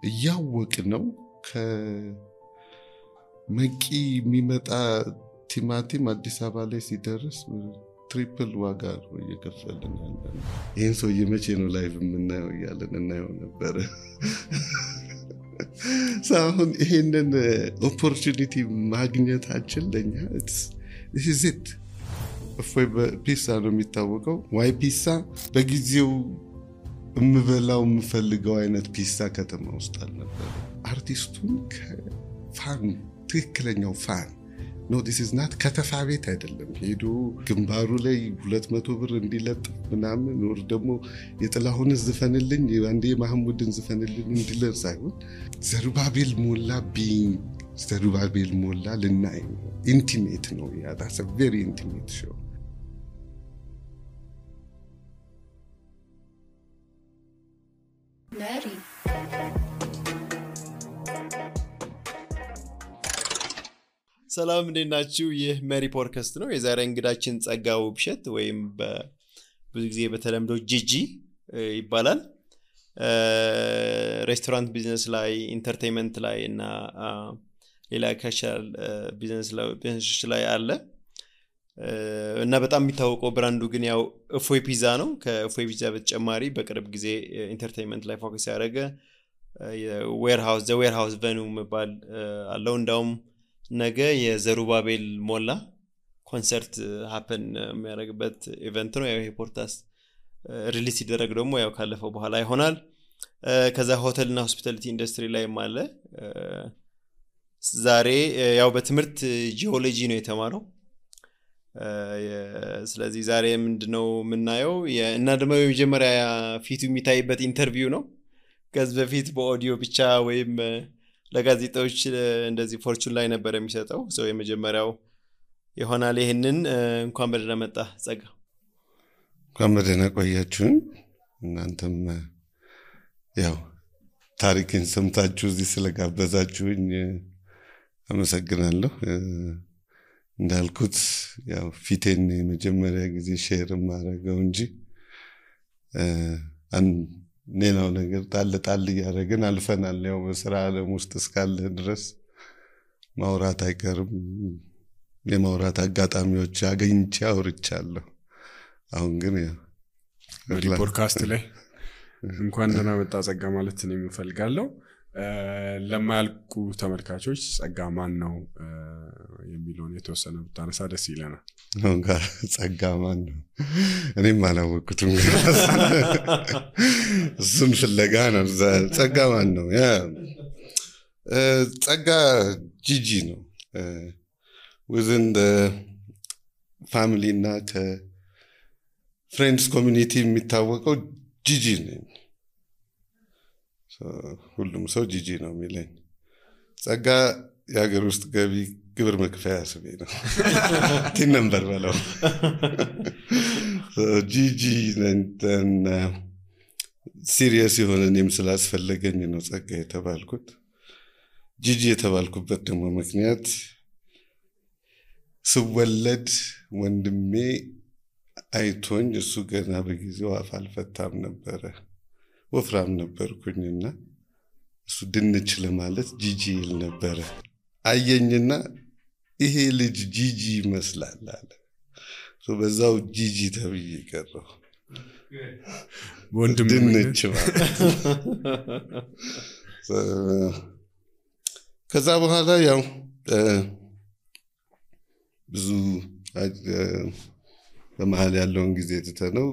እያወቅነው ከመቂ የሚመጣ ቲማቲም አዲስ አበባ ላይ ሲደርስ ትሪፕል ዋጋ ነው እየከፈልን ያለን። ይህን ሰውዬ መቼ ነው ላይቭ የምናየው እያለን እናየው ነበረ። አሁን ይሄንን ኦፖርቹኒቲ ማግኘታችን ለኛ this it እፎይ በፒሳ ነው የሚታወቀው። ዋይ ፒሳ በጊዜው የምበላው የምፈልገው አይነት ፒሳ ከተማ ውስጥ አልነበረ። አርቲስቱን ከፋን ትክክለኛው ፋን no this is not ከተፋ ቤት አይደለም ሄዶ ግንባሩ ላይ 200 ብር እንዲለጥ ምናምን ወር ደግሞ የጥላሁን ዝፈንልኝ አንዴ ማህሙድን ዝፈንልኝ እንዲለር ሳይሆን ዘሩባቤል ሞላ ቢንግ ዘሩባቤል ሞላ ለናይ ኢንቲሜት ነው ያ that's a very intimate show Mary ሰላም እንደናችሁ ይህ ሜሪ ፖድካስት ነው የዛሬ እንግዳችን ጸጋው ብሸት ወይም በብዙ ጊዜ በተለምዶ ጂጂ ይባላል ሬስቶራንት ቢዝነስ ላይ ኢንተርቴይንመንት ላይ እና ሌላ ካሻል ቢዝነስ ላይ አለ እና በጣም የሚታወቀው ብራንዱ ግን ያው እፎይ ፒዛ ነው ከእፎይ ፒዛ በተጨማሪ በቅርብ ጊዜ ኢንተርቴይንመንት ላይ ፎከስ ያደረገ የዌርሃውስ ቬኑ መባል አለው እንዳውም ነገ የዘሩባቤል ሞላ ኮንሰርት ሃፕን የሚያደርግበት ኢቨንት ነው ያው ይሄ ፖድካስት ሪሊዝ ሲደረግ ደግሞ ያው ካለፈው በኋላ ይሆናል ከዛ ሆቴልና ሆስፒታሊቲ ኢንደስትሪ ላይ ማለ ዛሬ ያው በትምህርት ጂኦሎጂ ነው የተማረው ስለዚህ ዛሬ ምንድነው የምናየው እና ደግሞ የመጀመሪያ ፊቱ የሚታይበት ኢንተርቪው ነው ከዚህ በፊት በኦዲዮ ብቻ ወይም ለጋዜጣዎች እንደዚህ ፎርቹን ላይ ነበር የሚሰጠው ሰው የመጀመሪያው ይሆናል ይሄንን እንኳን በደህና መጣ ጸጋ እንኳን በደህና ቆያችሁ እናንተም ያው ታሪክን ሰምታችሁ እዚህ ስለጋበዛችሁኝ አመሰግናለሁ እንዳልኩት ያው ፊቴን የመጀመሪያ ጊዜ ሼር ማድረገው እንጂ ሌላው ነገር ጣል ያደረግን አልፈናል ያው በስራ ዓለም ውስጥ እስካለ ድረስ ማውራት አይቀርም የማውራት አጋጣሚዎች አገኝቼ አውርቻለሁ አሁን ግን ያው ፖድካስት ላይ እንኳን ደህና መጣ ጸጋ ማለት ነው የምፈልጋለሁ ለማያልቁ ተመልካቾች ጸጋ ማን ነው የሚለውን የተወሰነ ብታነሳ ደስ ይለናል ጸጋ ማን ነው እኔም አላወቅኩትም እሱን ፍለጋ ነው ጸጋ ማን ነው ያ ጸጋ ጂጂ ነው within the family እና ከፍሬንድስ ኮሚኒቲ የሚታወቀው ጂጂ ነው ሁሉም ሰው ጂጂ ነው የሚለኝ ጸጋ የሀገር ውስጥ ገቢ ግብር መክፈያ ስሜ ነው ቲን ነምበር በለው ጂጂ ነን ሲሪየስ የሆነ እኔም ስላስፈለገኝ ነው ጸጋ የተባልኩት ጂጂ የተባልኩበት ደግሞ ምክንያት ስወለድ ወንድሜ አይቶኝ እሱ ገና በጊዜው አፍ አልፈታም ነበረ ወፍራም ነበርኩኝና እሱ ድንች ለማለት ጂጂ ይል ነበር አየኝና ይሄ ልጅ ጂጂ ይመስላል አለ በዛው ጂጂ ተብዬ ቀረው ወንድም ድንች ማለት ከዛ በኋላ ያው ብዙ በመሃል ያለውን ጊዜ ተተነው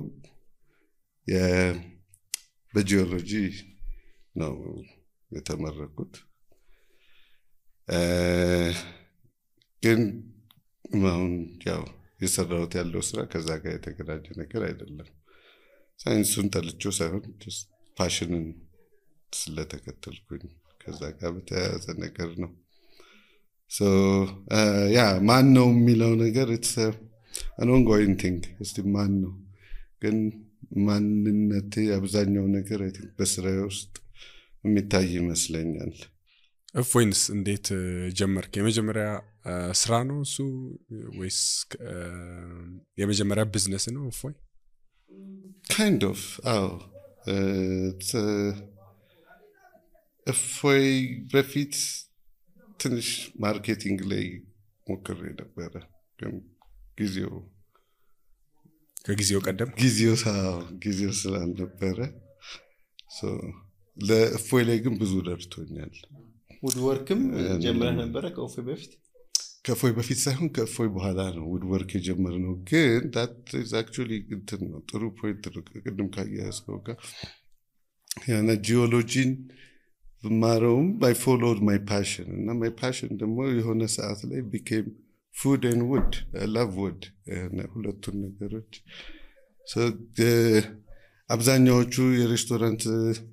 በጂኦሎጂ ነው የተመረኩት ግን አሁን ያው የሰራሁት ያለው ስራ ከዛ ጋር የተገናኘ ነገር አይደለም ሳይንሱን ጠልቼው ሳይሆን just ፓሽንን ስለተከተልኩኝ ከዛ ጋር በተያያዘ ነገር ነው so ማን ነው የሚለው ነገር it's an ongoing thing እስቲ ማን ነው ግን ማንነቴ አብዛኛው ነገር አይ ቲንክ በስራዬ ውስጥ የሚታይ ይመስለኛል እፎይንስ እንዴት ጀመርክ የመጀመሪያ ስራ ነው እሱ ወይስ የመጀመሪያ ቢዝነስ ነው እፎይ kind of እፎይ በፊት ትንሽ ማርኬቲንግ ላይ ሞክሬ ነበረ ግን ከጊዜው ቀደም ጊዜው ስላልነበረ ለእፎይ ላይ ግን ብዙ ደርቶኛል። ውድወርክም ጀምረህ ነበረ ከእፎይ በፊት ሳይሆን ከእፎይ በኋላ ነው ውድወርክ የጀመርነው። ግን that is actually እንትን ነው ጥሩ ፖይንት ነው። ቅድም ካያስከው ጋር ያና ጂኦሎጂን ብማረውም I followed my passion እና my passion ደግሞ የሆነ ሰዓት ላይ became food and wood. I love wood. ሁለቱን ነገሮች አብዛኛዎቹ የሬስቶራንት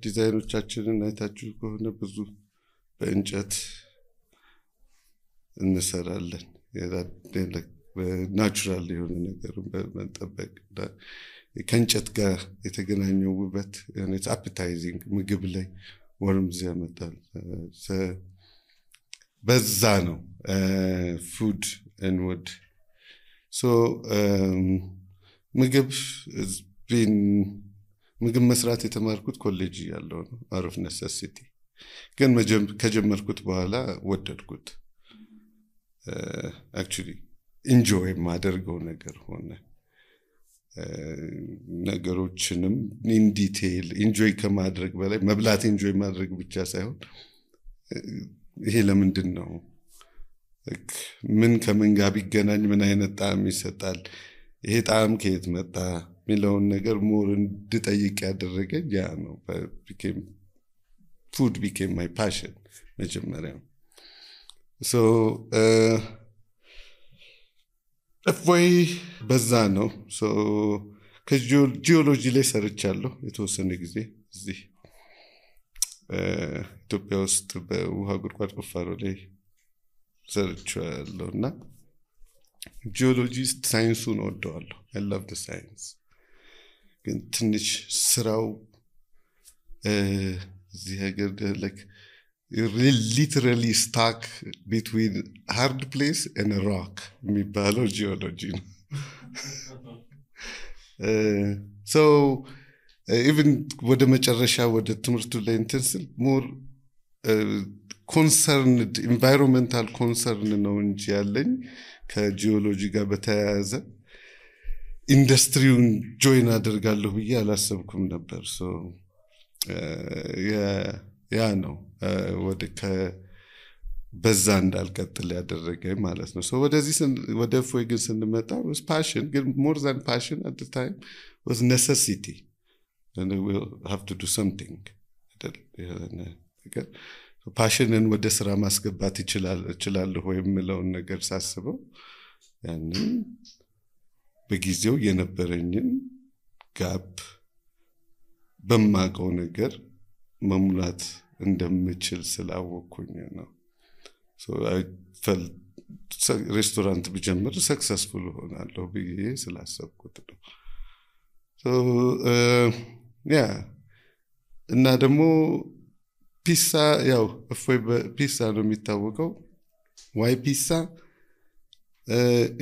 ዲዛይኖቻችንን አይታችሁ ከሆነ ብዙ በእንጨት እንሰራለን። ናቹራል የሆነ ነገር በመጠበቅ ከእንጨት ጋር የተገናኘው ውበት it's appetizing ምግብ ላይ ወርምዝ ያመጣል። በዛ ነው food and wood. So ምግብ መስራት የተማርኩት ኮሌጅ ያለው ነው out of necessity. ግን ከጀመርኩት በኋላ ወደድኩት። actually enjoy ማደርገው ነገር ሆነ። ነገሮችንም in detail enjoy ከማድረግ በላይ መብላት enjoy ማድረግ ብቻ ሳይሆን ይሄ ለምንድን ነው ምን ከምን ጋር ቢገናኝ ምን አይነት ጣዕም ይሰጣል ይሄ ጣዕም ከየት መጣ ሚለውን ነገር ሞር እንድጠይቅ ያደረገኝ ያ ነው። food became my passion መጀመሪያ። so እፎይ በዛ ነው። so ከጂኦሎጂ ላይ ሰርቻለሁ የተወሰነ ጊዜ እዚህ ኢትዮጵያ ውስጥ በውሃ ጉድጓድ ቁፋሮ ላይ ሰርቻለሁና ጂኦሎጂስት ሳይንሱን ወደዋለሁ። I love the science. ግን ትንሽ ስራው እዚህ ሀገር like you're literally stuck between hard place and a rock የሚባለው geology ነው. So even ወደ መጨረሻ ወደ ትምህርቱ ላይ እንትን ስል more concerned environmental concern ነው እንጂ ያለኝ ከጂኦሎጂ ጋር በተያያዘ ኢንዱስትሪውን ጆይን አደርጋለሁ ብዬ አላሰብኩም ነበር። so ያ ነው ወደ በዛ እንዳልቀጥል ያደረገኝ ማለት ነው። so ወደ እፎይ ግን ስንመጣ was passion ግን more than passion at the time was necessity and we will have to do something. passion ወደ ስራ ማስገባት ይችላል ወይ የሚለውን ነገር ሳስበው ያንን በጊዜው የነበረኝን ጋፕ በማቀው ነገር መሙላት እንደምችል ስላወቅኩኝ ነው። so I felt ሬስቶራንት ብጀምር ሰክሰስፉል ሆናለሁ ብዬ ስላሰብኩት ነው። so እና ደግሞ ፒሳ ያው እፎይ ፒሳ ነው የሚታወቀው። why pizza?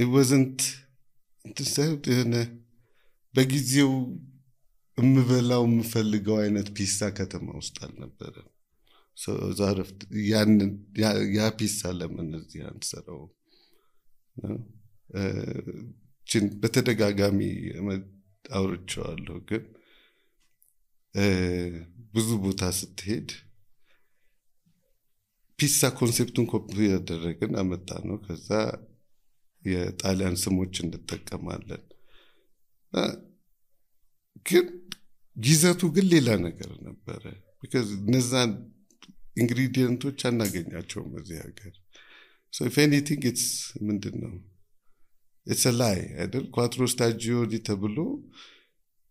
it wasn't በጊዜው የምፈልገው አይነት ፒሳ ከተማ ውስጥ አልነበረ። so ዛሬ ያ ፒሳ ለምን እዚህ አንሰራው በተደጋጋሚ አውርቼዋለሁ። ግን ብዙ ቦታ ስትሄድ ፒሳ ኮንሴፕቱን ኮፒ ያደረግን አመጣ ነው። ከዛ የጣሊያን ስሞች እንጠቀማለን ግን ይዘቱ ግን ሌላ ነገር ነበረ። because እነዛን ኢንግሪዲየንቶች አናገኛቸውም እዚህ ሀገር። so if anything it's ምንድነው it's a lie አይደል? quattro stagioni ተብሎ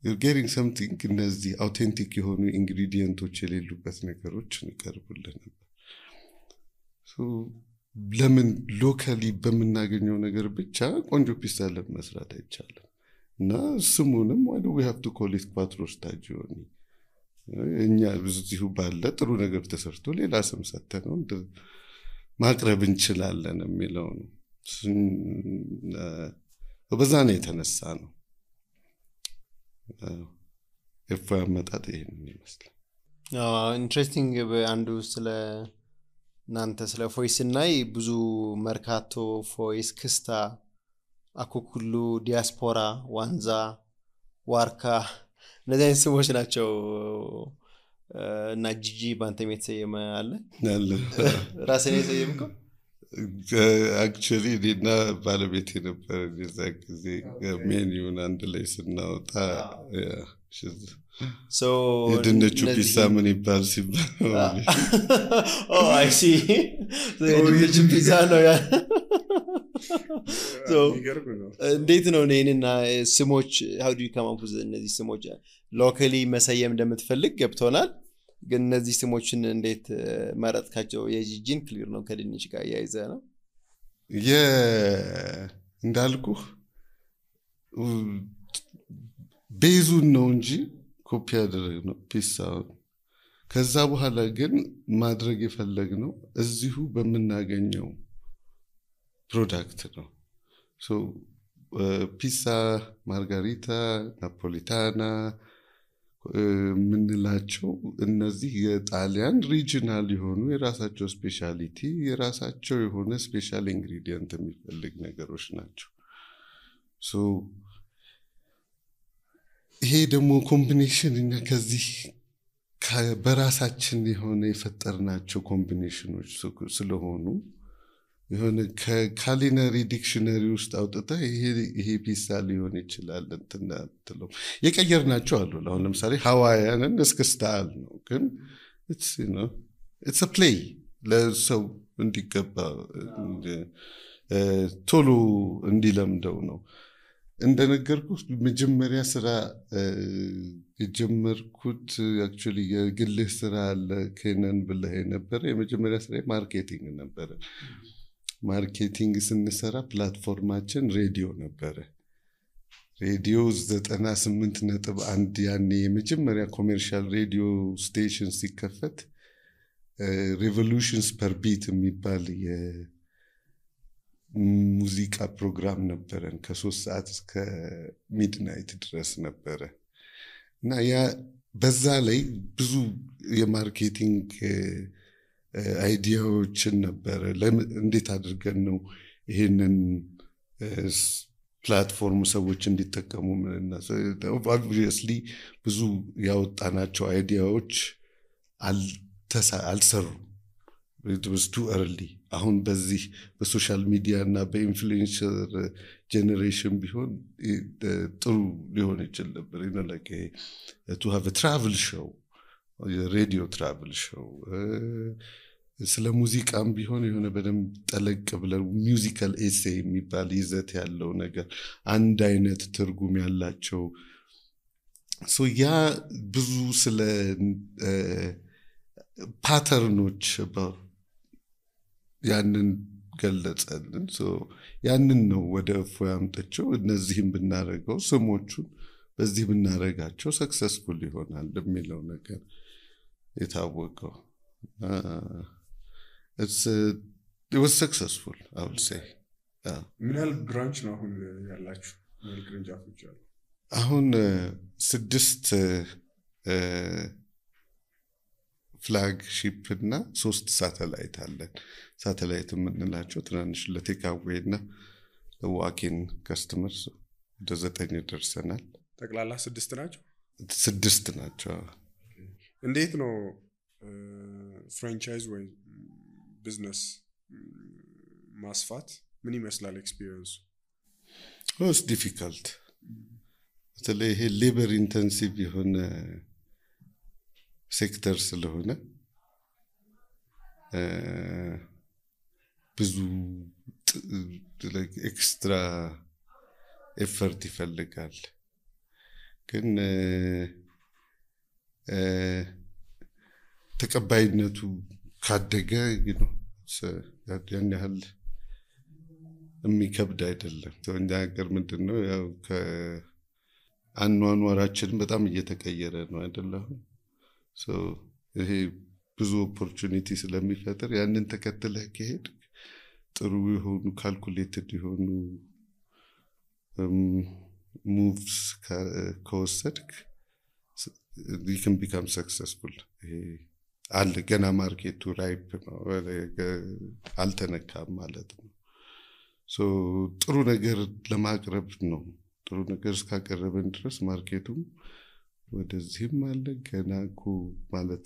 you're getting something እነዚህ አውቴንቲክ የሆኑ ኢንግሪዲየንቶች የሌሉበት ነገሮች እንቀርቡልን ነበር። so ለምን ሎካሊ በመናገኘው ነገር ብቻ ቆንጆ ፒሳ ለመስራት አይቻልም? እና ስሙንም why do we have to call it quattro stagioni? እኛ ብዙ ባለ ጥሩ ነገር ተሰርቶ ሌላ ስም ሰጥተነው ማቅረብ እንችላለን የሚለው ነው። በዛ ነው የተነሳ ነው እፎይ አመጣጥ ይሄን ይመስላል። ኢንትረስቲንግ አንዱ ስለ እናንተ ስለ ፎይስ እናይ ብዙ መርካቶ ፎይስ ክስታ አኩኩሉ ዲያስፖራ ዋንዛ ዋርካ እነዚህ አይነት ስሞች ናቸው እና ጂጂ ባንተም የተሰየመ አለ ራስን የሰየምከው አክቹሊ ዲና ባለቤቴ ነበር የዛ ጊዜ ሜኒውን አንድ ላይ ስናወጣ so የድንቹ ፒሳ ምን ይባል ሲባል oh I see so የድንቹ ፒዛ ነው ያ so እንዴት ነው እኔና ስሞች how do you come up with እነዚህ ስሞች ሎካሊ መሰየም እንደምትፈልግ ገብቶናል ግን እነዚህ ስሞችን እንዴት ማራጥካቸው የጂጂን ክሊር ነው ከድንች ጋር ያይዘ ነው እንዳልኩ ቤዙን ነው እንጂ ኮፒ ያደረግነው ፒሳው ከዛ በኋላ ግን ማድረግ የፈለግነው እዚሁ በመናገኘው ፕሮዳክት ነው so ፒሳ ማርጋሪታ ናፖሊታና ምንላቸው እነዚህ የጣሊያን ሪጂናል የሆኑ የራሳቸው ስፔሻሊቲ የራሳቸው የሆነ ስፔሻል ኢንግሪዲየንት የሚፈልግ ነገሮች ናቸው so ይሄ ደግሞ ኮምቢኔሽን እና ከዚህ በራሳችን የሆነ የፈጠርናቸው ኮምቢኔሽኖች ስለሆኑ የሆነ ከካሊነሪ ዲክሽነሪ ውስጥ አውጥታ ይሄ ፒሳ ሊሆን ይችላል እንትናጥለው የቀየርናቸው አሉ አሁን ለምሳሌ ሃዋያንን እስክስታል ነው ግን it's a play ለሰው እንዲገባ ቶሎ እንዲለምደው ነው እንደነገርኩት መጀመሪያ ስራ የጀመርኩት አክቹሊ የግልህ ስራ ለከነን ብለህ ነበር የመጀመሪያ ስራ ማርኬቲንግ ነበር ማርኬቲንግ ስንሰራ ፕላትፎርማችን ሬዲዮ ነበር ሬዲዮ 98.1 ያኔ የመጀመሪያ ኮሜርሻል ሬዲዮ ስቴሽን ሲከፈት ሬቮሉሽንስ ፐር ቢት የሚባል የሙዚቃ ፕሮግራም ነበረን ከ3 ሰዓት እስከ ሚድናይት ድረስ ነበረ እና ያ በዛ ላይ ብዙ የማርኬቲንግ አይዲያዎችን ነበር እንዴት አድርገን ነው ይሄንን ፕላትፎርም ሰዎች እንዲጠቀሙ ምንና obviously ብዙ ያወጣናቸው አይዲያዎች አልሰሩ it was too early አሁን በዚህ በሶሻል ሚዲያ እና በኢንፍሉዌንሰር ጀነሬሽን ቢሆን ጥሩ ሊሆን ይችላል ነበር like to have a travel show radio travel show ስለ ሙዚቃም ቢሆን የሆነ በደንብ ጠለቅ ብለው ሚውዚካል ኤሴይ የሚባል ይዘት ያለው ነገር አንድ አይነት ትርጉም ያላቸው ሶ ያ ብዙ ስለ ፓተርኖች ያንን ገለጸልን ሶ ያንን ነው ወደ ፎያምጠቸው እነዚህም ብናረጋው ስሞቹን በዚህ ብናረጋቸው ሰክሰስፉል ይሆናል የሚለው ነገር የታወቀው it was successful I would say ምን ያህል ብራንች ነው አሁን ያላችሁ ምን ቅርንጫፎች አሉ አሁን 6 ፍላግሺፕ እና 3 ሳተላይት አለን ሳተላይት የምንላቸው ትናንሽ ለቴካዌና ለዋኪን ከስተመርስ ወደ 9 ደርሰናል ጠቅላላ 6 ናቸው 6 ናቸው እንዴት ነው ፍራንቻይዝ ወይ ቢዝነስ ማስፋት ምን ይመስላል ኤክስፒሪየንስ was difficult ስለዚህ ይሄ ሌበር ኢንተንሲቭ የሆነ ሴክተር ስለሆነ ብዙ ኤክስትራ ኤፈርት ይፈልጋል ግን ተቀባይነቱ ካደገ ያን ያህል የሚከብድ አይደለም እኛ ሀገር ምንድነው ያው ከአኗኗራችን በጣም እየተቀየረ ነው አይደለም ሶ ይሄ ብዙ ኦፖርቹኒቲ ስለሚፈጠር ያንን ተከትለህ ከሄድ ጥሩ የሆኑ ካልኩሌትድ የሆኑ ሙቭስ ከወሰድክ you can become successful አለ ገና ማርኬቱ ራይፕ ነው አልተነካም ማለት ነው ሶ ጥሩ ነገር ለማቅረብ ነው ጥሩ ነገር እስካቀረበን ድረስ ማርኬቱም ወደዚህም አለ ገና እኮ ማለት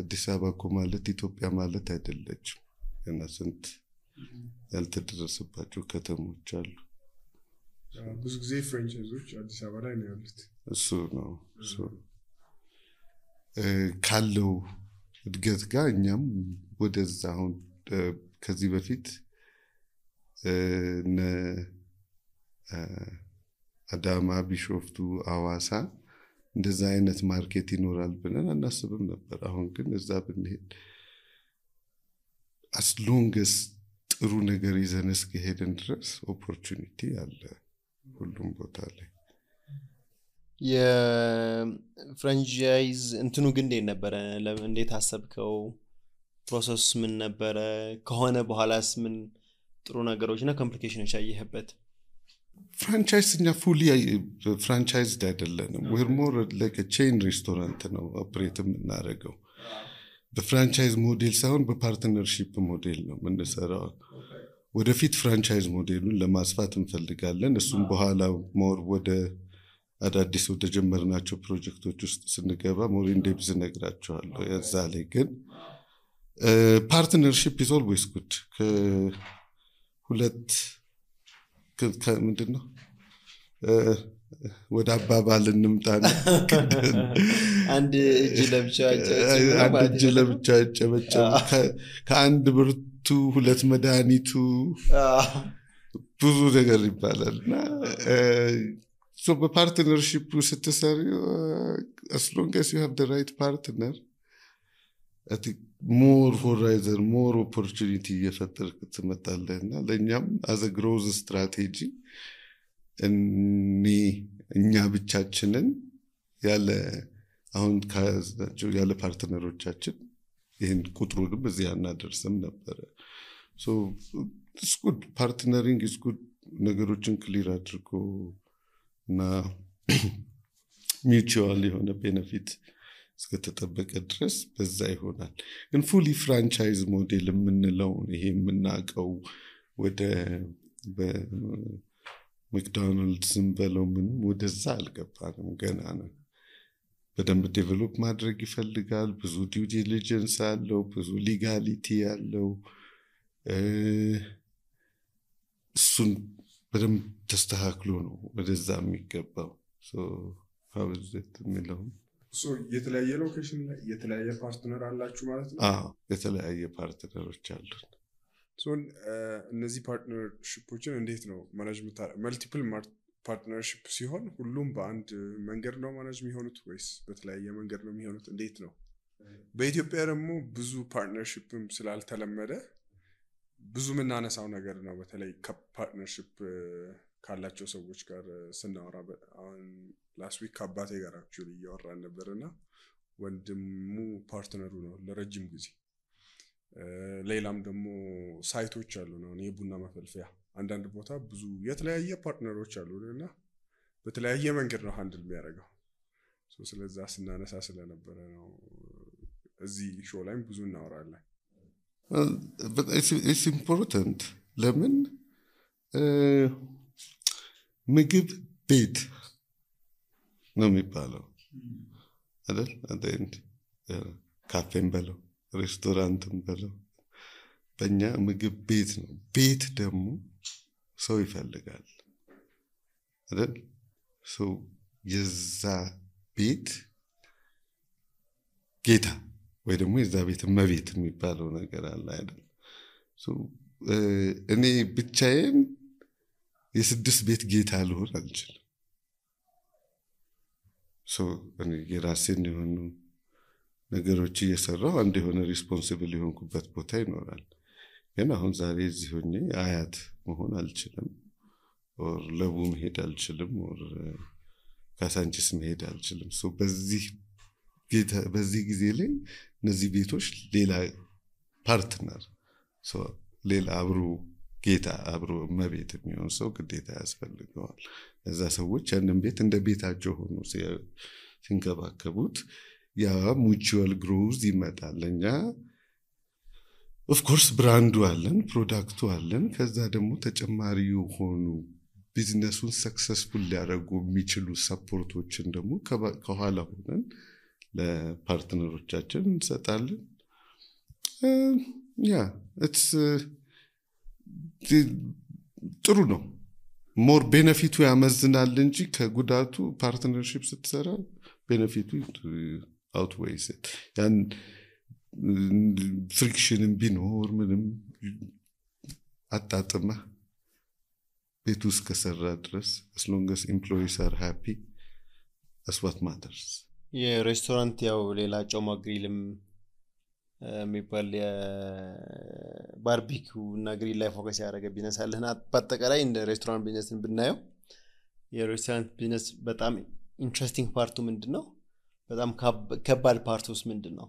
አዲስ አበባ እኮ ማለት ኢትዮጵያ ማለት አይደለችም ገና ስንት ያልተደረሰባቸው ከተሞች አሉ ብዙ ጊዜ ፍራንቻይዞች አዲስ አበባ ላይ ነው ያሉት እሱ ነው ካለው እድገት ጋር እኛም ወደዛ አሁን ከዚህ በፊት አዳማ ቢሾፍቱ አዋሳ እንደዛ አይነት ማርኬት ይኖራል ብለን አናስብም ነበር አሁን ግን እዛ ብንሄድ as long as ጥሩ ነገር ይዘን እስከሄድን ድረስ ኦፖርቹኒቲ አለ ሁሉም ቦታ ላይ የፍራንቻይዝ እንትኑ ግን ነበር እንዴት አሰብከው ፕሮሰስ ምን ነበር ከሆነ በኋላስ ምን ጥሩ ነገሮችና ኮምፕሊኬሽኖች ያየህበት ፍራንቻይዝኛ ፉሊ ፍራንቻይዝድ አይደለንም we're more like a chain restaurant ነው ኦፕሬት የምናደርገው በፍራንቻይዝ ሞዴል ሳይሆን በፓርትነርሺፕ ሞዴል ነው የምንሰራው ወደፊት ፍራንቻይዝ ሞዴሉን ለማስፋት እንፈልጋለን እሱም በኋላ ሞር ወደ አዳዲስ ወደ ጀመርናቸው ፕሮጀክቶች ውስጥ ስንገባ ሞር ኢንዴፕዝ ነግራቸዋለሁ ያዛ ላይ ግን ፓርትነርሺፕ is always good ከሁለት ምንድነው ወደ አባባል እንምጣና አንድ እጅ ለብቻ ጨበጨብ ከአንድ ብርቱ ሁለት መድኃኒቱ ብዙ ነገር ይባላልና so the partnership ስትሰሪ as long as you have the right partner I think more horizon more opportunity እየፈጠርክ ትመጣለህና ለኛም as a growth strategy እኛ ብቻችንን ያለ አሁን ካዛቸው ያለ ፓርትነሮቻችን ይሄን ቁጥሩንም እዚህ አናደርስም ነበር so it's good partnering is good ነገሮችን ክሊር አድርጎ እና mutual የሆነ ቤኔፊት እስከተጠበቀ ድረስ በዛ ይሆናል ግን ፉሊ ፍራንቻይዝ ሞዴል የምንለው ይሄ የምናቀው ወደ በመክዶናልድስም በለው ምን ወደዛ አልገባንም ገና ነው በደንብ ዴቨሎፕ ማድረግ ይፈልጋል ብዙ ዲው ዲሊጀንስ አለው ብዙ ሊጋሊቲ አለው እሱን በደንብ ተስተካክሎ ነው ወደዛ የሚገባው so how is it የሚለው so የተለያየ ሎኬሽን ላይ የተለያየ ፓርትነር አላችሁ ማለት ነው የተለያየ ፓርትነሮች አሉ so እነዚህ ፓርትነርሺፖችን እንዴት ነው ማኔጅ መልቲፕል ፓርትነርሺፕ ሲሆን ሁሉም በአንድ መንገድ ነው ማኔጅ የሚሆኑት ወይስ በተለያየ መንገድ ነው የሚሆኑት እንዴት ነው በኢትዮጵያ ደግሞ ብዙ ፓርትነርሺፕም ስላልተለመደ ብዙ ምናነሳው ነገር ነው በተለይ ከፓርትነርሺፕ ካላቸው ሰዎች ጋር ስናወራ አሁን ላስት ዊክ አባቴ ጋር አክቹሊ እያወራን ነበርና ወንድሙ ፓርትነሩ ነው ለረጅም ጊዜ ሌላም ደግሞ ሳይቶች አሉ ነው የቡና መፈልፈያ አንዳንድ ቦታ ብዙ የተለያየ ፓርትነሮች አሉና በተለያየ መንገድ ነው ሃንድል የሚያደርገው ስለዛ ስናነሳ ስለነበረ ነው እዚህ ሾው ላይም ብዙ እናወራለን but it's important ለምን ምግብ ቤት ነው የሚባለው አይደል አንተ ካፌም በለው ሬስቶራንትም በለው በእኛ ምግብ ቤት ነው ቤት ደግሞ ሰው ይፈልጋል አይደል ሰው የዛ ቤት ጌታ ወይ ደግሞ የዛ ቤት መቤት የሚባለው ነገር አለ አይደል እኔ ብቻዬን የስድስት ቤት ጌታ ልሆን አልችልም እኔ የራሴን የሆኑ ነገሮች እየሰራሁ አንድ የሆነ ሪስፖንሲብል የሆንኩበት ቦታ ይኖራል ግን አሁን ዛሬ እዚህ ሆኜ አያት መሆን አልችልም ኦር ለቡ መሄድ አልችልም ኦር ካሳንቺስ መሄድ አልችልም በዚህ ጊዜ ላይ እነዚህ ቤቶች ሌላ ፓርትነር ሌላ አብሮ ጌታ አብሮ መቤት የሚሆን ሰው ግዴታ ያስፈልገዋል እዛ ሰዎች ያንን ቤት እንደ ቤታቸው ሆኖ ሲንከባከቡት ያ ሙቹዋል ግሮዝ ይመጣል። እኛ ኦፍ ኮርስ ብራንዱ አለን፣ ፕሮዳክቱ አለን። ከዛ ደግሞ ተጨማሪ የሆኑ ቢዝነሱን ሰክሰስፉል ሊያደርጉ የሚችሉ ሰፖርቶችን ደግሞ ከኋላ ሆነን ለፓርትነሮቻችን እንሰጣለን። ያ ጥሩ ነው። ሞር ቤነፊቱ ያመዝናል እንጂ ከጉዳቱ ፓርትነርሺፕ ስትሰራ ቤነፊቱ አውትዌይስ ያን ፍሪክሽንም ቢኖር ምንም አጣጥመህ ቤት ውስጥ ከሰራ ድረስ as long as employees are happy that's what matters። የሬስቶራንት ያው ሌላ ጮማ ግሪልም የሚባል የባርቢኪው እና ግሪል ላይ ፎከስ ያደረገ ቢዝነስ አለና በአጠቃላይ እንደ ሬስቶራንት ቢዝነስን ብናየው የሬስቶራንት ቢዝነስ በጣም ኢንትረስቲንግ ፓርቱ ምንድነው? በጣም ከባድ ፓርቱስ ምንድነው?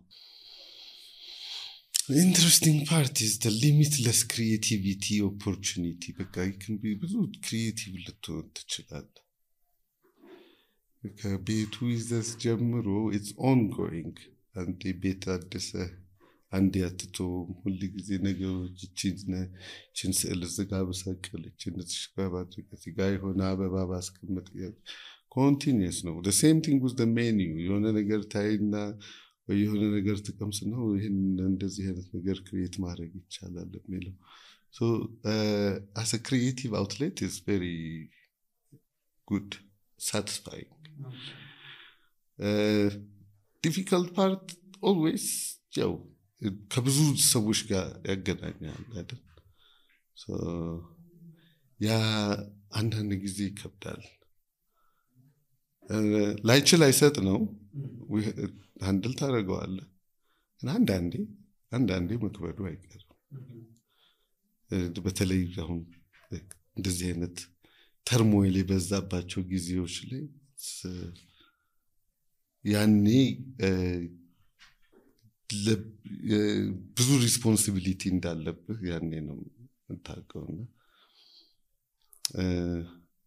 The interesting part is the limitless creativity opportunity. በቃ you can be ብዙ creative ልትሆን ትችላለህ። ከቤቱ ይዘህ ጀምሮ it's ongoing። አንዴ ቤት አድሰህ አንዴ አትተውም። ሁል ጊዜ ነገሮች ይህችን ስዕል እዚህ ጋር ብሰቅል ይህችን እዚህ ጋር ባድርግ እዚህ ጋር የሆነ አበባ ባስቀምጥ continuous ነው። the same thing with the menu። የሆነ ነገር ታይና ወይ የሆነ ነገር ተቀምስ ነው ይሄን እንደዚህ አይነት ነገር ክሬት ማድረግ ይቻላል የሚለው። so as a creative outlet is very good, satisfying. difficult part always ያው ከብዙ ሰዎች ጋር ያገናኛል አይደል? so ያ አንዳንድ ጊዜ ይከብዳል። ላይችል አይሰጥ ነው ሃንድል ታደርገዋለህ። እና አንዳንዴ መክበዱ አይቀርም። በተለይ አሁን እንደዚህ አይነት ተርሞይል የበዛባቸው ጊዜዎች ላይ ያኔ ብዙ ሪስፖንሲቢሊቲ እንዳለብህ ያኔ ነው የምታውቀውና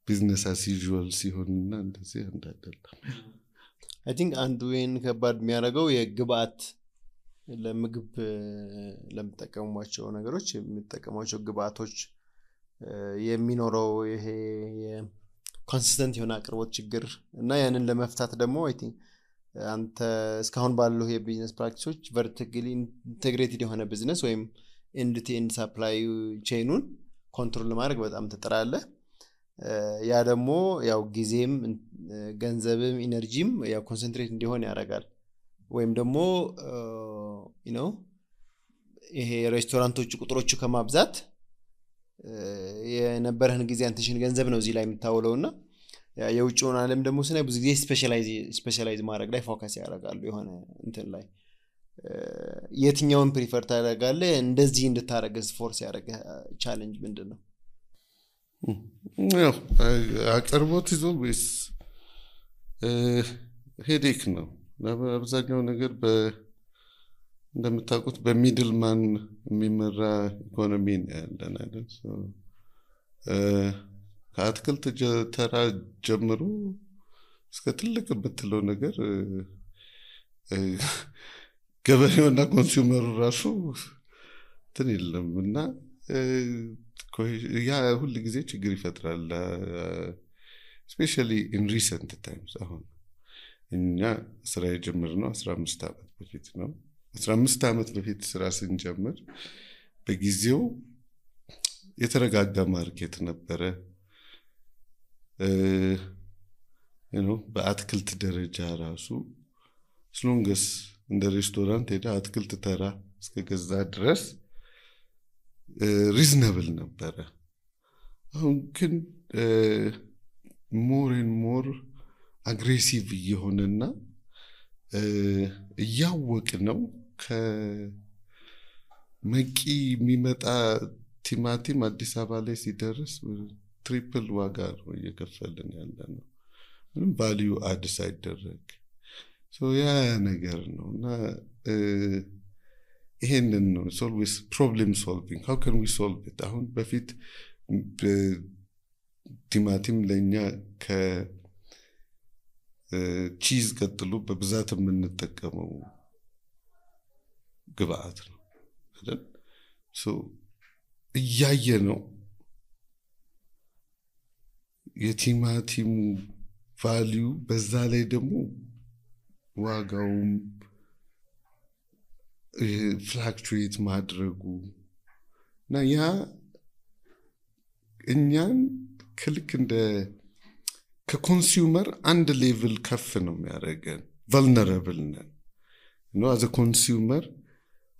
ቢዝነስ አስ ዩዥዋል ሲሆንና እንደዚህ እንዳይደለም I think አንዱ ይሄን ከባድ የሚያደርገው የግብአት ለምግብ ለምጠቀሟቸው ነገሮች የሚጠቀሟቸው ግብአቶች የሚኖረው ይሄ ኮንሲስተንት የሆነ አቅርቦት ችግር እና ያንን ለመፍታት ደግሞ I think አንተ እስካሁን ባለው የቢዝነስ ፕራክቲሶች ቨርቲካሊ ኢንተግሬትድ የሆነ ቢዝነስ ወይም ኤንድ ቱ ኤንድ ሰፕላይ ቼኑን ኮንትሮል ለማድረግ በጣም ትጥራለህ። ያ ደግሞ ያው ጊዜም ገንዘብም ኢነርጂም ያው ኮንሰንትሬት እንዲሆን ያደርጋል። ወይም ደግሞ ይሄ ሬስቶራንቶች ቁጥሮቹ ከማብዛት የነበረህን ጊዜ አንተሽን ገንዘብ ነው እዚህ ላይ የምታውለውና የውጭውን ዓለም ደግሞ ስለ ብዙ ጊዜ ስፔሻላይዝ ማድረግ ላይ ፎከስ ያደርጋሉ። የሆነ እንትን ላይ የትኛውን ፕሪፈር ታደርጋለህ? እንደዚህ እንድታረግስ ፎርስ ያደርገ ቻሌንጅ ምንድነው? ያው አቅርቦት is always ሄዴክ ነው። አብዛኛው ነገር እንደምታውቁት በሚድል ማን የሚመራ ኢኮኖሚ ነው ያለን አይደል? ከአትክልት ተራ ጀምሮ እስከ ትልቅ የምትለው ነገር ገበሬውና ኮንሱመሩ ራሱ እንትን የለም እና ያ ሁሉ ጊዜ ችግር ይፈጥራል። especially in recent times አሁን እኛ ስራ የጀመርነው 15 ዓመት በፊት ነው። 15 ዓመት በፊት ስራ ስንጀምር በጊዜው የተረጋጋ ማርኬት ነበረ። በአትክልት ደረጃ ራሱ ስለንገስ እንደ ሬስቶራንት ሄዳ አትክልት ተራ እስከገዛ ድረስ ሪዝነብል ነበረ። አሁን ግን more and more አግሬሲቭ እየሆነና እያወቅ ነው ከመቂ የሚመጣ ቲማቲም አዲስ አበባ ላይ ሲደርስ ትሪፕል ዋጋ ነው እየከፈልን ያለነው ምንም ቫልዩ አድ ሳይደረግ። ያ ነገር ነውና ይሄንን ነው always problem solving. how can we solve it? አሁን በፊት ቲማቲም ለኛ ቺዝ ቀጥሎ በብዛት የምንጠቀመው ግብአት ነው አይደል? እያየ ነው የቲማቲሙ ቫልዩ በዛ ላይ ደግሞ ዋጋውም ፍላክቹዌት ማድረጉ እና ያ እኛን ክልክ እንደ ከኮንሱመር አንድ ሌቭል ከፍ ነው የሚያደርገን። ቨልነራብል ነን ነው አዘ ኮንሱመር።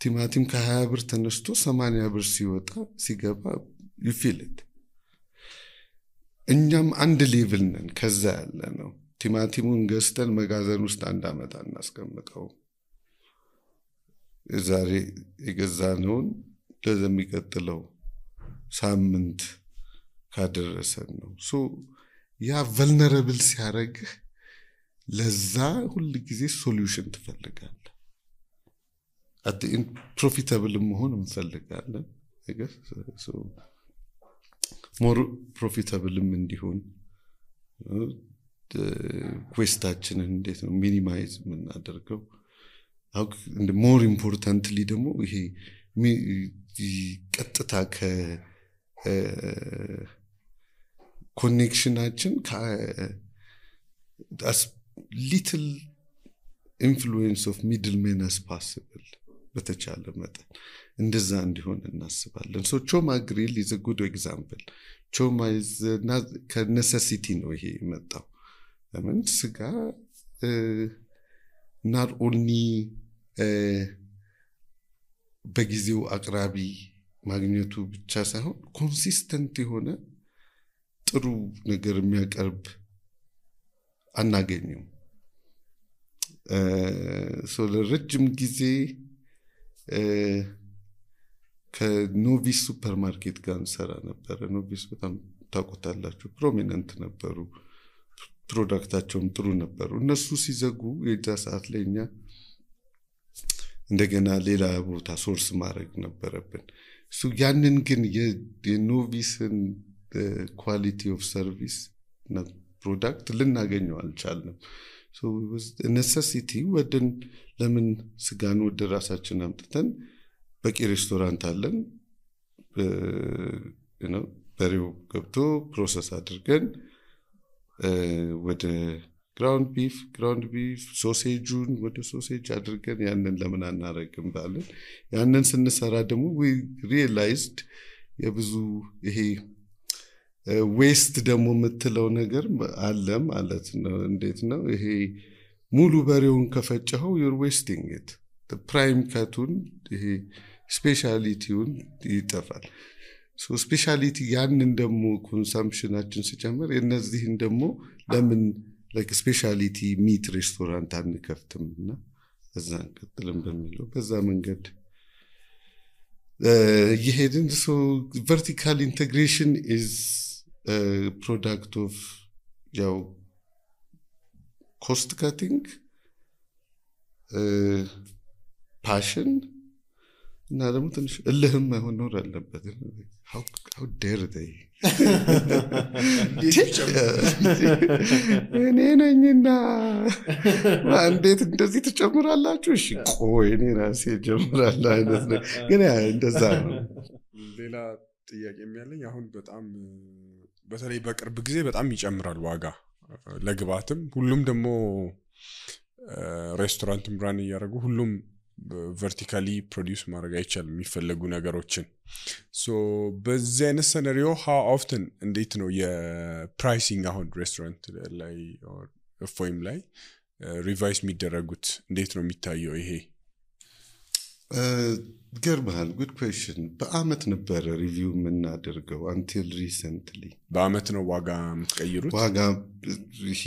ቲማቲም ከ20 ብር ተነስቶ 80 ብር ሲገባ you feel it። እኛም አንድ ሌቭል ነን ከዛ ያለ ነው። ቲማቲሙን ገዝተን መጋዘን ውስጥ አንድ አመት እናስቀምጠው። ዛሬ የገዛነውን ለሚቀጥለው ሳምንት ካደረሰን ነው። ያ ቨልነራብል ሲያደርግህ ለዛ ሁሉ ጊዜ ሶሉሽን ትፈልጋለህ። አጥን ፕሮፊታብል መሆን እንፈልጋለን። ሞር ፕሮፊታብልም እንዲሆን ኮስታችንን እንዴት ነው ሚኒማይዝ የምናደርገው? እንደ ሞር ኢምፖርታንትሊ ደግሞ ይሄ ቀጥታ ኮኔክሽናችን as little influence of middlemen as possible በተቻለ መጠን እንደዛ እንዲሆን እናስባለን። ቾማ ግሪል is a good example። ቾማ is ከነሰሲቲ ነው ይሄ የመጣው። ለምን ስጋ not only በጊዜው አቅራቢ ማግኘቱ ብቻ ሳይሆን ኮንሲስተንት የሆነ ጥሩ ነገር የሚያቀርብ አናገኘው። ለረጅም ጊዜ ከኖቪስ ሱፐርማርኬት ጋር እንሰራ ነበር። ኖቪስ በጣም ታውቁታላችሁ፣ ፕሮሚነንት ነበሩ፣ ፕሮዳክታቸውም ጥሩ ነበሩ። እነሱ ሲዘጉ የዛ ሰዓት ላይ እኛ እንደገና ሌላ ቦታ ሶርስ ማድረግ ነበረብን። ያንን ግን የኖቪስን ኳሊቲ ኦፍ ሰርቪስ እና ፕሮዳክት ልናገኘው አልቻልንም። ኔሰሲቲ ወደን ለምን ስጋን ወደ ራሳችን አምጥተን በቂ ሬስቶራንት አለን፣ በሬው ገብቶ ፕሮሰስ አድርገን ወደ ግራውንድ ቢፍ ሶሴጁን ወደ ሶሴጅ አድርገን ያንን ለምን አናረግም ባለን ያንን ስንሰራ ደግሞ we realized የብዙ ይሄ ዌስት ደግሞ የምትለው ነገር አለ ማለት ነው። እንዴት ነው ይሄ ሙሉ በሬውን ከፈጨኸው you're wasting it። ፕራይም ካቱን ይሄ ስፔሻሊቲውን ይጠፋል። ስፔሻሊቲ ያንን ደግሞ ኮንሰምፕሽናችን ሲጨምር የነዚህን ደግሞ ለምን like specialty meat restaurant አንከፍትምና በዛ እንቀጥልም በሚለው በዛ መንገድ ይሄድን። vertical integration is a product of ያው cost cutting, passion እና ደግሞ ትንሽ እልህም መኖር አለበት። how dare they እኔ ነኝና እንዴት እንደዚህ ትጨምራላችሁ? እሺ ቆይ እኔ ራሴ ጀምራለሁ አይነት ነው። ግን እንደዛ ነው። ሌላ ጥያቄ የሚያለኝ አሁን በጣም በተለይ በቅርብ ጊዜ በጣም ይጨምራል ዋጋ ለግብአትም። ሁሉም ደግሞ ሬስቶራንትም ብራን ያደርጉ ሁሉም vertically produce ማድረግ አይቻልም የሚፈልጉ ነገሮችን። በዚህ አይነት ሰነሪዮ how often እንዴት ነው የፕራይሲንግ አሁን ሬስቶራንት ላይ ፎይም ላይ ሪቫይስ የሚደረጉት እንዴት ነው የሚታየው? ይሄ ገርማል። good question። በአመት ነበር ሪቪው የምናደርገው until recently። በአመት ነው ዋጋ የምትቀይሩት? ዋጋ ይሄ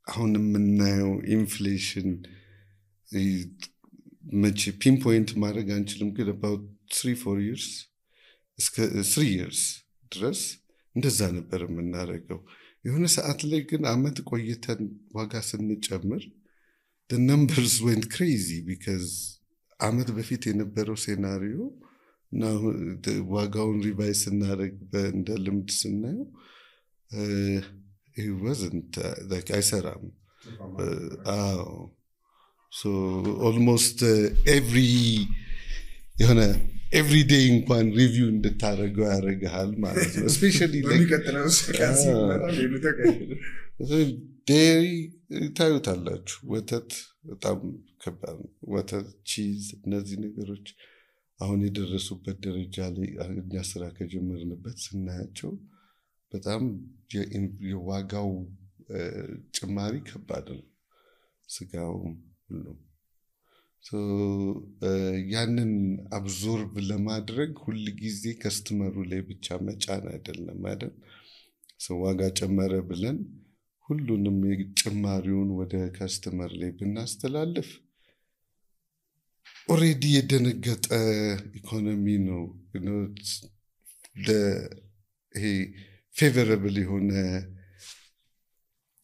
አሁን የምናየው ኢንፍሌሽን መቼ ፒንፖይንት ማድረግ አንችልም፣ ግን about 3-4 years እስከ 3 years ድረስ እንደዛ ነበር የምናደርገው። የሆነ ሰዓት ላይ ግን አመት ቆይተን ዋጋ ስንጨምር the numbers went crazy because አመት በፊት የነበረው ሴናሪዮ እና ዋጋውን ሪቫይስ እናደርግ እንደ ልምድ ስናየው he wasn't like አይሰራም so almost every day እንኳን ሪቪው እንድታረገው ያረጋል ማለት ነው especially dairy ታዩታላችሁ ወተት በጣም ከባድ ወተት ቺዝ እነዚህ ነገሮች አሁን የደረሱበት ደረጃ ላይ እኛ ስራ ከጀመርንበት ስናያቸው በጣም የዋጋው ጭማሪ ከባድ ነው ስጋው ሁሉ so ያንን አብዞርብ ለማድረግ ሁሉ ጊዜ ከስተመሩ ላይ ብቻ መጫን አይደለም አይደል so ዋጋ ጨመረ ብለን ሁሉንም ጭማሪውን ወደ ከስተመር ላይ ብናስተላልፍ already የደነገጠ ኢኮኖሚ ነው ይሄ favorable የሆነ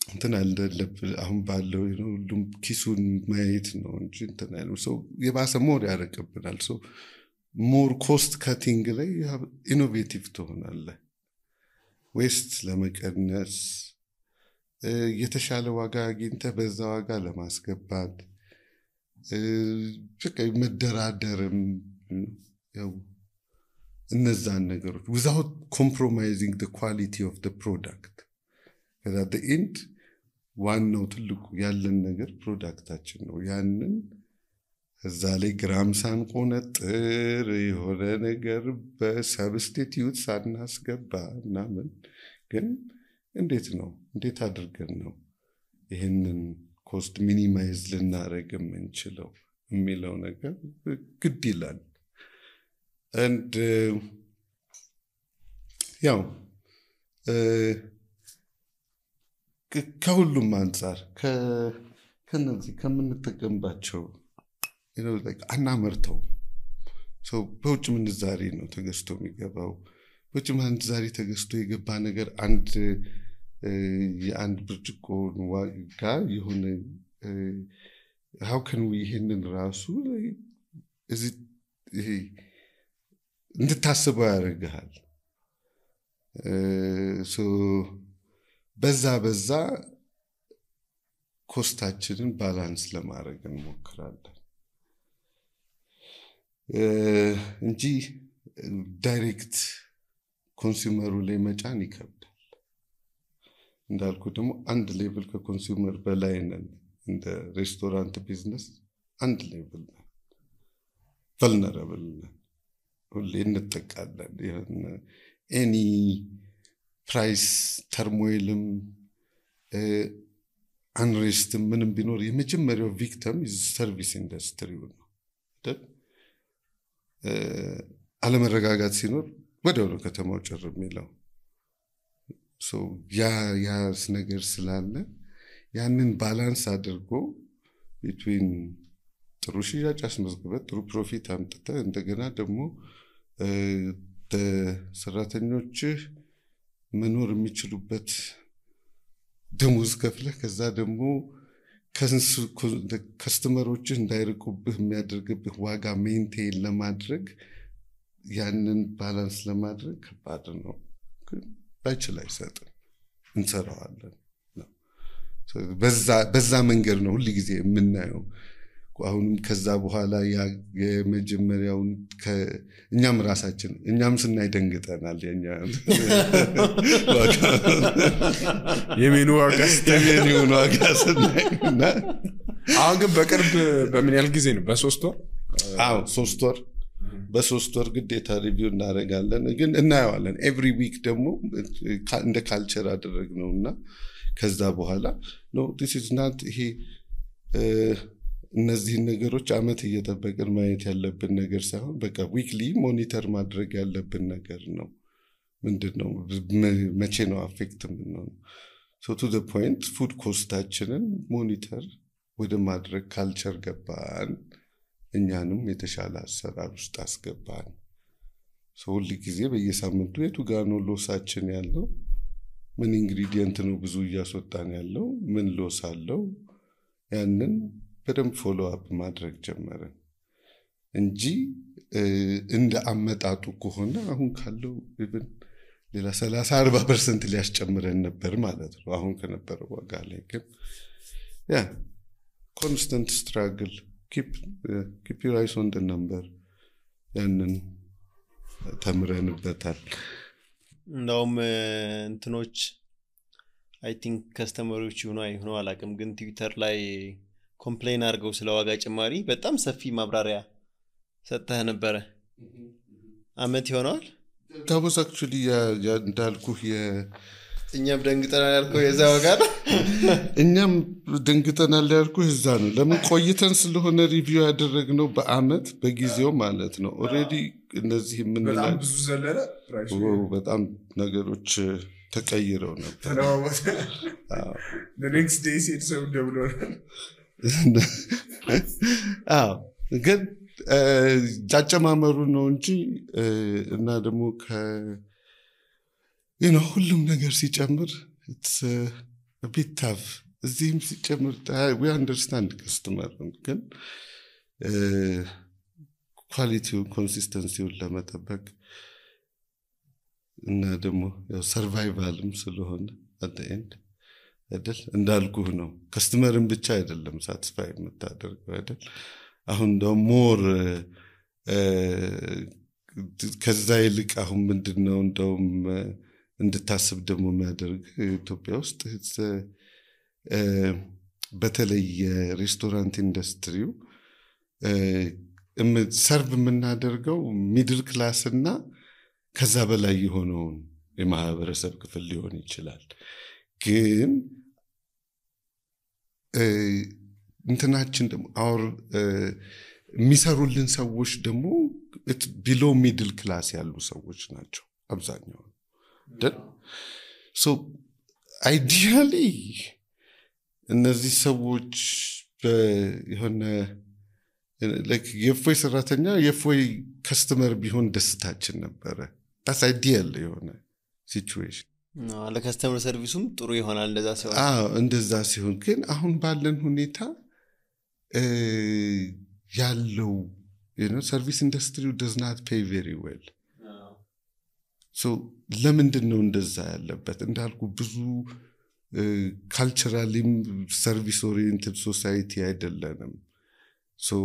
እንትን አለለብ አሁን ባለው ሁሉም ኪሱን ማየት ነው እንጂ እንትን አይደለም so የባሰ ሞር ያረቀብናል so more cost cutting ላይ ኢኖቬቲቭ ትሆናለህ ዌስት ለመቀነስ የተሻለ ዋጋ አግኝተህ በዛ ዋጋ ለማስገባት መደራደርም ያው እነዛን ነገሮች without compromising the quality of the product because at the end ዋናው ትልቁ ያለን ነገር ፕሮዳክታችን ነው ያንን እዛ ላይ ግራም ሳንቆነጥር የሆነ ነገር በሰብስቲቲዩት ሳናስገባ ምናምን ግን እንዴት አድርገን ነው ይሄንን ኮስት ሚኒማይዝ ልናረግ የምንችለው የሚለው ነገር ግድ ይላል and ያው ከሁሉም አንፃር ከነዚህ ከምንጠቀምባቸው like አናመርተው so በውጭ ምንዛሬ ነው ተገዝቶ የሚገባው በውጭ ምንዛሬ ተገዝቶ የገባ ነገር የአንድ ብርጭቆ ዋጋ የሆነ how can we ይሄንን ራሱ እንድታስበው ያደርግሃል so በዛ ኮስታችንን ባላንስ ለማድረግ እንሞክራለን እንጂ ዳይሬክት ኮንሱመሩ ላይ መጫን ይከብዳል እንዳልኩ ደግሞ አንድ ሌቭል ከኮንሱመር በላይ ነን እንደ ሬስቶራንት ቢዝነስ አንድ ሌቭል ነን vulnerable ነን ሁሌ እንጠቃለን ኤኒ ፕራይስ ተርሞይልም አንሬስት ምንም ቢኖር የመጀመሪያው ቪክቲም ሰርቪስ ኢንዱስትሪው ነው አይደል አለመረጋጋት ሲኖር ወዲያው ከተማው ጭር የሚለው so ያስ ነገር ስላለ ያንን ባላንስ አድርጎ between ጥሩ ሽያጭ አስመዝግበህ ጥሩ ፕሮፊት አምጥተህ እንደገና ደግሞ ሰራተኞች መኖር የሚችሉበት ደሞዝ ከፍለህ ከዛ ደግሞ ከስተመሮች እንዳይርቁብህ የሚያደርግብህ ዋጋ ሜንቴን ለማድረግ ያንን ባላንስ ለማድረግ ከባድ ነው ባይችል አይሰጥም እንሰራዋለን በዛ መንገድ ነው ሁሉ ጊዜ የምናየው አሁንም ከዛ በኋላ የመጀመሪያውን እኛም ስናይ ደንግጠናል የሜኑ ዋጋ ስናይና አሁን ግን በቅርብ በምን ያህል ጊዜ ነው በ3 ወር 3 ወር በ3 ወር ግዴታ ሪቪው እናደርጋለን ግን እናየዋለን ኤቭሪ ዊክ ደግሞ እንደ ካልቸር አደረግነውና ከዛ በኋላ no this is not ይሄ እነዚህ ነገሮች አመት እየተጠበቀን ማየት ያለብን ነገር ሳይሆን በቃ ዊክሊ ሞኒተር ማድረግ ያለብን ነገር ነው ምንድነው መቼ ነው አፌክት ምንነው so to the point food ኮስታችንን ሞኒተር ወደ ማድረግ ካልቸር ገባን እኛንም የተሻለ አሰራር ውስጥ አስገባን so ሁሉ ጊዜ በየሳምንቱ የቱ ጋር ነው ሎሳችን ያለው ምን ኢንግሪዲየንት ነው ብዙ እያስወጣን ያለው ምን ሎስ አለው ያንን በደንብ ፎሎ አፕ ማድረግ ጀመረን እንጂ እንደ አመጣጡ ከሆነ አሁን ካለው ኢቭን ሌላ 30-40% ሊያስጨምረን ነበር ማለት ነው አሁን ከነበረው ዋጋ ላይ ግን ያ constant struggle keep your eyes on the number ያንን ተምረንበታል እንደውም እንትኖች አይ ቲንክ ከስተመሮች ይሆኑ አላቅም ግን ትዊተር ላይ ኮምፕሌን አድርገው ስለ ዋጋ ጭማሪ በጣም ሰፊ ማብራሪያ ሰጥተህ ነበር አመት ይሆናል that was actually እንዳልኩህ እኛም ደንግጠናል ያልከው የዛ ዋጋ እኛም ደንግጠናል ያልኩህ እዛ ነው ለምን ቆይተን ስለሆነ ሪቪው ያደረግነው በአመት በጊዜው ማለት ነው ኦሬዲ እነዚህ ምን በጣም ብዙ ዘለለ ፕራይስ በጣም ነገሮች ተቀይረው ነበር the next day said so double ግን ጫጨማመሩ ነው እንጂ እና ደግሞ ሁሉም ነገር ሲጨምር it's a bit tough እዚህም ሲጨምር we understand customer ግን ኳሊቲው ኮንሲስተንሲውን ለመጠበቅ እና ደግሞ ያው ሰርቫይቫልም ስለሆነ at the end አይደል እንዳልኩህ ነው ከስተመርን ብቻ አይደለም ሳቲስፋይ የምታደርገው አይደል አሁን ደግሞ ሞር ከዛ ይልቅ አሁን ምንድነው እንደውም እንድታስብ ደግሞ የሚያደርግ ኢትዮጵያ ውስጥ በተለይ የሬስቶራንት ኢንዱስትሪው ሰርቭ የምናደርገው ሚድል ክላስ እና ከዛ በላይ የሆነውን የማህበረሰብ ክፍል ሊሆን ይችላል ግን እንትናችን ደግሞ አውር የሚሰሩልን ሰዎች ደግሞ ቢሎ ሚድል ክላስ ያሉ ሰዎች ናቸው አብዛኛው so ideally እነዚህ ሰዎች የሆነ like የፎይ ሰራተኛ የፎይ ከስተመር ቢሆን ደስታችን ነበረ that's ideal የሆነ situation ለከስተመር ሰርቪሱም ጥሩ ይሆናል እንደዛ ሲሆን እንደዛ ሲሆን ግን አሁን ባለን ሁኔታ ያለው service industry does not pay very well so ለምንድን ነው እንደዛ ያለበት እንዳልኩ ብዙ culturally service oriented society አይደለንም so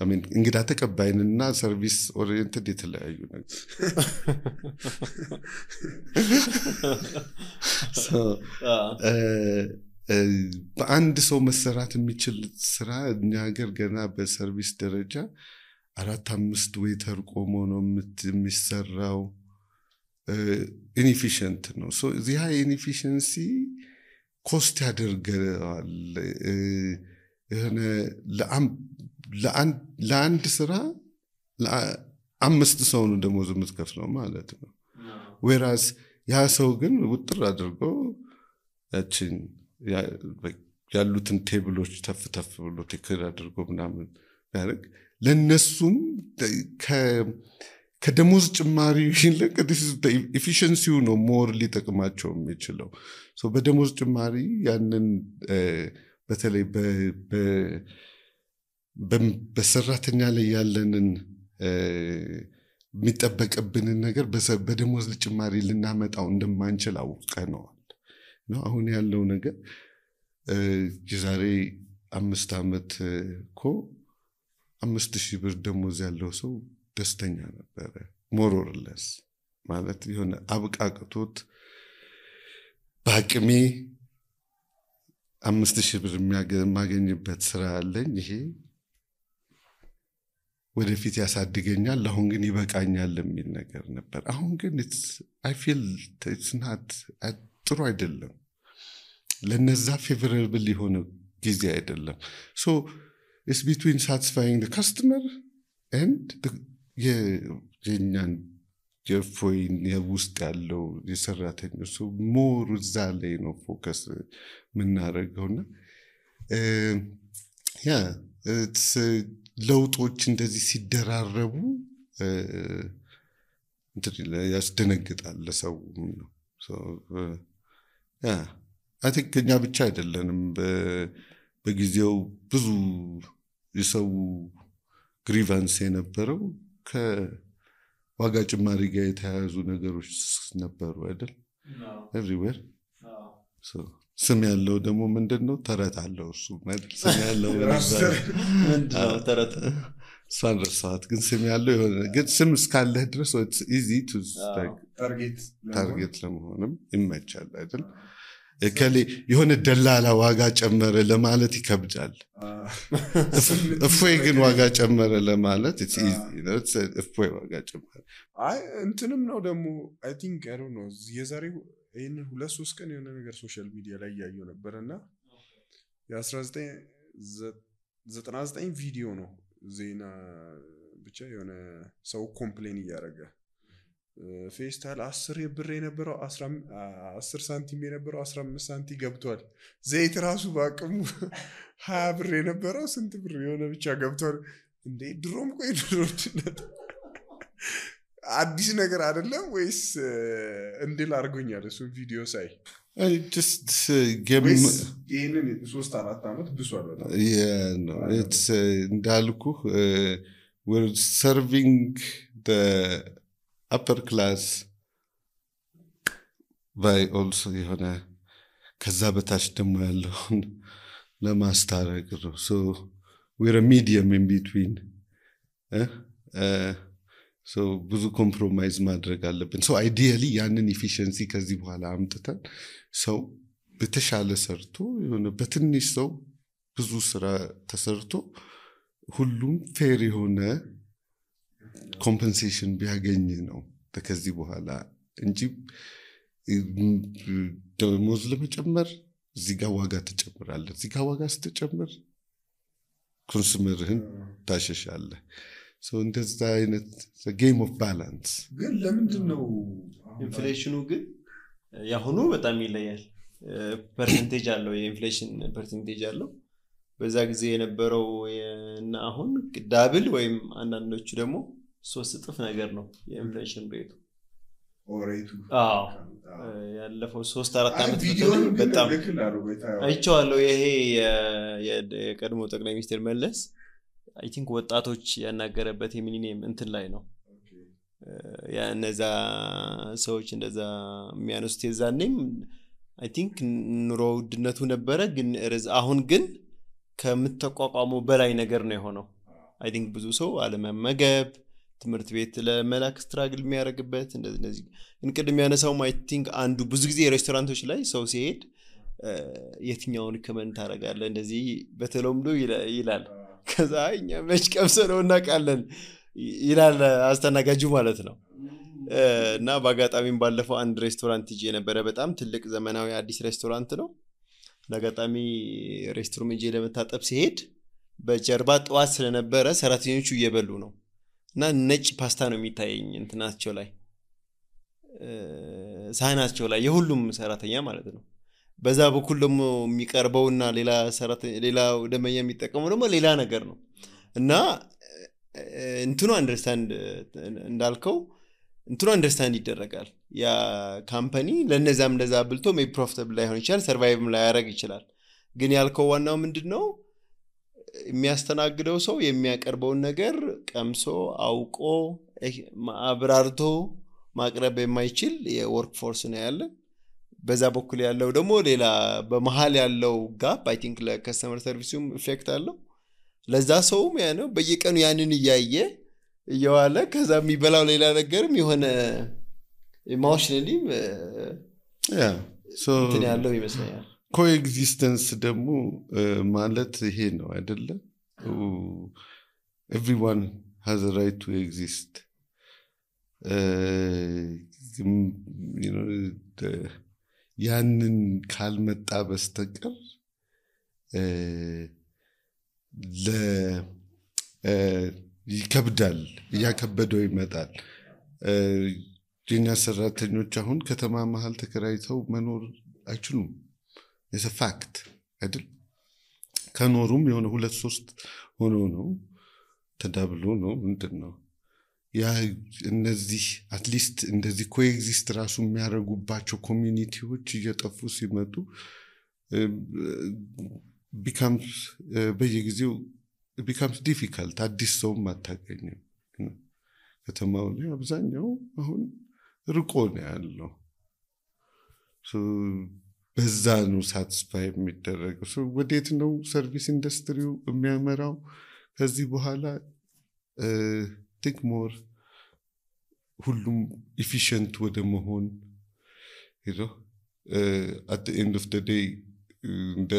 I mean እንግዳ ተቀባይንና service oriented የተለያዩ ነገር so በአንድ ሰው መሰራት የሚችል ስራ እኛ ሀገር ገና በሰርቪስ ደረጃ 4-5 ዌተር ቆሞ ነው የሚሰራው inefficient ነው so this high inefficiency cost ያደርጋል ለአንድ ስራ ለአምስት ሰው ነው ደሞዝ የምትከፍለው ማለት ነው whereas ያ ሰው ግን ውጥር አድርጎ ያችን ያሉትን ቴብሎች ተፍተፍ ብሎ ቴክር አድርጎ ምናምን ያደርግ ለነሱም ከደሞዝ ጭማሪ ይልቅ efficiency ነው more ሊጠቅማቸው የሚችለው so በደሞዝ ጭማሪ ያንን በተለይ በሰራተኛ ላይ ያለንን የሚጠበቅብንን ነገር በደሞዝ ጭማሪ ልናመጣው እንደማንችል አውቀነዋል ነው አሁን ያለው ነገር የዛሬ 5 አመት እኮ 5000 ብር ደሞዝ ያለው ሰው ደስተኛ ነበር more or less ማለት የሆነ አብቃቅቶት ባቅሜ 5000 ብር ማገኝበት ስራ አለኝ ይሄ ወደፊት ያሳድገኛል አሁን ግን ይበቃኛል የሚል ነገር ነበር አሁን ግን I feel it's not ጥሩ አይደለም ለነዛ favorable የሆነ ጊዜ አይደለም so it's between satisfying the customer and የኛን የፎይን የውስጥ ያለው የሰራተኞች so more እዛ ላይ ነው ፎከስ ምናረገውና it's ለውጦች እንደዚህ ሲደራረቡ ያስደነግጣል ለሰው ነው so I think እኛ ብቻ አይደለንም በጊዜው ብዙ የሰው ግሪቫንስ የነበረው ዋጋ ጭማሪ ጋር የተያያዙ ነገሮች ነበሩ አይደል everywhere ስም ያለው ደግሞ ምንድነው ተረት አለው እሱ ማለት ስም ያለው ምንድነው ተረት ሳንረሳት ግን ስም ያለው የሆነ ግን ስም እስካለህ ድረስ it's easy to ታርጌት ለመሆንም ይመቻል አይደል ከሌ የሆነ ደላላ ዋጋ ጨመረ ለማለት ይከብዳል እፎይ ግን ዋጋ ጨመረ ለማለት it's easy you know it's እፎይ ዋጋ ጨመረ አይ እንትንም ነው ደግሞ I think I don't know የዛሬው ይሄን 2-3 ቀን የሆነ ነገር ሶሻል ሚዲያ ላይ ያየው ነበርና የ1999 ቪዲዮ ነው ዜና ብቻ የሆነ ሰው ኮምፕሌን ያደረገ ፌስታል 10 ብር የነበረው 10 ሳንቲም የነበረው 15 ሳንቲም ገብቷል ዘይት ራሱ ባቅሙ 20 ብር የነበረው ስንት ብር የሆነ ብቻ ገብቷል እንዴ ድሮም ቆይ ድሮችነት አዲስ ነገር አይደለም ወይስ እንድል አርጎኛል እሱ ቪዲዮ ሳይ just give me ይሄንን 3-4 አመት ብሷል በጣም yeah no it's እንዳልኩ we're serving the upper class by also የሆነ ከዛ በታች ደግሞ ያለው ለማስታረቅ ነው so we're a medium in between so ብዙ ኮምፕሮማይዝ ማድረግ አለብን so ideally ያንን efficiency ከዚህ በኋላ አምጥተን ሰው በተሻለ ሰርቶ የሆነ በትንሽ ሰው ብዙ ስራ ተሰርቶ ሁሉም ፌር የሆነ ኮምፐንሴሽን ቢያገኝ ነው ከዚህ በኋላ እንጂ ደሞዝ ለመጨመር እዚህ ጋር ዋጋ ተጨምራለህ እዚህ ጋር ዋጋ ስትጨምር ኮንሱመርህን ታሸሻለህ so እንደዛ አይነት the game of balance ግን ለምንድነው ኢንፍሌሽኑ ግን ያሁኑ በጣም ይለያል ፐርሰንቴጅ አለው የኢንፍሌሽን ፐርሰንቴጅ አለው በዛ ጊዜ የነበረው እና አሁን ዳብል ወይም አንዳንዶቹ ደግሞ 3 እጥፍ ነገር ነው የኢንፍሌሽን ሬቱ ኦሬቱ ያለፈው 3-4 አመት በጣም አይቻለሁ ይሄ የቀድሞ ጠቅላይ ሚኒስትር መለስ I think ወጣቶች ያናገረበት የሚሊኒየም እንትን ላይ ነው ያ እነዛ ሰዎች እንደዛ የሚያነሱት የዛኔም I think ኑሮ ውድነቱ ነበረ ግን አሁን ግን ከምትቋቋመው በላይ ነገር ነው የሆነው I think ብዙ ሰው አለመመገብ ትምህርት ቤት ለመላክ ስትራግል የሚያደርግበት እንደዚህ እንቅድም ያነሳው I think አንዱ ብዙ ጊዜ ሬስቶራንቶች ላይ ሰው ሲሄድ የትኛውን ከመንት ታረጋለህ እንደዚህ በተለምዶ ይላል ከዛ እኛ መች ቀምሰነውና ቃለን ይላል አስተናጋጁ ማለት ነው እና ባጋጣሚም ባለፈው አንድ ሬስቶራንት ይዤ ነበር በጣም ትልቅ ዘመናዊ አዲስ ሬስቶራንት ነው ለጋጣሚ ሬስቶራንት ይዤ ለመታጠብ ሲሄድ በጀርባ ጧት ስለነበረ ሰራተኞቹ እየበሉ ነው እና ነጭ ፓስታ ነው የሚታየኝ እንትናቸው ላይ ሳህናቸው ላይ የሁሉም ሰራተኛ ማለት ነው በዛ በኩል ደግሞ የሚቀርበውና ሌላ ደመኛ የሚጠቀመው ደግሞ ሌላ ነገር ነው እና እንትኑ አንደርስታንድ እንዳልከው እንትኑ አንደርስታንድ ይደረጋል ያ ካምፓኒ ለነዛም እንደዛ ብልቶ ሜይ ፕሮፊታብል ላይሆን ይችላል ሰርቫይቭም ላያረግ ይችላል ግን ያልከው ዋናው ምንድነው የሚያስተናግደው ሰው የሚያቀርበውን ነገር ቀምሶ አውቆ አብራርቶ ማቅረብ የማይችል የወርክ ፎርስ ነው ያለ በዛ በኩል ያለው ደግሞ ሌላ በመሃል ያለው ጋፕ I think ለከስተመር ሰርቪሱም ኢፌክት አለው ለዛ ሰውም ያ ነው በየቀኑ ያንን እየዋለ ከዛ የሚበላው ሌላ ነገርም የሆነ ኢሞሽናሊ so ያለው ይመስላል coexistence ደግሞ ማለት ይሄ ነው አይደለ everyone has a right to exist you know ያንን ካልመጣ በስተቀር ይከብዳል ያከበደው ይመጣል የኛ ሰራተኞች አሁን ከተማ መሃል ተከራይተው መኖር አይችሉም it's a fact አይደል ከኖሩም የሆነ 2-3 ሆኖ ነው ተዳብሎ ነው ምንድነው ያ እነዚህ አትሊስት እንደዚህ ኮኤግዚስት ራሱ የሚያረጉባቸው ኮሚኒቲዎች እየጠፉ ሲመጡ becomes በየጊዜው it becomes difficult አዲስ ሰው ማታገኘው ከተማው ላይ አብዛኛው አሁን ርቆ ነው ያለው። በዛ ነው ሳትስፋይ የሚደረገው። ወዴት ነው ሰርቪስ ኢንዱስትሪው የሚያመራው ከዚህ በኋላ? ቲንክ ሞር ሁሉም ኢፊሽንት ወደ መሆን at the end of the day እንደ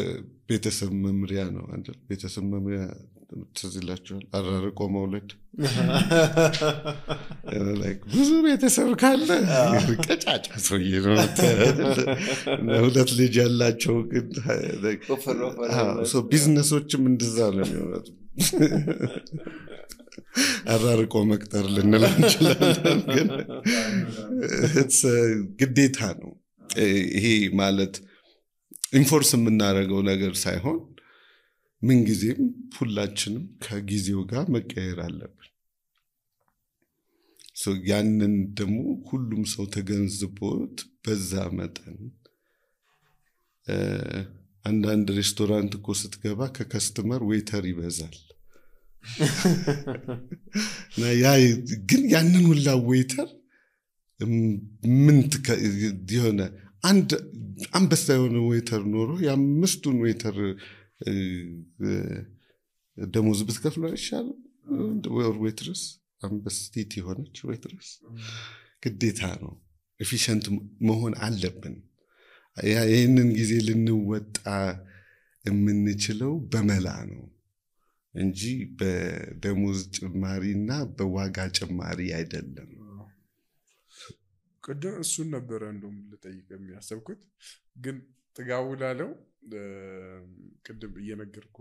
ቤተሰብ መምሪያ ነው አይደል? ቤተሰብ መምሪያ ትዝ ይላችኋል? አራርቆ መውለድ ብዙ ቤተሰብ ካለ ቀጫጫ ሰውዬ ነው። ሁለት ልጅ ያላቸው ግን ቢዝነሶችም እንደዛ ነው የሚሆኑት። አራርቆ መቅጠር ልንል እንችላለን፣ ግን ግዴታ ነው። ይሄ ማለት ኢንፎርስ የምናደርገው ነገር ሳይሆን ምንጊዜም ሁላችንም ከጊዜው ጋር መቀየር አለብን። ያንን ደግሞ ሁሉም ሰው ተገንዝቦት በዛ መጠን አንዳንድ ሬስቶራንት እኮ ስትገባ ከከስተመር ዌይተር ይበዛል። ግን ያንን ሁላ ዌይተር ምን የሆነ አንድ አንበሳ የሆነ ዌይተር ኖሮ የአምስቱን ዌይተር ደሞዝ ብትከፍለው አይሻልም? ወይ ዌይትረስ አንበስቲት የሆነች ዌይትረስ ግዴታ ነው። ኤፊሽንት መሆን አለብን። ይህንን ጊዜ ልንወጣ የምንችለው በመላ ነው እንጂ በደሞዝ ጭማሪና በዋጋ ጭማሪ አይደለም። ቅድም እሱን ነበረ እንደውም ልጠይቅ የሚያሰብኩት፣ ግን ጥጋቡ ላለው ቅድም እየነገርኩ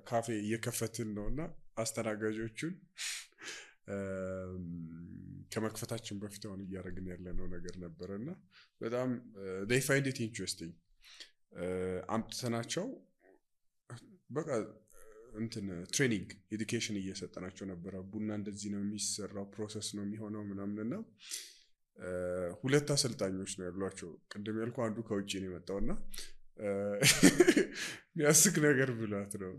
ካፌ እየከፈትን ነውና አስተናጋጆቹን ከመክፈታችን በፊት አሁን እያደረግን ያለነው ነገር ነበረና በጣም they find it interesting አምጥተናቸው በቃ እንትን ትሬኒንግ ኤዱኬሽን እየሰጠናቸው ነበረ። ቡና እንደዚህ ነው የሚሰራው፣ ፕሮሰስ ነው የሚሆነው ምናምንና ሁለት አሰልጣኞች ነው ያሏቸው። ቅድም ያልኩ አንዱ ከውጪ ነው የመጣውና የሚያስቅ ነገር ብሏት ነው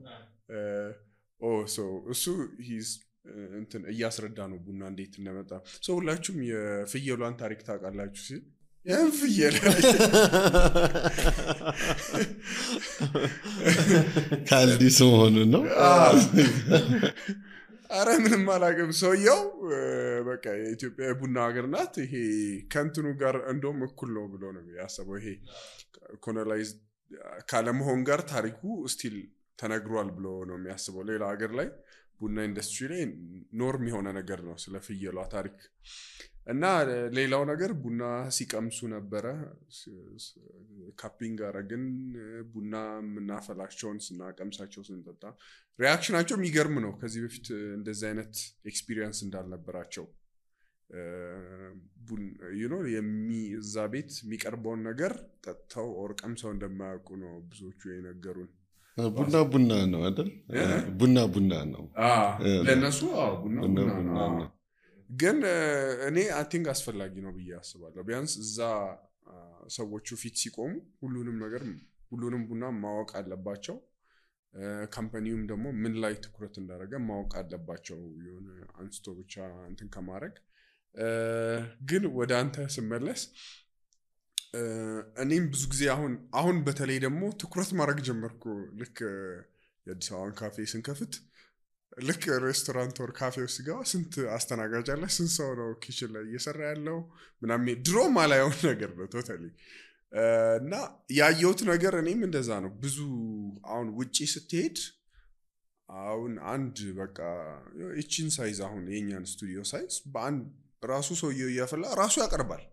እሱ እንትን እያስረዳ ነው ቡና እንዴት እንደመጣ። ሁላችሁም የፍየሏን ታሪክ ታውቃላችሁ ሲል ያን ፍየል ካልዲስ መሆኑ ነው። አረ ምንም አላውቅም። ሰውየው በቃ የኢትዮጵያ ቡና ሀገር ናት፣ ይሄ ከንትኑ ጋር እንደውም እኩል ነው ብሎ ነው ያሰበው። ይሄ ኮሎናይዝ ካለመሆን ጋር ታሪኩ ስቲል ተነግሯል ብሎ ነው የሚያስበው። ሌላ ሀገር ላይ ቡና ኢንዱስትሪ ላይ ኖርም የሆነ ነገር ነው ስለ ፍየሏ ታሪክ። እና ሌላው ነገር ቡና ሲቀምሱ ነበረ፣ ካፒንግ አረግን። ቡና ምናፈላቸውን ስናቀምሳቸው ስንጠጣ ሪአክሽናቸው የሚገርም ነው። ከዚህ በፊት እንደዚህ አይነት ኤክስፒሪየንስ እንዳልነበራቸው እዛ ቤት የሚቀርበውን ነገር ጠጥተው ኦር ቀምሰው እንደማያውቁ ነው ብዙዎቹ የነገሩን። ቡና ነው አይደል? ቡና ነው ለነሱ። ቡና ነው። ግን እኔ አይ ቲንክ አስፈላጊ ነው ብዬ አስባለሁ። ቢያንስ እዛ ሰዎቹ ፊት ሲቆሙ ሁሉንም ቡና ማወቅ አለባቸው። ካምፓኒውም ደግሞ ምን ላይ ትኩረት እንዳደረገ ማወቅ አለባቸው፣ የሆነ አንስቶ ብቻ እንትን ከማድረግ። ግን ወደ አንተ ስመለስ እኔም ብዙ ጊዜ አሁን በተለይ ደግሞ ትኩረት ማድረግ ጀመርኩ። ልክ የአዲስ አበባን ካፌ ስንከፍት ልክ ሬስቶራንት ወር ካፌ ውስጥ ገባ ስንት አስተናጋጅ አለ፣ ስንት ሰው ነው ኪችን ላይ እየሰራ ያለው ምናምን ድሮ ማላየው ነገር ነው ቶታሊ። እና ያየሁት ነገር እኔም እንደዛ ነው። ብዙ አሁን ውጪ ስትሄድ አሁን አንድ በቃ እቺን ሳይዝ አሁን የኛን ስቱዲዮ ሳይዝ በአንድ ራሱ ሰውየው እያፈላ ራሱ ያቀርባል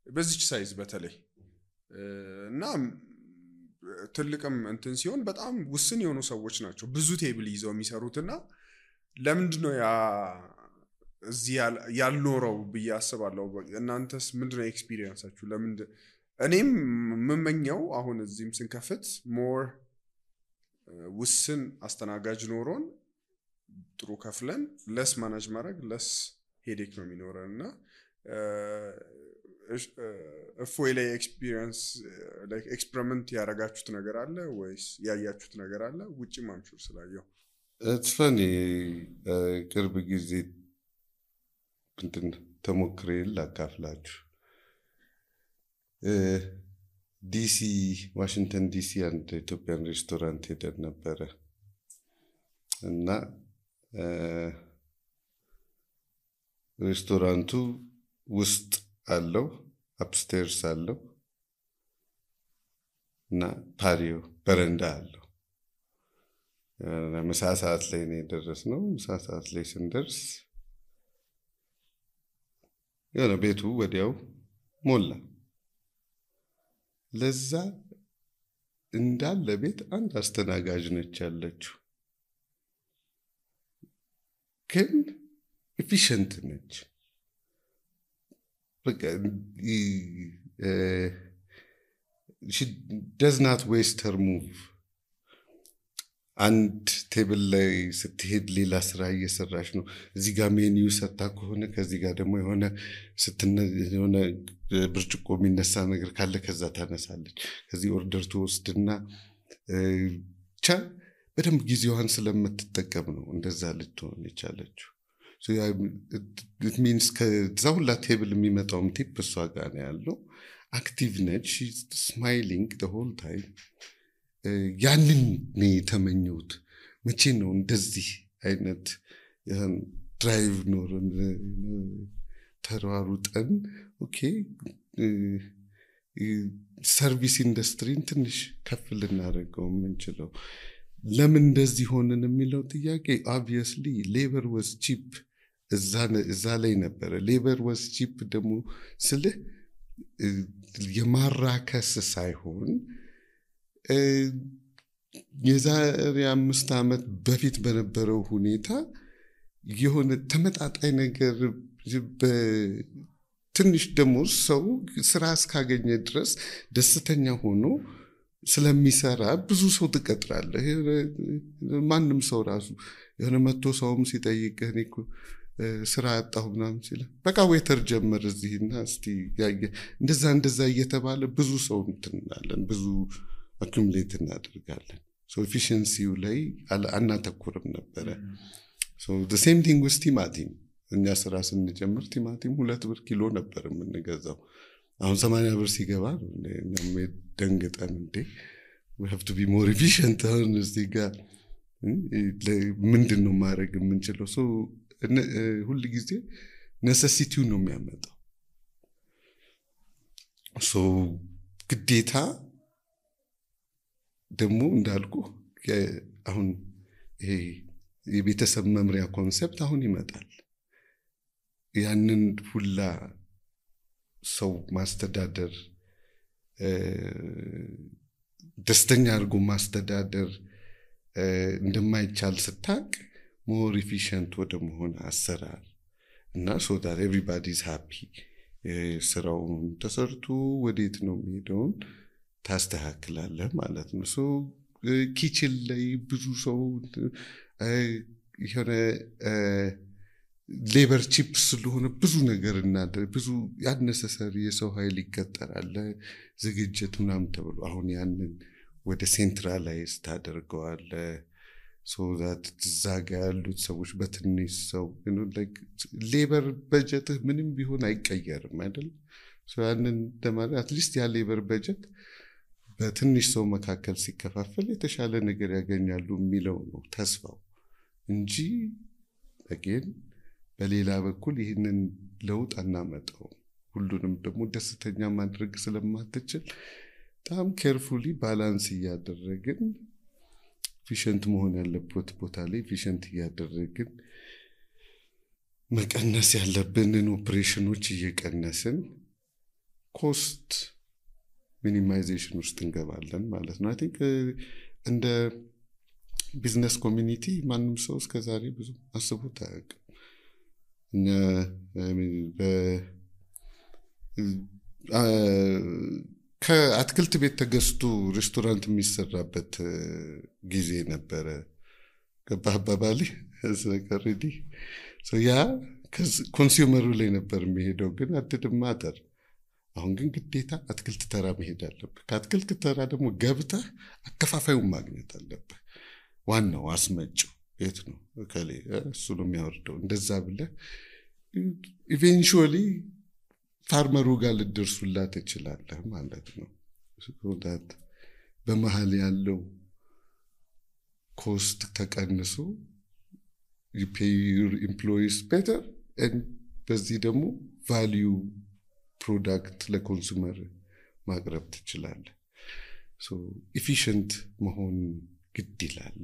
በዚች ሳይዝ በተለይ። እና ትልቅም እንትን ሲሆን በጣም ውስን የሆኑ ሰዎች ናቸው ብዙ ቴብል ይዘው የሚሰሩትና ለምንድነው እዚህ ያልኖረው ብዬ አስባለሁ። እናንተስ ምንድነው ኤክስፒሪየንሳችሁ? እኔም የምመኘው አሁን እዚህም ስንከፍት ሞር ውስን አስተናጋጅ ኖሮን ጥሩ ከፍለን ለስ ማናጅ ማድረግ ለስ ሄዴክ ነው የሚኖረንና እፎይ ላይ ኤክስፒሪየንስ ላይክ ኤክስፐሪመንት ያደረጋችሁት ነገር አለ ወይስ ያያችሁት ነገር አለ? ውጪ ማምሹር ስላየው it's funny ቅርብ ጊዜ እንትን ተሞክሬ ላካፍላችሁ። ዲሲ ዋሽንግተን ዲሲ አንድ ኢትዮጵያን ሬስቶራንት ሄደን ነበረ እና ሬስቶራንቱ ውስጥ አለው አፕስቴርስ አለው እና ፓሪዮ በረንዳ አለው። ምሳ ሰዓት ላይ ነው የደረስነው። ምሳ ሰዓት ላይ ስንደርስ የሆነ ቤቱ ወዲያው ሞላ። ለዛ እንዳለ ቤት አንድ አስተናጋጅ ነች ያለችው፣ ግን ኤፊሽንት ነች። በቃ she does not waste her move. አንድ ቴብል ላይ ስትሄድ ሌላ ስራ እየሰራች ነው። እዚህ ጋር ሜኒው ሰጣ ከሆነ ከዚህ ጋር ደግሞ የሆነ ብርጭቆ የሚነሳ ነገር ካለ ከዛ ታነሳለች። ከዚህ ኦርደር ትወስድና ብቻ በደንብ ጊዜዋን ስለምትጠቀም ነው እንደዛ ልትሆን የቻለችው። so it means ከዛ ሁላ ቴብል የሚመጣውም ቲፕ እሷ ጋር ነው ያለው። አክቲቭ ነች። she's smiling the whole time. ያንን ነው የተመኘሁት። መቼ ነው እንደዚህ አይነት ድራይቭ ኖረን ተሯሩጠን ኦኬ ሰርቪስ ኢንዱስትሪን ትንሽ ከፍ ልናደርገው የምንችለው? ለምን እንደዚህ ሆነን የሚለው ጥያቄ obviously labor was cheap እዛ ላይ ነበረ። labor was cheap ደግሞ ስልህ የማራከስ ሳይሆን የዛሬ 5 ዓመት በፊት በነበረው ሁኔታ የሆነ ተመጣጣኝ ነገር በትንሽ ደሞዝ ሰው ስራ እስካገኘ ድረስ ደስተኛ ሆኖ ስለሚሰራ ብዙ ሰው ትቀጥራለህ። ማንም ሰው ራሱ የሆነ መጥቶ ሰውም ሲጠይቅህ እኔ እኮ ስራ አጣሁ ምናምን ሲል በቃ ዌተር ጀመር እዚህና እስቲ እንደዛ እየተባለ ብዙ ሰው እንትናለን፣ ብዙ አኩሙሌት እናደርጋለን። ሶ ኤፊሺየንሲው ላይ አናተኩርም ነበረ። ሶ the same thing with ቲማቲም። እኛ ስራ ስንጀምር ቲማቲም 2 ብር ኪሎ ነበር የምንገዛው። አሁን 80 ብር ሲገባ እኛም ደንግጠን እንዴ we have to be more efficient አሁን እዚህ ጋር ምንድነው ማድረግ የምንችለው? ሶ ሁሉ ጊዜ ኔሴሲቲው ነው የሚያመጣው። ሶ ግዴታ ደግሞ እንዳልኩ አሁን ይሄ የቤተሰብ መምሪያ ኮንሰፕት አሁን ይመጣል። ያንን ሁላ ሰው ማስተዳደር ደስተኛ አድርጎ ማስተዳደር እንደማይቻል ስታቅ ሞር ኤፊሽንት ወደ መሆን አሰራር እና so that everybody is happy ስራው ተሰርቶ ወዴት ነው የሚሄደውን ታስተካክላለህ ማለት ነው። ሶ ኪችን ላይ ብዙ ሰው የሆነ ሌበር ቺፕ ስለሆነ ብዙ ነገር እናደርግ ብዙ ያነሰሰሪ የሰው ኃይል ይቀጠራል ዝግጅት ምናምን ተብሎ አሁን ያንን ወደ ሴንትራላይዝ ታደርገዋለህ። so that ዛጋ ያሉት ሰዎች በትንሽ ሰው ሌበር በጀት ምንም ቢሆን አይቀየርም አይደል? so ያንን ለማለት አትሊስት ያ ሌበር በጀት በትንሽ ሰው መካከል ሲከፋፈል የተሻለ ነገር ያገኛሉ የሚለው ነው ተስፋው እንጂ again በሌላ በኩል ይህንን ለውጥ አናመጣው። ሁሉንም ደግሞ ደስተኛ ማድረግ ስለማትችል በጣም ኬርፉሊ ባላንስ እያደረግን ኤፊሽንት መሆን ያለበት ቦታ ላይ ኤፊሽንት እያደረግን መቀነስ ያለብንን ኦፕሬሽኖች እየቀነስን ኮስት ሚኒማይዜሽን ውስጥ እንገባለን ማለት ነው። አይ ቲንክ እንደ ቢዝነስ ኮሚኒቲ ማንም ሰው እስከዛሬ ብዙ አስቦት አያውቅም። እኛ ከአትክልት ቤት ተገዝቶ ሬስቶራንት የሚሰራበት ጊዜ ነበረ። ገባባባሊ ስለቀረዲ ያ ኮንሱመሩ ላይ ነበር የሚሄደው፣ ግን አትድማተር። አሁን ግን ግዴታ አትክልት ተራ መሄድ አለብህ። ከአትክልት ተራ ደግሞ ገብተህ አከፋፋዩን ማግኘት አለብህ። ዋናው አስመጪው የት ነው? ከሌ እሱ ነው የሚያወርደው። እንደዛ ብለህ ኢቬንቹዋሊ ፋርመሩ ጋር ልደርሱላት ትችላለህ ማለት ነው። ሶዳት በመሃል ያለው ኮስት ተቀንሶ you pay your employees better and በዚህ ደግሞ value product ለኮንሱመር ማቅረብ ትችላለህ። so efficient መሆን ግድ ይላል።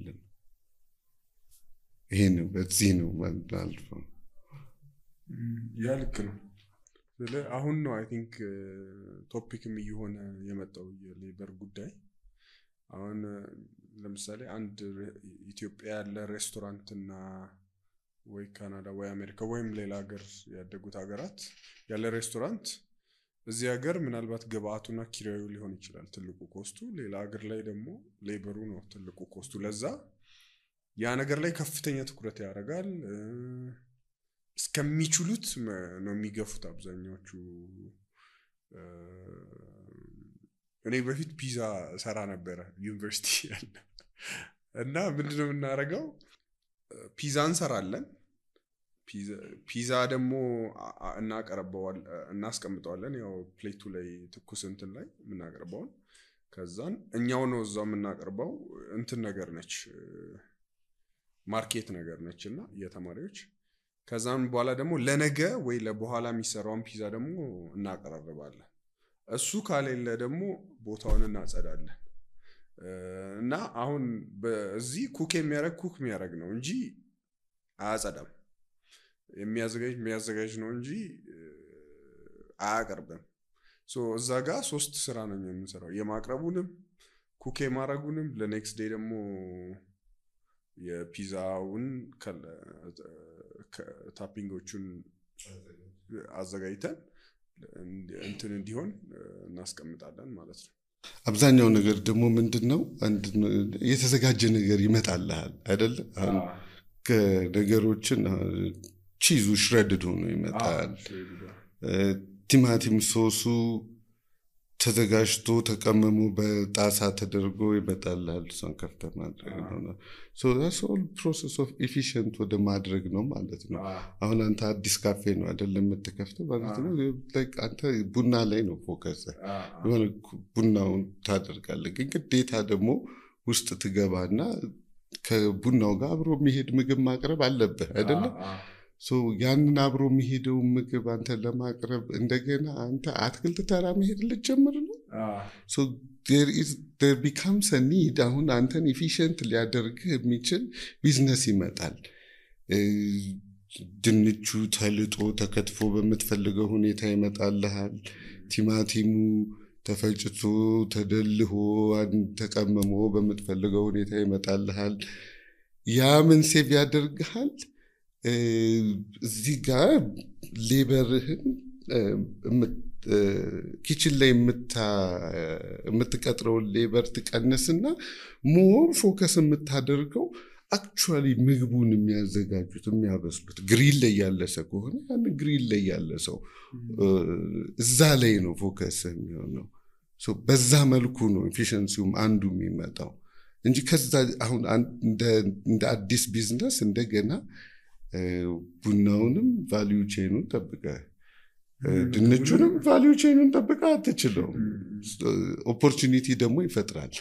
ይሄ ነው በዚህ ነው ማለት ነው። ያልክ ነው። አሁን ነው አይ ቲንክ ቶፒክም እየሆነ የመጣው የሌበር ጉዳይ። አሁን ለምሳሌ አንድ ኢትዮጵያ ያለ ሬስቶራንት እና ወይ ካናዳ ወይ አሜሪካ ወይም ሌላ ሀገር ያደጉት ሀገራት ያለ ሬስቶራንት እዚህ ሀገር ምናልባት ግብአቱና ኪራዩ ሊሆን ይችላል ትልቁ ኮስቱ፣ ሌላ ሀገር ላይ ደግሞ ሌበሩ ነው ትልቁ ኮስቱ። ለዛ ያ ነገር ላይ ከፍተኛ ትኩረት ያደርጋል። እስከሚችሉት ነው የሚገፉት አብዛኛዎቹ። እኔ በፊት ፒዛ ሰራ ነበር ዩኒቨርሲቲ ያለ እና ምንድነው የምናደርገው? ፒዛ እንሰራለን። ፒዛ ደግሞ እናስቀምጠዋለን ያው ፕሌቱ ላይ ትኩስ እንትን ላይ የምናቀርበውን። ከዛን እኛው ነው እዛው የምናቀርበው። እንትን ነገር ነች ማርኬት ነገር ነችና የተማሪዎች። ከዛን በኋላ ደግሞ ለነገ ወይ ለበኋላ የሚሰራውን ፒዛ ደግሞ እናቀርባለን። እሱ ካሌለ ደግሞ ቦታውን እናጸዳለን። እና አሁን በዚህ ኩክ የሚያደርግ ነው እንጂ አያጸዳም። የሚያዘጋጅ ነው እንጂ አያቀርብም። ሶ እዛ ጋር 3 ስራ ነው የምንሰራው፣ የማቅረቡንም ኩክ የማድረጉንም ለኔክስት ዴይ ደግሞ የፒዛውን ታፒንጎቹን አዘጋጅተን እንትን እንዲሆን እናስቀምጣለን ማለት ነው። አብዛኛው ነገር ደግሞ ምንድነው የተዘጋጀ ነገር ይመጣልሃል አይደል? አሁን ከነገሮችን ቺዙ ሽሬድድ ሆኖ ይመጣል። ቲማቲም ሶሱ ተዘጋጅቶ ተቀመሙ በጣሳ ተደርጎ ይመጣልሃል። እሱን ከፍተህ ማድረግ ነው። so that's all process of efficient ወደ ማድረግ ነው ማለት ነው። አሁን አንተ አዲስ ካፌ ነው አይደለም የምትከፍተው ማለት ነው። like አንተ ቡና ላይ ነው ፎከስ የሆነ ቡናውን ታደርጋለህ። ግን ግዴታ ደግሞ ውስጥ ትገባና ከቡናው ጋር አብሮ የሚሄድ ምግብ ማቅረብ አለብህ አይደለም? so ያንን አብሮ የሚሄደው ምግብ አንተ ለማቅረብ እንደገና አንተ አትክልት ተራ መሄድ ልትጀምር ነው። so there becomes a need አሁን አንተን efficient ሊያደርግ የሚችል ቢዝነስ ይመጣል። ድንቹ ተልጦ ተከትፎ በመትፈልገው ሁኔታ ይመጣልሃል። ቲማቲሙ ተፈጭቶ ተደልሆ ተቀመሞ በመትፈልገው ሁኔታ ይመጣልሃል። ያ ምን ሴቭ ያደርግሃል? እዚህ ጋር ሌበርህን ኪችን ላይ የምትቀጥረው ሌበር ትቀንስና ሞር ፎከስ የምታደርገው አክቹዋሊ ምግቡን የሚያዘጋጁት የሚያበስሉት ግሪል ላይ ያለ ሰው ከሆነ ያን ግሪል ላይ ያለ ሰው እዛ ላይ ነው ፎከስ የሚሆነው። ሶ በዛ መልኩ ነው ኤፊሺየንሲውም አንዱ የሚመጣው እንጂ ከዛ አሁን እንደ አዲስ ቢዝነስ እንደገና ቡናውንም ቫልዩ ቼኑን ጠብቀህ ድንቹንም ቫልዩ ቼኑን ጠብቀህ አትችለው። ኦፖርቹኒቲ ደግሞ ይፈጥራል።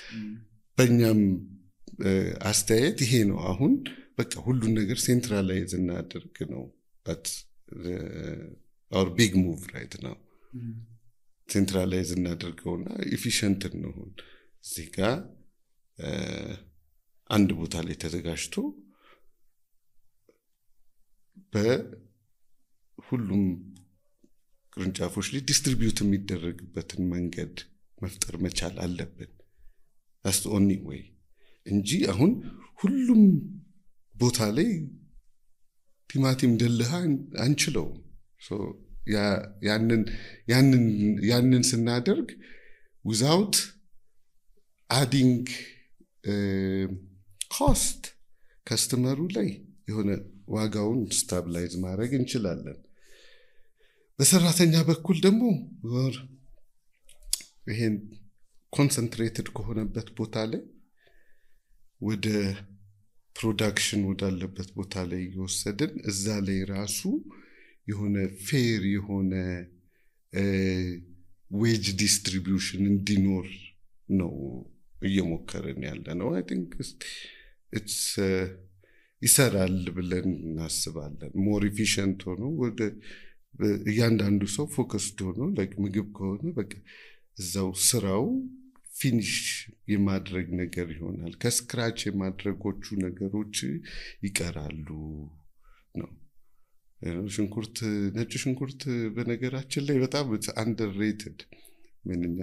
በእኛም አስተያየት ይሄ ነው። አሁን በቃ ሁሉን ነገር ሴንትራላይዝ እናደርግ ነው። but our big move right now ሴንትራላይዝ እናደርገውና ኤፊሺየንት እንሆን። እዚህ ጋር አንድ ቦታ ላይ ተዘጋጅቶ በሁሉም ቅርንጫፎች ላይ ዲስትሪቢዩት የሚደረግበትን መንገድ መፍጠር መቻል አለብን። that's the only way እንጂ አሁን ሁሉም ቦታ ላይ ቲማቲም ደልሃ አንችለው። so ያንን ስናደርግ without adding cost ከስተመሩ ላይ የሆነ ዋጋውን ስታብላይዝ ማድረግ እንችላለን። በሰራተኛ በኩል ደግሞ ይሄን ኮንሰንትሬትድ ከሆነበት ቦታ ላይ ወደ ፕሮዳክሽን ወዳለበት ቦታ ላይ ይወሰድን። እዛ ላይ ራሱ የሆነ ፌር የሆነ ዌጅ ዲስትሪቢዩሽን እንዲኖር ነው እየሞከርን ያለ ነው። አይ ቲንክ ኢትስ ይሰራል ብለን እናስባለን። ሞር ኢፊሽንት ሆኖ ወደ እያንዳንዱ ሰው ፎከስድ ሆኖ ምግብ ከሆነ በቃ እዛው ስራው ፊኒሽ የማድረግ ነገር ይሆናል። ከስክራች የማድረጎቹ ነገሮች ይቀራሉ ነው። ሽንኩርት ነጭ ሽንኩርት በነገራችን ላይ በጣም አንደርሬትድ ምንኛ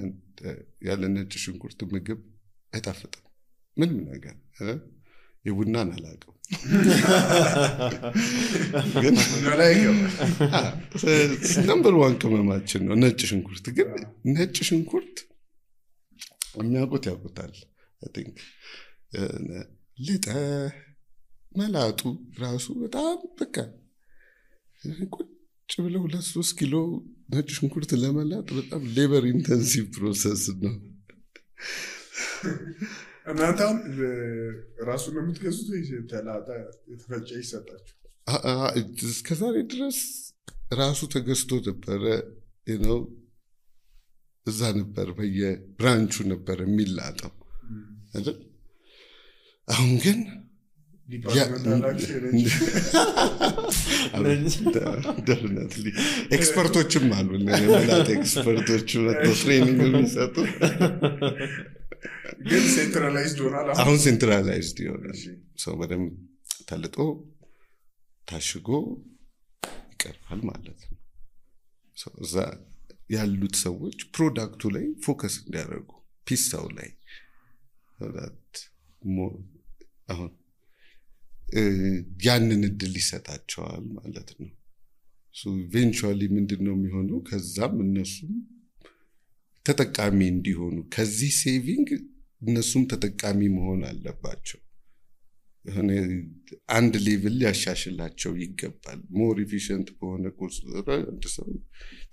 ያለ ነጭ ሽንኩርት ምግብ አይጣፍጥም ምንም ነገር የቡናን አላውቅም ግን ነምበር 1 ቅመማችን ነው ነጭ ሽንኩርት። ግን ነጭ ሽንኩርት የሚያውቁት ያውቁታል። አይ ቲንክ ልጠ መላጡ ራሱ በጣም በቃ ቁጭ ብለው 2-3 ኪሎ ነጭ ሽንኩርት ለመላጥ በጣም ሌበር ኢንተንሲቭ ፕሮሰስ ነው። እናንተም ራሱ ነው የምትገዙት ተላጣ የተፈጨ ይሰጣችሁ? እስከዛሬ ድረስ ራሱ ተገዝቶ ነበረ እዛ ነበር በየብራንቹ ነበር የሚላጠው አይደል? አሁን ግን definitely ኤክስፐርቶችም አሉ ለመላጥ ኤክስፐርቶች ወጥተው ትሬኒንግ የሚሰጡ ግን ሴንትራላይዝድ ሆኗል። አሁን ሴንትራላይዝድ ይሆናል። ሰው በደም ተልጦ ታሽጎ ይቀርባል ማለት ነው። እዛ ያሉት ሰዎች ፕሮዳክቱ ላይ ፎከስ እንዲያደርጉ ፒሳው ላይ አሁን ያንን እድል ይሰጣቸዋል ማለት ነው። ኢቬንቹዋሊ ምንድነው የሚሆነው? ከዛም እነሱም ተጠቃሚ እንዲሆኑ ከዚህ ሴቪንግ እነሱም ተጠቃሚ መሆን አለባቸው። አንድ ሌቭል ያሻሽላቸው ይገባል። ሞር ኢፊሽንት በሆነ ቁጥር አንድ ሰው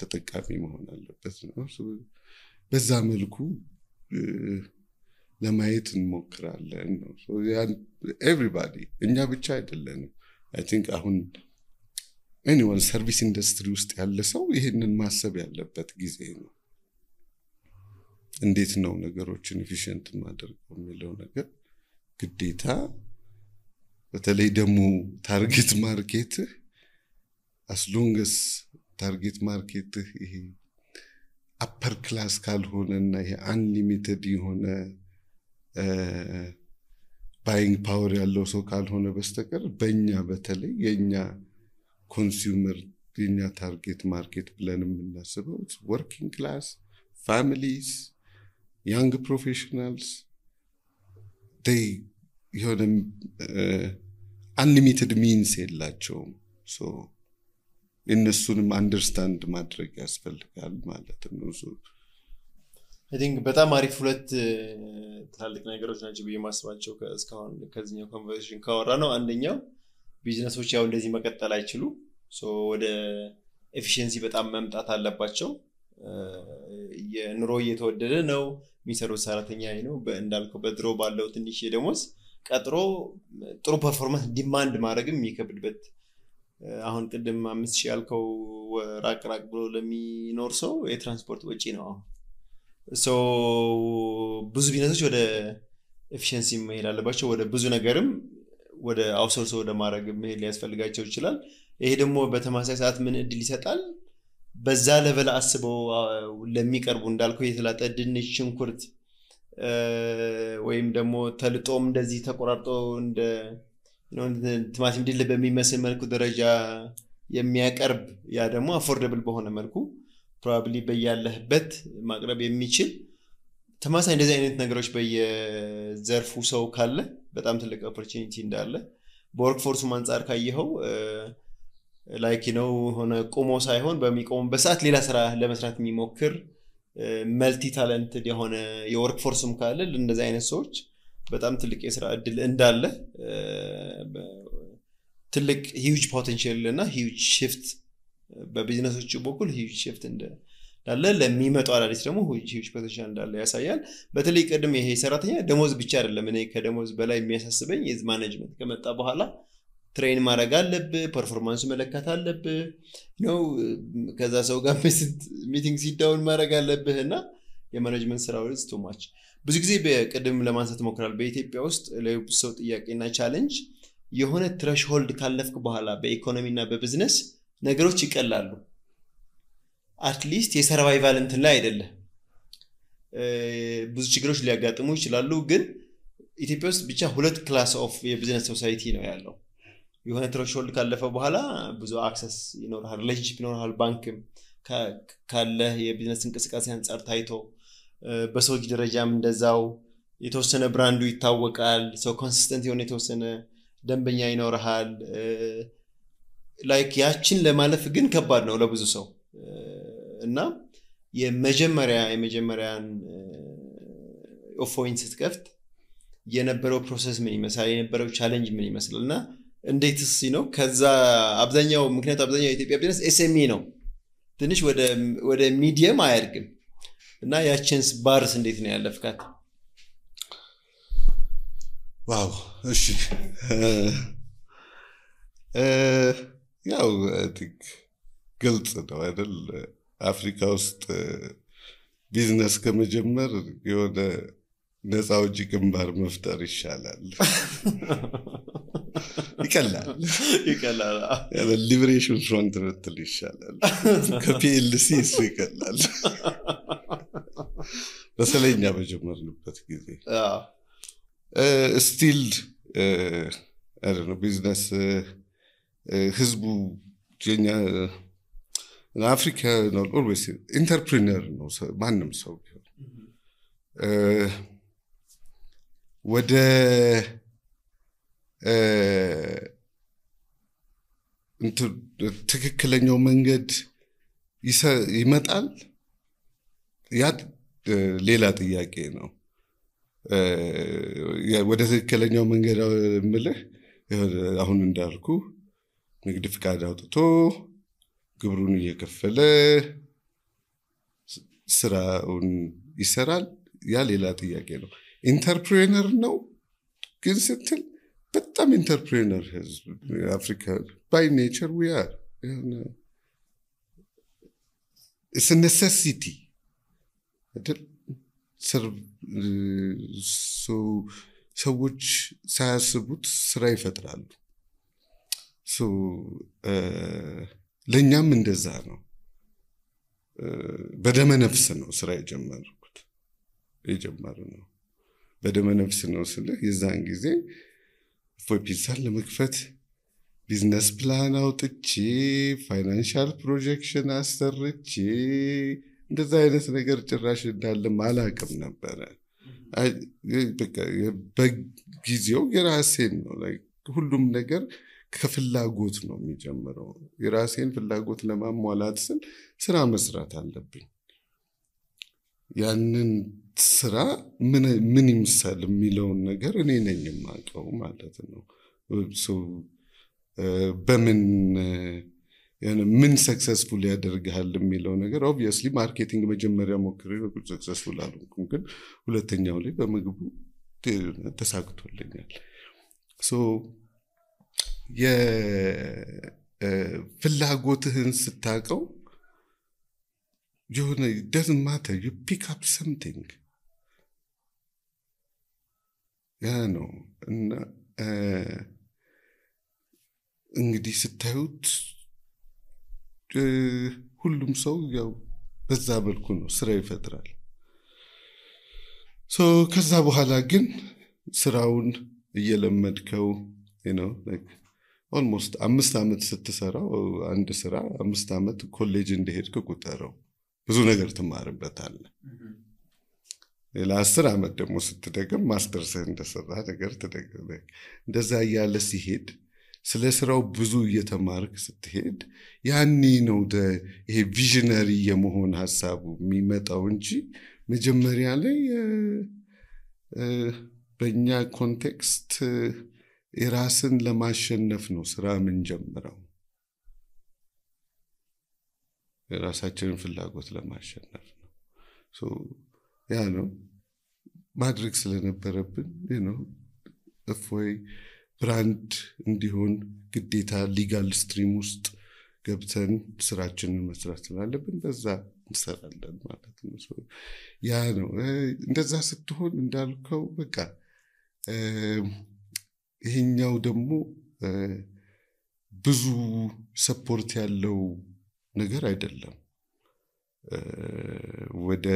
ተጠቃሚ መሆን አለበት ነው። በዛ መልኩ ለማየት እንሞክራለን ነው። ኤቭሪባዲ እኛ ብቻ አይደለንም። አይ ቲንክ አሁን ኤኒዋን ሰርቪስ ኢንዱስትሪ ውስጥ ያለ ሰው ይሄንን ማሰብ ያለበት ጊዜ ነው። እንዴት ነው ነገሮችን ኢፊሽንት ማድረግ የሚለው ነገር ግዴታ። በተለይ ደግሞ ታርጌት ማርኬት as long as ታርጌት ማርኬት ይሄ አፐር ክላስ ካልሆነና ይሄ አንሊሚትድ የሆነ ባይንግ ፓወር ያለው ሰው ካልሆነ በስተቀር በእኛ በተለይ የኛ ኮንሱመር የኛ ታርጌት ማርኬት ብለን የምናስበው ወርኪንግ ክላስ ፋሚሊስ young professionals they የሆነ unlimited means የላቸውም። so እነሱንም አንደርስታንድ ማድረግ ያስፈልጋል ማለት ነው። I think በጣም አሪፍ ሁለት ትላልቅ ነገሮች ናቸው በየማስባቸው እስካሁን ከዚህኛው ኮንቨርሴሽን ካወራ ነው። አንደኛው ቢዝነሶች ያው እንደዚህ መቀጠል አይችሉ ወደ ኤፊሺየንሲ በጣም መምጣት አለባቸው። የኑሮ እየተወደደ ነው። የሚሰሩት ሰራተኛ ነው እንዳልከው በድሮ ባለው ትንሽ ደሞዝ ቀጥሮ ጥሩ ፐርፎርማንስ ዲማንድ ማድረግም የሚከብድበት አሁን ቅድም 5000 ያልከው ራቅ ብሎ ለሚኖር ሰው የትራንስፖርት ወጪ ነው። ብዙ ቢዝነሶች ወደ ኤፊሺየንሲ መሄድ አለባቸው። ወደ ብዙ ነገርም ወደ አውትሶርስ ወደ ማድረግ መሄድ ሊያስፈልጋቸው ይችላል። ይሄ ደግሞ በተመሳሳይ ሰዓት ምን እድል ይሰጣል? በዛ ለበለ አስበው ለሚቀርቡ እንዳልከው የተላጠ ድንች ሽንኩርት ወይም ደግሞ ተልጦም እንደዚህ ተቆራርጦ እንደ ቲማቲም ድል በሚመስል መልኩ ደረጃ የሚያቀርብ ያ ደግሞ አፎርደብል በሆነ መልኩ ፕሮባብሊ በያለህበት ማቅረብ የሚችል ተመሳሳይ እንደዚህ አይነት ነገሮች በየዘርፉ ሰው ካለ በጣም ትልቅ ኦፖርቹኒቲ እንዳለ በወርክ ፎርሱ አንፃር ካየኸው ላይክ ሆነ ቆሞ ሳይሆን በሚቆም በሰዓት ሌላ ስራ ለመስራት የሚሞክር መልቲ ታለንትድ የሆነ የወርክ ፎርስም ካለ እንደዚህ አይነት ሰዎች በጣም ትልቅ የስራ እድል እንዳለ ትልቅ ሂውጅ ፖቴንሻል እና ሂውጅ shift በቢዝነሶች በኩል ሂውጅ shift እንዳለ ለሚመጣው አዳዲስ ደግሞ ሂውጅ ፖቴንሻል እንዳለ ያሳያል። በተለይ ቀደም ይሄ ሰራተኛ ደሞዝ ብቻ አይደለም። እኔ ከደሞዝ በላይ የሚያሳስበኝ የዝ ማኔጅመንት ከመጣ በኋላ ትሬን ማድረግ አለብህ ፐርፎርማንስ መለካት አለብህ ነው ከዛ ሰው ጋር ሚቲንግ ሲዳውን ማድረግ አለብህ እና የማኔጅመንት ስራው is too much ብዙ ጊዜ በቅድም ለማንሳት ሞክራል በኢትዮጵያ ውስጥ ለሰው ጥያቄና ቻሌንጅ የሆነ ትሬሽሆልድ ካለፍክ በኋላ በኢኮኖሚና በቢዝነስ ነገሮች ይቀላሉ አትሊስት የሰርቫይቫል እንትን ላይ አይደለም ብዙ ችግሮች ሊያጋጥሙ ይችላሉ ግን ኢትዮጵያ ውስጥ ብቻ ሁለት ክላስ ኦፍ የቢዝነስ ሶሳይቲ ነው ያለው የሆነ ትሬሽሆልድ ካለፈ በኋላ ብዙ አክሰስ ይኖርሃል ሪሌሽንሺፕ ይኖርሃል ባንክም ካለ የቢዝነስ እንቅስቃሴ አንፃር ታይቶ በሰዎች ደረጃም እንደዛው የተወሰነ ብራንዱ ይታወቃል ሰው ኮንሲስተንት የሆነ የተወሰነ ደንበኛ ይኖርሃል ላይክ ያችን ለማለፍ ግን ከባድ ነው ለብዙ ሰው እና የመጀመሪያን ኦፎይን ስትከፍት የነበረው ፕሮሰስ ምን ይመስላል የነበረው ቻሌንጅ ምን ይመስላልና እንዴትስ ነው ከዛ አብዛኛው ምክንያት አብዛኛው የኢትዮጵያ ቢዝነስ ኤስኤምኢ ነው ትንሽ ወደ ሚዲየም አያድግም እና ያችንስ ባርስ እንዴት ነው ያለፍካት ዋው እሺ ያው ግልጽ ነው አይደል አፍሪካ ውስጥ ቢዝነስ ከመጀመር የሆነ ነፃ ውጪ ግንባር መፍጠር ይሻላል ይቀላል ያለ ሊበሬሽን ፍሮንት ብትል ይሻላል ከፒኤልሲ እሱ ይቀላል በሰለኛ በጀመርንበት ጊዜ ስቲል I don't know business ህዝቡ የኛ አፍሪካ ነው always entrepreneur ነው ማንም ሰው ወደ ትክክለኛው መንገድ ይመጣል ያ ሌላ ጥያቄ ነው ወደ ትክክለኛው መንገድ ምልህ አሁን እንዳልኩ ንግድ ፍቃድ አውጥቶ ግብሩን እየከፈለ ስራውን ይሰራል ያ ሌላ ጥያቄ ነው ኢንተርፕሬነር ነው ግን ስትል በጣም ኢንተርፕሬነር ህዝብ አፍሪካ by nature we are it's a necessity ሰዎች ሳያስቡት ስራ ይፈጥራሉ ለኛም እንደዛ ነው በደመ ነፍስ ነው ስራ የጀመረው በደመ ነፍስ ነው ስለ የዛን ጊዜ ፎፒሳል ለመክፈት ቢዝነስ ፕላን አውጥቼ ፋይናንሻል ፕሮጀክሽን አሰርቼ እንደዛ አይነት ነገር ጭራሽ እንዳለ ማላቀም ነበር በቃ በጊዜው የራሴን ነው ሁሉም ነገር ከፍላጎት ነው የሚጀምረው የራሴን ፍላጎት ለማሟላት ስል ስራ መስራት አለብኝ ያንን ስራ ምን ይምሳል የሚለው ነገር እኔ ነኝ የማውቀው ማለት ነው በምን ምን ሰክሰስፉል ያደርጋል የሚለው ነገር obviously ማርኬቲንግ መጀመሪያ ሞክሬ ሰክሰስፉል አልሆንኩም ግን ሁለተኛው ላይ በመግቡ ተሳክቶልኛል የፍላጎትህን ስታቀው የሆነ doesn't matter you pick up something ያ ነው እና እንግዲህ ስታዩት ሁሉም ሰው ያው በዛ መልኩ ነው ስራ ይፈጥራል ከዛ በኋላ ግን ስራውን እየለመድከው like almost 5 አመት ስትሰራው አንድ ስራ 5 አመት ኮሌጅ እንደሄድክ ቁጠረው ብዙ ነገር ትማርበታለህ ለ10 አመት ደግሞ ስትደግም ማስተርስ እንደሰራ ነገር ትደግም እንደዛ ያለ ሲሄድ ስለ ስራው ብዙ እየተማርክ ስትሄድ ያኔ ነው ይሄ ቪዥነሪ የመሆን ሐሳቡ የሚመጣው እንጂ መጀመሪያ ላይ በእኛ ኮንቴክስት የራስን ለማሸነፍ ነው ስራ ምን ጀምረው የራሳችንን ፍላጎት ለማሸነፍ ነው ያ ነው ማድረግ ስለነበረብን እፎይ ብራንድ እንዲሆን ግዴታ ሊጋል ስትሪም ውስጥ ገብተን ስራችንን መስራት ስላለብን በዛ እንሰራለን ማለት ነው። ያ ነው እንደዛ ስትሆን እንዳልከው በቃ ይሄኛው ደግሞ ብዙ ሰፖርት ያለው ነገር አይደለም። ወደ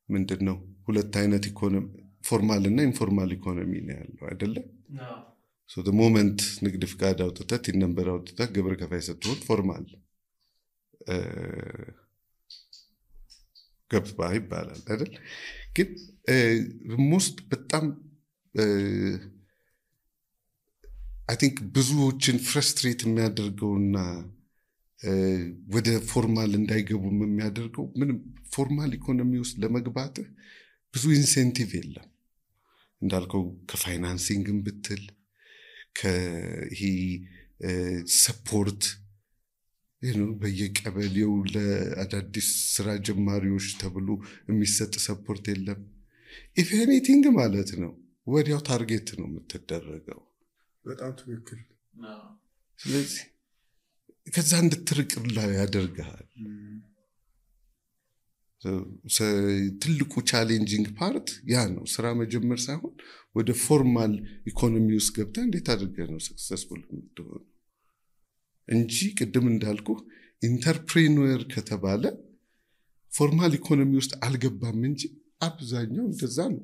ምንድነው ሁለት አይነት ኢኮኖሚ ፎርማል እና ኢንፎርማል ኢኮኖሚ ነው ያለው አይደለ? so the moment ንግድ ፍቃድ አውጥተህ ነምበር አውጥተህ ግብር ከፋይ ስትሆን ፎርማል ገባ ይባላል አይደል? ግን ሞስት በጣም I think ብዙዎችን ፍረስትሬት የሚያደርገውና ወደ ፎርማል እንዳይገቡ የሚያደርገው ምንም ፎርማል ኢኮኖሚ ውስጥ ለመግባት ብዙ ኢንሴንቲቭ የለም። እንዳልከው ከፋይናንሲንግም ብትል ከሂ ሰፖርት በየቀበሌው ለአዳዲስ ስራ ጀማሪዎች ተብሎ የሚሰጥ ሰፖርት የለም። ኢፍ ኤኒቲንግ ማለት ነው ወዲያው ታርጌት ነው የምትደረገው። በጣም ትክክል። ስለዚህ ከዛ እንድትርቅላ ያደርጋል። ትልቁ ቻሌንጂንግ ፓርት ያ ነው። ስራ መጀመር ሳይሆን ወደ ፎርማል ኢኮኖሚ ውስጥ ገብተህ እንዴት አድርገህ ነው ሰክሰስፉል የምትሆነው እንጂ ቅድም እንዳልኩ ኢንተርፕሬነር ከተባለ ፎርማል ኢኮኖሚ ውስጥ አልገባም እንጂ አብዛኛው እንደዛ ነው።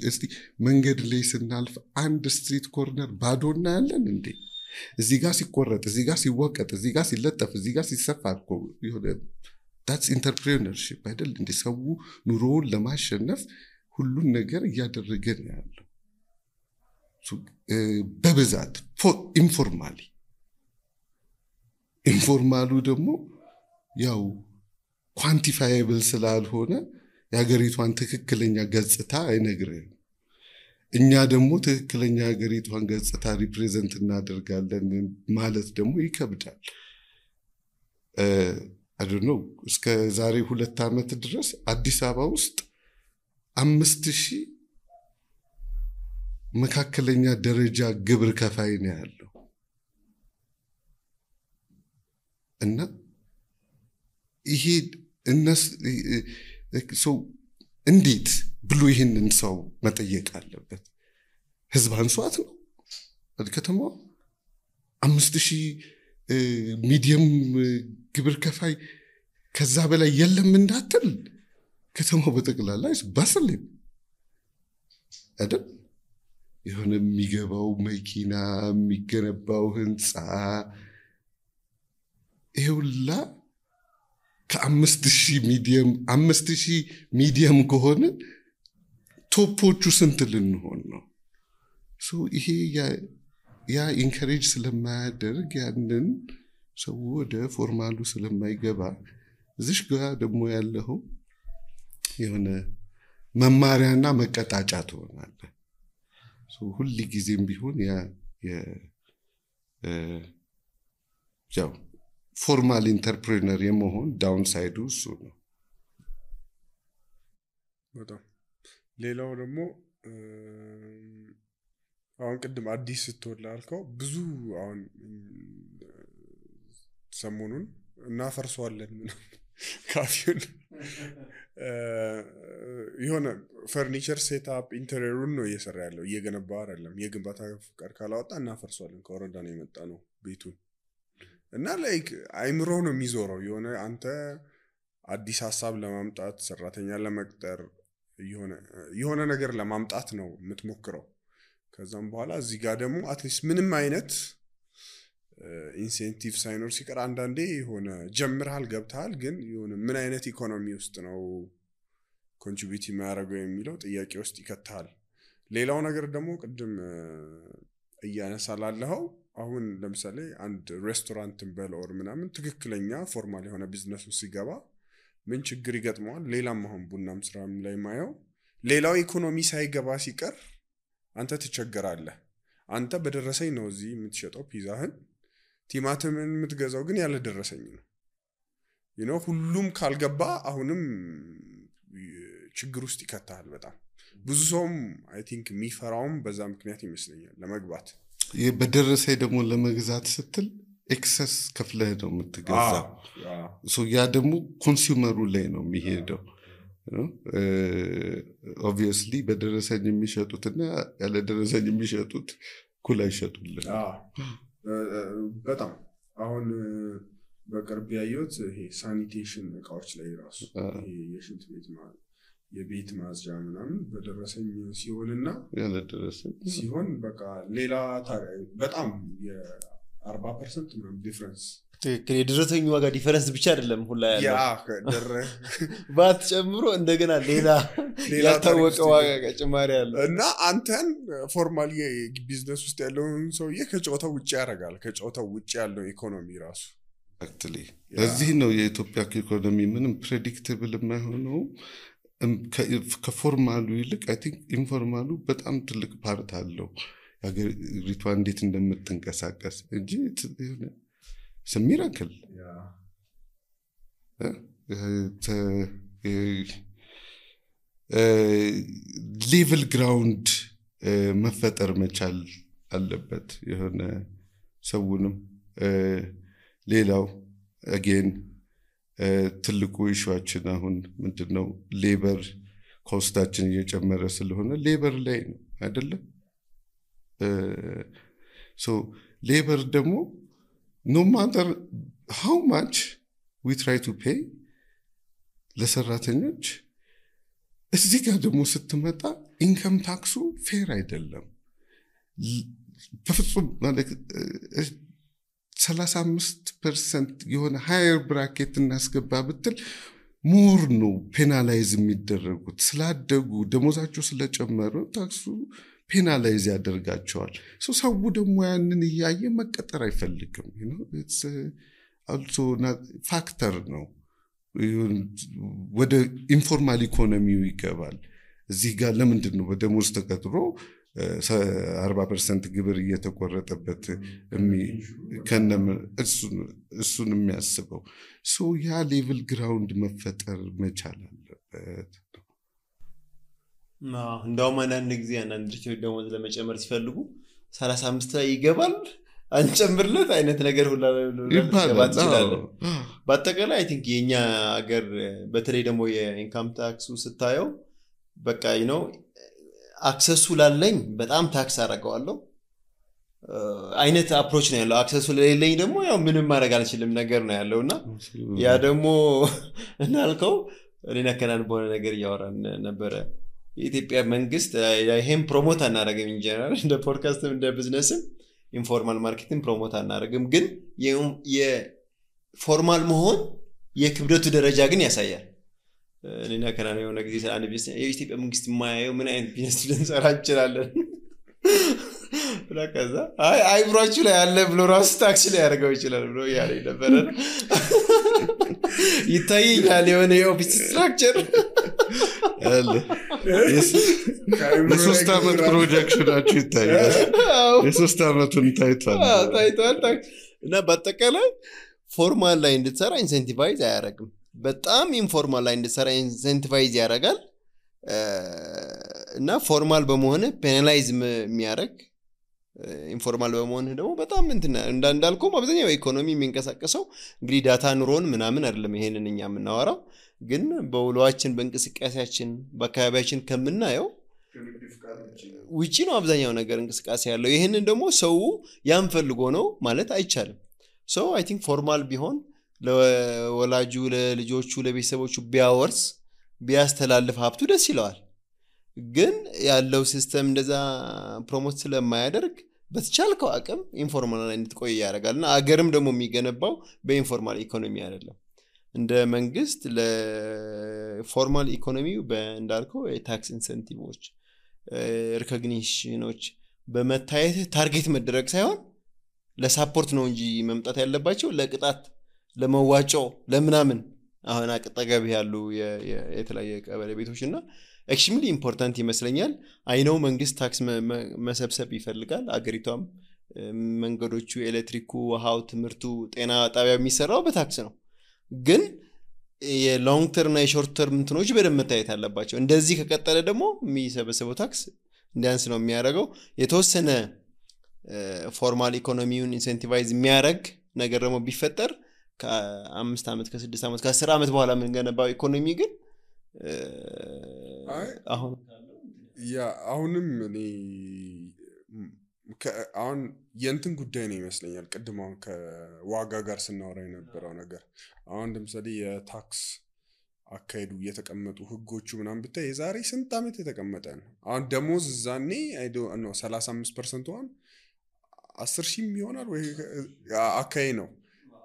እስቲ መንገድ ላይ ስናልፍ አንድ ስትሪት ኮርነር ባዶ እናያለን እንዴ? እዚህ ጋር ሲቆረጥ፣ እዚህ ጋር ሲወቀጥ፣ እዚህ ጋር ሲለጠፍ፣ እዚህ ጋር ሲሰፋ እኮ ይሆነ that's entrepreneurship አይደል እንዴ? ሰው ኑሮውን ለማሸነፍ ሁሉን ነገር እያደረገ ነው ያለው። በብዛት ኢንፎርማሉ ደግሞ ያው ኳንቲፋየብል ስላልሆነ የሀገሪቷን ትክክለኛ ገጽታ አይነግርህም። እኛ ደግሞ ትክክለኛ የሀገሪቷን ገጽታ ሪፕሬዘንት እናደርጋለን ማለት ደግሞ ይከብዳል። I don't know እስከ ዛሬ 2 ዓመት ድረስ አዲስ አበባ ውስጥ 5000 መካከለኛ ደረጃ ግብር ከፋይ ነው ያለው እና ይሄ ሰው እንዴት ብሎ ይሄንን ሰው መጠየቅ አለበት? ህዝብ አንሷት ነው ከተማው 5000 ሚዲየም ግብር ከፋይ ከዛ በላይ የለም እንዳትል ከተማው በጠቅላላ ባስልኝ አይደል? የሆነ የሚገባው መኪና የሚገነባው ህንፃ ይሁላ ከ5000 ሚዲየም ከሆነ ቶፖቹ ስንት ልንሆን ነው? ይሄ ያ ኢንከሬጅ ስለማያደርግ ያንን ሰው ወደ ፎርማሉ ስለማይገባ እዚህ ጋር ደግሞ ያለው የሆነ መማሪያና መቀጣጫ ትሆናለህ። ሁሉ ጊዜም ቢሆን ያው ፎርማል ኢንተርፕሬነር የመሆን ዳውንሳይዱ እሱ ነው። በጣም ሌላው ደግሞ አሁን ቅድም አዲስ ስትወላልከው ብዙ አሁን ሰሞኑን እናፈርሰዋለን ካፊውን የሆነ ፈርኒቸር ሴትአፕ ኢንተሪየሩን ነው እየሰራ ያለው እየገነባ አይደለም። የግንባታ ፍቃድ ካላወጣ እናፈርሰዋለን ከወረዳ ነው የመጣ ነው ቤቱን እና ላይክ አይምሮ ነው የሚዞረው። አንተ አዲስ ሐሳብ ለማምጣት ሰራተኛ ለመቅጠር የሆነ ነገር ለማምጣት ነው የምትሞክረው። ከዛም በኋላ እዚህ ጋር ደግሞ አትሊስት ምንም አይነት ኢንሴንቲቭ ሳይኖር ሲቀር አንዳንዴ ጀምርሃል ገብተሃል ግን ምን አይነት ኢኮኖሚ ውስጥ ነው ኮንትሪቢዩት የሚያደርገው የሚለው ጥያቄ ውስጥ ይከታል። ሌላው ነገር ደግሞ ቅድም እያነሳላለሁ አሁን ለምሳሌ አንድ ሬስቶራንትን በለወር ምናምን ትክክለኛ ፎርማል የሆነ ቢዝነስ ውስጥ ሲገባ ምን ችግር ይገጥመዋል? ሌላም አሁን ቡናም ስራም ላይ ማየው ሌላው ኢኮኖሚ ሳይገባ ሲቀር አንተ ትቸገራለህ። አንተ በደረሰኝ ነው እዚህ የምትሸጠው ፒዛህን ቲማቲምን የምትገዛው ግን ያለ ደረሰኝ ነው። ሁሉም ካልገባ አሁንም ችግር ውስጥ ይከታል በጣም ብዙ ሰውም አይ ቲንክ የሚፈራውም በዛ ምክንያት ይመስለኛል ለመግባት በደረሰኝ ደግሞ ለመግዛት ስትል ኤክሰስ ከፍለህ ነው የምትገዛው ያ ደግሞ ኮንሱመሩ ላይ ነው የሚሄደው ኦብቪየስሊ በደረሰኝ የሚሸጡትና ያለ ደረሰኝ የሚሸጡት ኩል አይሸጡልን በጣም አሁን በቅርብ ያየሁት ይሄ ሳኒቴሽን እቃዎች ላይ ራሱ ይሄ የሽንት ቤት የቤት ማጽጃ ምናምን በደረሰኝ ሲሆንና ያለ ደረሰኝ ሲሆን በቃ ሌላ በጣም የ40% ምናምን ዲፈረንስ ትክክል የደረሰኝ ዋጋ ዲፈረንስ ብቻ አይደለም ሁላ ያለው ባት ጨምሮ እንደገና ሌላ ያልታወቀ ዋጋ ጭማሪ ያለው እና አንተን ፎርማሊ ቢዝነስ ውስጥ ያለውን ሰውዬ ከጨዋታው ውጪ ያደርጋል ከጨዋታው ውጪ ያለው ኢኮኖሚ ራሱ አክቹሊ እዚህ ነው የኢትዮጵያ ኢኮኖሚ ምንም ፕሬዲክተብል የማይሆነው ከፎርማሉ ይልቅ አይ ቲንክ ኢንፎርማሉ በጣም ትልቅ ፓርት አለው ያገሪቷ እንዴት እንደምትንቀሳቀስ እንጂ ሚራክል ሌቭል ግራውንድ መፈጠር መቻል አለበት የሆነ ሰውንም ሌላው አጌን ትልቁ ኢሹአችን አሁን ምንድነው ሌበር ኮስታችን እየጨመረ ስለሆነ ሌበር ላይ ነው አይደለ ሶ ሌበር ደግሞ no matter how much we try to pay ለሰራተኞች እዚህ ጋር ደግሞ ስትመጣ ኢንካም ታክሱ ፌር አይደለም በፍጹም ማለት 35% የሆነ ሃየር ብራኬት እናስገባ ብትል ሞር ነው ፔናላይዝ የሚደረጉት ስላደጉ ደሞዛቸው ስለጨመሩ ታክሱ ፔናላይዝ ያደርጋቸዋል ሰው ደግሞ ያንን ያየ መቀጠር አይፈልግም it's also not factor ነው ወደ ኢንፎርማል ኢኮኖሚው ይገባል እዚህ ጋር ለምንድን ነው በደሞዝ ተቀጥሮ 40% ግብር እየተቆረጠበት ከነም እሱን የሚያስበው ያ ሌቭል ግራውንድ መፈጠር መቻል አለበት እንደውም አንዳንድ ጊዜ አንዳንድ ድርጅቶች ደሞዝ ለመጨመር ሲፈልጉ 35 ላይ ይገባል አንጨምርለት አይነት ነገር ሁላ ለባት ይችላል በአጠቃላይ አይ ቲንክ የኛ ሀገር በተለይ ደግሞ የኢንካም ታክሱ ስታየው በቃ አክሰሱ ላለኝ በጣም ታክስ አደርጋለሁ አይነት አፕሮች ነው ያለው አክሰሱ ለሌለኝ ደግሞ ያው ምንም ማድረግ አልችልም ነገር ነው ያለውና ያ ደግሞ እናልከው እኔና ከናን በሆነ ነገር ያወራን ነበር የኢትዮጵያ መንግስት ይሄን ፕሮሞት አናደርግም ኢንጀነራል እንደ ፖድካስትም እንደ ቢዝነስም ኢንፎርማል ማርኬቲንግ ፕሮሞት አናደርግም ግን የፎርማል መሆን የክብደቱ ደረጃ ግን ያሳያል እኔና ከናን የሆነ ጊዜ አንድ ቢዝነስ የኢትዮጵያ መንግስት ማያየው ምን አይነት ቢዝነስ ልንሰራ እንችላለን ለካዛ አይብራችሁ ላይ ያለ ብሎ ራስ ታክሲ ላይ ያደርገው ይችላል ብሎ ያለኝ ነበር ይታየኛል የሆነ የኦፊስ ስትራክቸር ለሶስት ዓመት ፕሮጀክሽናችሁ ይታያል የሶስት ዓመቱን ታይቷል እና በአጠቃላይ ፎርማል ላይ እንድትሰራ ኢንሴንቲቫይዝ አያደርግም በጣም ኢንፎርማል ላይ እንድትሰራ ኢንሴንቲቫይዝ ያደርጋል እና ፎርማል በመሆን ፔናላይዝ የሚያደርግ ኢንፎርማል በመሆን ደግሞ በጣም እንዳልኩም አብዛኛው ኢኮኖሚ የሚንቀሳቀሰው እንግዲህ ዳታ ኑሮን ምናምን አይደለም ይሄንን እኛ የምናወራው ግን በውሏችን በእንቅስቃሴያችን በአካባቢያችን ከምናየው ውጪ ነው አብዛኛው ነገር እንቅስቃሴ ያለው ይሄንን ደግሞ ሰው ያን ፈልጎ ነው ማለት አይቻልም ሰው አይ ቲንክ ፎርማል ቢሆን ለወላጁ ለልጆቹ ለቤተሰቦቹ ቢያወርስ ቢያስተላልፍ ሀብቱ ደስ ይለዋል ግን ያለው ሲስተም እንደዛ ፕሮሞት ስለማያደርግ በተቻልከው አቅም ኢንፎርማል ላይ እንድትቆይ ያደርጋልና አገርም ደግሞ የሚገነባው በኢንፎርማል ኢኮኖሚ አይደለም እንደ መንግስት ለፎርማል ኢኮኖሚው በእንዳልከው የታክስ ኢንሰንቲቮች ሪኮግኒሽኖች በመታየት ታርጌት መደረግ ሳይሆን ለሳፖርት ነው እንጂ መምጣት ያለባቸው ለቅጣት ለመዋጮ ለምናምን አሁን አቀጣጋቢ ያሉ የተለያየ ቀበሌ ቤቶችና ኤክስትሪምሊ ኢምፖርታንት ይመስለኛል አይነው መንግስት ታክስ መሰብሰብ ይፈልጋል አገሪቷም መንገዶቹ ኤሌክትሪኩ ውሃው ትምርቱ ጤና ጣቢያ የሚሰራው በታክስ ነው ግን የሎንግ ተርም እና የሾርት ተርም እንትኖች በደንብ መታየት አለባቸው። እንደዚህ ከቀጠለ ደግሞ የሚሰበሰበው ታክስ እንዲያንስ ነው የሚያደርገው። የተወሰነ ፎርማል ኢኮኖሚውን ኢንሴንቲቫይዝ የሚያደርግ ነገር ደግሞ ቢፈጠር ከ5 ዓመት ከ6 ዓመት ከ10 ዓመት በኋላ የምንገነባው ኢኮኖሚ ግን አሁንም እኔ አሁን የእንትን ጉዳይ ነው ይመስለኛል። ቅድም አሁን ከዋጋ ጋር ስናወራ የነበረው ነገር አሁን ለምሳሌ የታክስ አካሄዱ የተቀመጡ ህጎቹ ምናምን ብታይ የዛሬ ስንት ዓመት የተቀመጠ ነው። አሁን ደሞዝ ዛኔ አይዶ ነው 35% ዋን 10,000 ይሆናል ወይ አካይ ነው።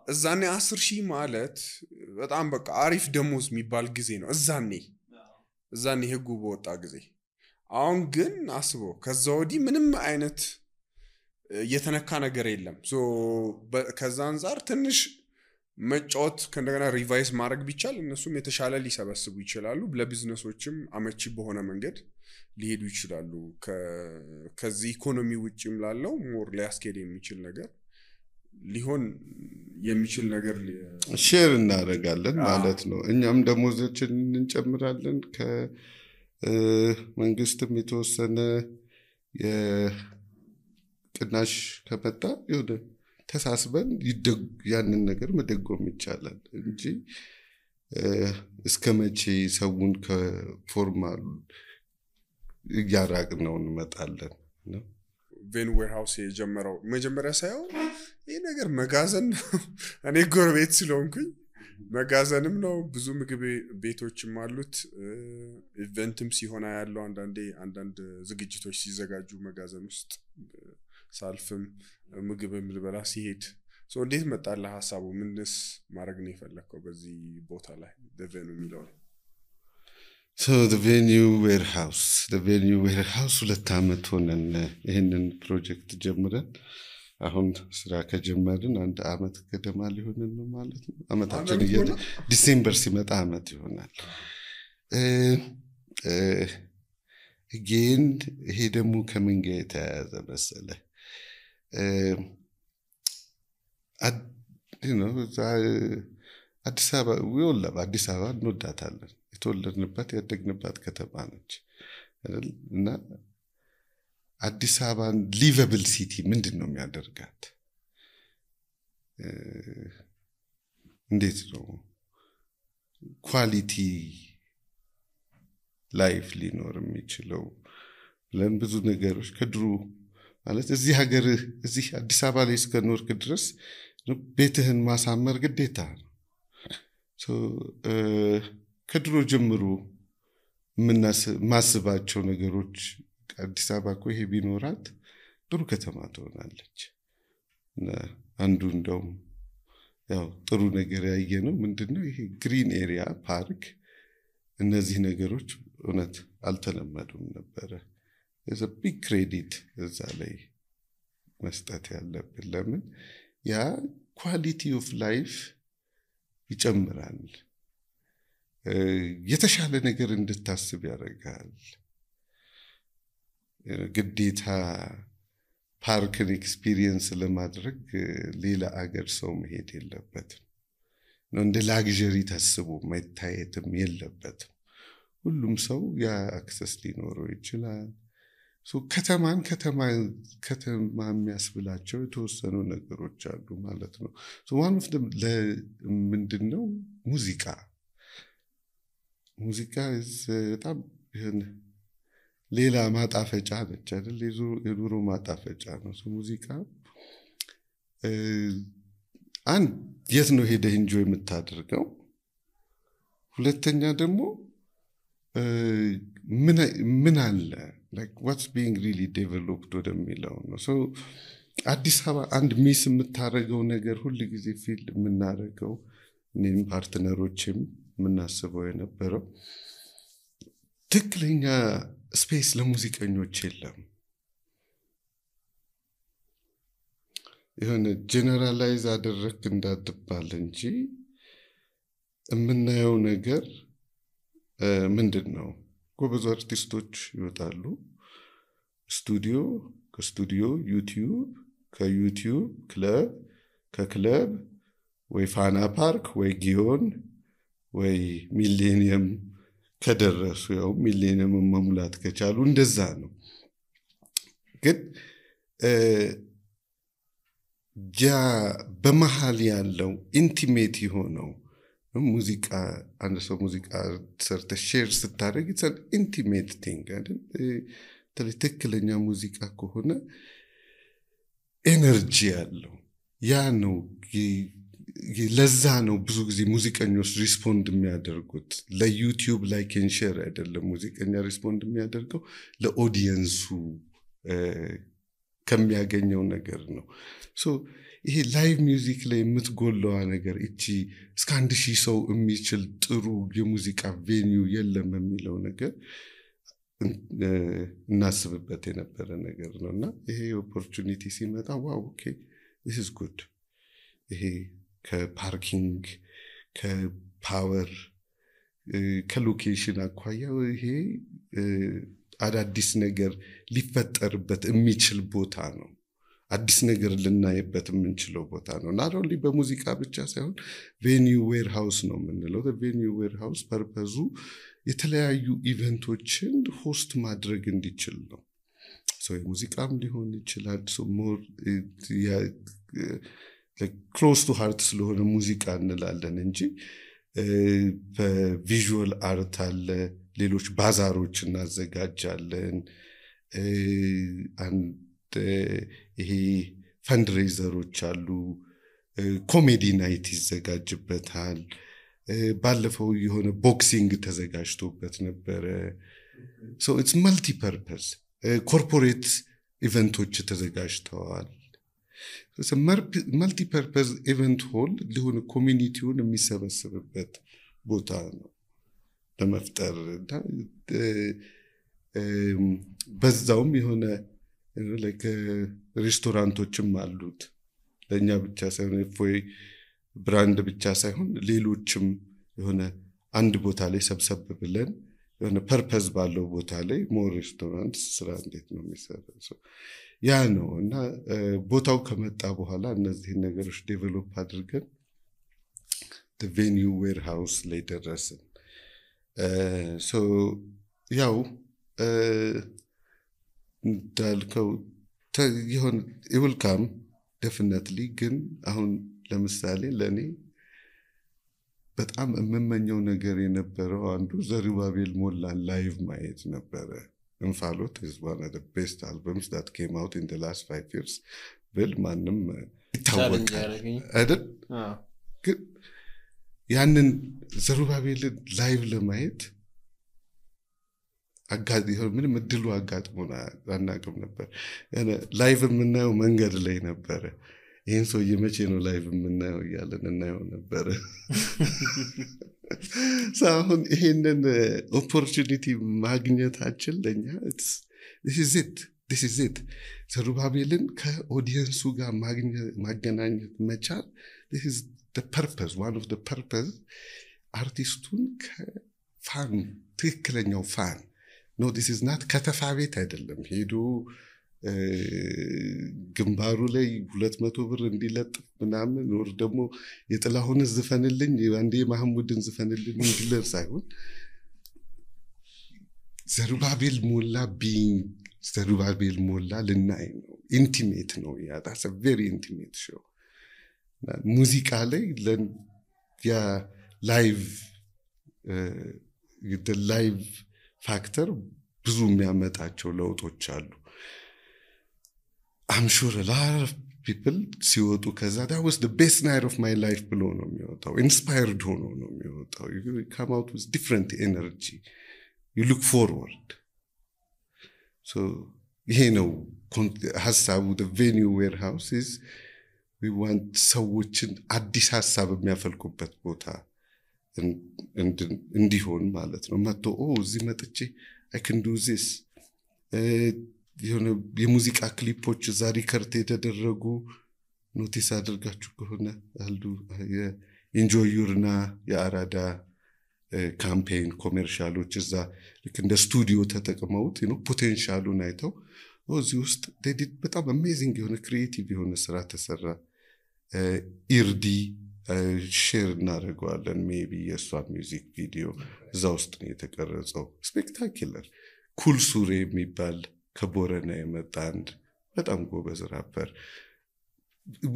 እዛኔ 10,000 ማለት በጣም በቃ አሪፍ ደሞዝ የሚባል ጊዜ ነው እዛኔ ህጉ በወጣ ጊዜ። አሁን ግን አስቦ ከዛ ወዲህ ምንም አይነት የተነካ ነገር የለም። ሶ ከዛ አንፃር ትንሽ መጫወት ከእንደገና ሪቫይስ ማድረግ ቢቻል እነሱም የተሻለ ሊሰበስቡ ይችላሉ። ለቢዝነሶችም አመቺ በሆነ መንገድ ሊሄዱ ይችላሉ። ከዚህ ኢኮኖሚ ውጪም ላለው ሞር ሊያስኬድ የሚችል ነገር ሊሆን የሚችል ነገር ሼር እናደርጋለን ማለት ነው። እኛም ደሞዛችን እንጨምራለን። ከመንግስትም የተወሰነ የቅናሽ ከመጣ ይወደ ተሳስበን ያንን ነገር መደጎም ይቻላል እንጂ እስከመቼ ሰውን ከፎርማል ያራቅነው እንመጣለን ነው። ቬን ዌርሃውስ የጀመረው መጀመሪያ ሳይሆን ይሄ ነገር መጋዘን እኔ ጎረቤት ስለሆንኩኝ መጋዘንም ነው። ብዙ ምግብ ቤቶችም አሉት። ኢቨንትም ሲሆን ያለው አንዳንድ ዝግጅቶች ሲዘጋጁ መጋዘን ውስጥ ሳልፍም ምግብም ልበላ ሲሄድ እንዴት መጣልህ ሐሳቡ? ምንስ ማድረግ ነው የፈለከው በዚህ ቦታ ላይ ደቨኑ የሚለው? So the venue warehouse 2 ዓመት ሆነን ይሄንን ፕሮጀክት ጀምረን አሁን ስራ ከጀመርን 1 ዓመት ገደማ ሊሆንን ነው ማለት ነው። ዓመታችን ዲሴምበር ሲመጣ ዓመት ይሆናል። ግን ይሄ ደግሞ ከምን ጋር የተያያዘ መሰለህ? አዲስ አበባ እንወዳታለን። የተወለድንባት ያደግንባት ከተማ ነች እና አዲስ አበባን ሊቨብል ሲቲ ምንድን ነው የሚያደርጋት? እንዴት ነው ኳሊቲ ላይፍ ሊኖር የሚችለው? ብለን ብዙ ነገሮች ከድሮ ማለት እዚህ አዲስ አበባ ላይ እስከኖርክ ድረስ ቤትህን ማሳመር ግዴታ ነው። ከድሮ ጀምሮ ማስባቸው ነገሮች አዲስ አበባ እኮ ይሄ ቢኖራት ጥሩ ከተማ ትሆናለች። አንዱ እንደውም ያው ጥሩ ነገር ያየነው ምንድነው ይሄ ግሪን ኤሪያ ፓርክ፣ እነዚህ ነገሮች እውነት አልተለመዱም ነበረ። there's a big credit እዛ ላይ መስጠት ያለብን። ለምን ያ ኳሊቲ ኦፍ ላይፍ ይጨምራል። የተሻለ ነገር እንድታስብ ያደርጋል። ግዴታ ፓርክን ኤክስፒሪየንስ ለማድረግ ሌላ አገር ሰው መሄድ የለበትም። እንደ ላግዠሪ ታስቦ መታየትም የለበትም። ሁሉም ሰው ያ አክሰስ ሊኖረው ይችላል። ከተማ የሚያስብላቸው የተወሰኑ ነገሮች አሉ ማለት ነው። ዋን ኦፍ ደም ምንድነው ሙዚቃ በጣም ሌላ ማጣፈጫ ነች አይደል? የኑሮ ማጣፈጫ ነው ሙዚቃ። አንድ የት ነው ሄደህ ኢንጆይ የምታደርገው? ሁለተኛ ደግሞ ምን አለ like what's being really developed ወደሚለው ነው። አዲስ አበባ አንድ ሚስ የምታደርገው ነገር ሁሉ ጊዜ ፊል የምናደርገው እኔም ፓርትነሮችም የምናስበው የነበረው ትክክለኛ ስፔስ ለሙዚቀኞች የለም። የሆነ ጀነራላይዝ አደረክ እንዳትባል እንጂ የምናየው ነገር ምንድነው? ጎበዝ አርቲስቶች ይወጣሉ ስቱዲዮ፣ ከስቱዲዮ ዩቲዩብ፣ ከዩቲዩብ ክለብ፣ ከክለብ ወይ ፋና ፓርክ ወይ ጊዮን ወይ ሚሌኒየም ከደረሱ ያው ሚሌኒየም መሙላት ከቻሉ እንደዛ ነው። ግን ያ በመሃል ያለው ኢንቲሜት የሆነው ሙዚቃ አንድ ሰው ሙዚቃ ሰርተ ሼር ስታደርግ it's an intimate thing አይደል? ትክክለኛ ሙዚቃ ከሆነ ኤነርጂ ያለው ያ ነው። ለዛ ነው ብዙ ጊዜ ሙዚቀኞች ሪስፖንድ የሚያደርጉት ለዩቲዩብ ላይክ ኤንድ ሼር አይደለም። ሙዚቀኛ ሪስፖንድ የሚያደርገው ለኦዲየንሱ ከሚያገኘው ነገር ነው። ሶ ይሄ ላይቭ ሚውዚክ ላይ የምትጎለዋ ነገር እቺ እስከ 1000 ሰው የሚችል ጥሩ የሙዚቃ ቬኒው የለም የሚለው ነገር እናስብበት የነበረ ነገር ነውና ይሄ ኦፖርቹኒቲ ሲመጣ ዋው ኦኬ this is good። ይሄ ከፓርኪንግ ከፓወር ከሎኬሽን አኳያ ይሄ አዳዲስ ነገር ሊፈጠርበት የሚችል ቦታ ነው። አዲስ ነገር ልናይበት የምንችለው ቦታ ነው። not only በሙዚቃ ብቻ ሳይሆን ቬኒው ዌርሃውስ ነው የምንለው። ቬኒው ዌርሃውስ ፐርፐዙ የተለያዩ ኢቨንቶችን ሆስት ማድረግ እንዲችል ነው። የሙዚቃም ሊሆን ይችላል። ሞር ክሎዝ ቱ ሃርት ስለሆነ ሙዚቃ እንላለን እንጂ በቪዥዋል አርት አለ። ሌሎች ባዛሮች እናዘጋጃለን። ይሄ ፈንድሬዘሮች አሉ። ኮሜዲ ናይት ይዘጋጅበታል። ባለፈው የሆነ ቦክሲንግ ተዘጋጅቶበት ነበረ። so it's multi purpose ኮርፖሬት ኢቨንቶች ተዘጋጅተዋል። so multi purpose ኢቨንት ሆል ሊሆን ኮሚኒቲውን የሚሰበስብበት ቦታ ነው ለመፍጠር። በዛውም የሆነ like ሬስቶራንቶችም አሉት ለኛ ብቻ ሳይሆን ፎይ ብራንድ ብቻ ሳይሆን ሌሎችም የሆነ አንድ ቦታ ላይ ሰብሰብ ብለን የሆነ ፐርፐዝ ባለው ቦታ ላይ ሞር ሬስቶራንት ስራ እንዴት ነው የሚሰራው ያ ነው። እና ቦታው ከመጣ በኋላ እነዚህ ነገሮች ዴቨሎፕ አድርገን the venue warehouse ላይ ደረስን። so ያው እንዳልከው ይሁን it will come definitely። ግን አሁን ለምሳሌ ለኔ በጣም የምመኘው ነገር የነበረው አንዱ ዘሩባቤል ሞላን ላይቭ ማየት ነበረ። እንፋሎት is one of the best albums that came out in the last 5 years ብል ማንም ይታወቃል አይደል? ግን ያንን ዘሩባቤል ላይቭ ለማየት ምንም እድሉ አጋጥሞና አናውቅም ነበር። ላይቭ የምናየው መንገድ ላይ ነበረ። ይሄን ሰው የመቼ ነው ላይቭ የምናየው እያለን እናየው ነበር። አሁን ይሄንን ኦፖርቹኒቲ ማግኘታችን ለኛ this is it ዘሩባቤልን ከኦዲየንሱ ጋር ማገናኘት መቻል this is the purpose, one of the purpose። አርቲስቱን ከፋን ትክክለኛው ፋን no this is not ከተፋ ቤት አይደለም ሄዶ ግንባሩ ላይ 200 ብር እንዲለጥፍ ምናምን ወር ደግሞ የጥላሁን ዝፈንልኝ አንዴ ማህሙድን ዝፈንልኝ እንዲለር ሳይሆን ዘሩባቤል ሞላ ዘሩባቤል ሞላ ልናይ ነው። ኢንቲሜት ነው ያ that's a very intimate show። ሙዚቃ ላይ ያ ላይቭ the live factor ብዙ የሚያመጣቸው ለውጦች አሉ። I'm sure a lot of people ሲወጡ ከዛ that was the best night of my life ብሎ ነው የሚወጣው። inspired ሆኖ ነው የሚወጣው። you come out with different energy, you look forward። so ይሄ ነው ሐሳቡ። the venue warehouse is we want ሰዎችን አዲስ ሐሳብ የሚያፈልቁበት ቦታ እንዲሆን ማለት ነው። መጥቶ እዚህ መጥቼ I can do this። የሙዚቃ ክሊፖች እዛ ሪከርድ የተደረጉ ኖቲስ አድርጋችሁ ከሆነ አሉ የኢንጆይ ዩርና የአራዳ ካምፔን ኮሜርሻሎች እዛ ልክ እንደ ስቱዲዮ ተጠቅመውት ፖቴንሻሉን አይተው እዚህ ውስጥ በጣም አሜዚንግ የሆነ ክሪኤቲቭ የሆነ ስራ ተሰራ። ኢርዲ ሼር እናደርገዋለን ሜቢ የእሷ ሚውዚክ ቪዲዮ እዛ ውስጥ ነው የተቀረጸው ስፔክታኩለር ኩል ሱሬ የሚባል ከቦረና የመጣ አንድ በጣም ጎበዝ ራፐር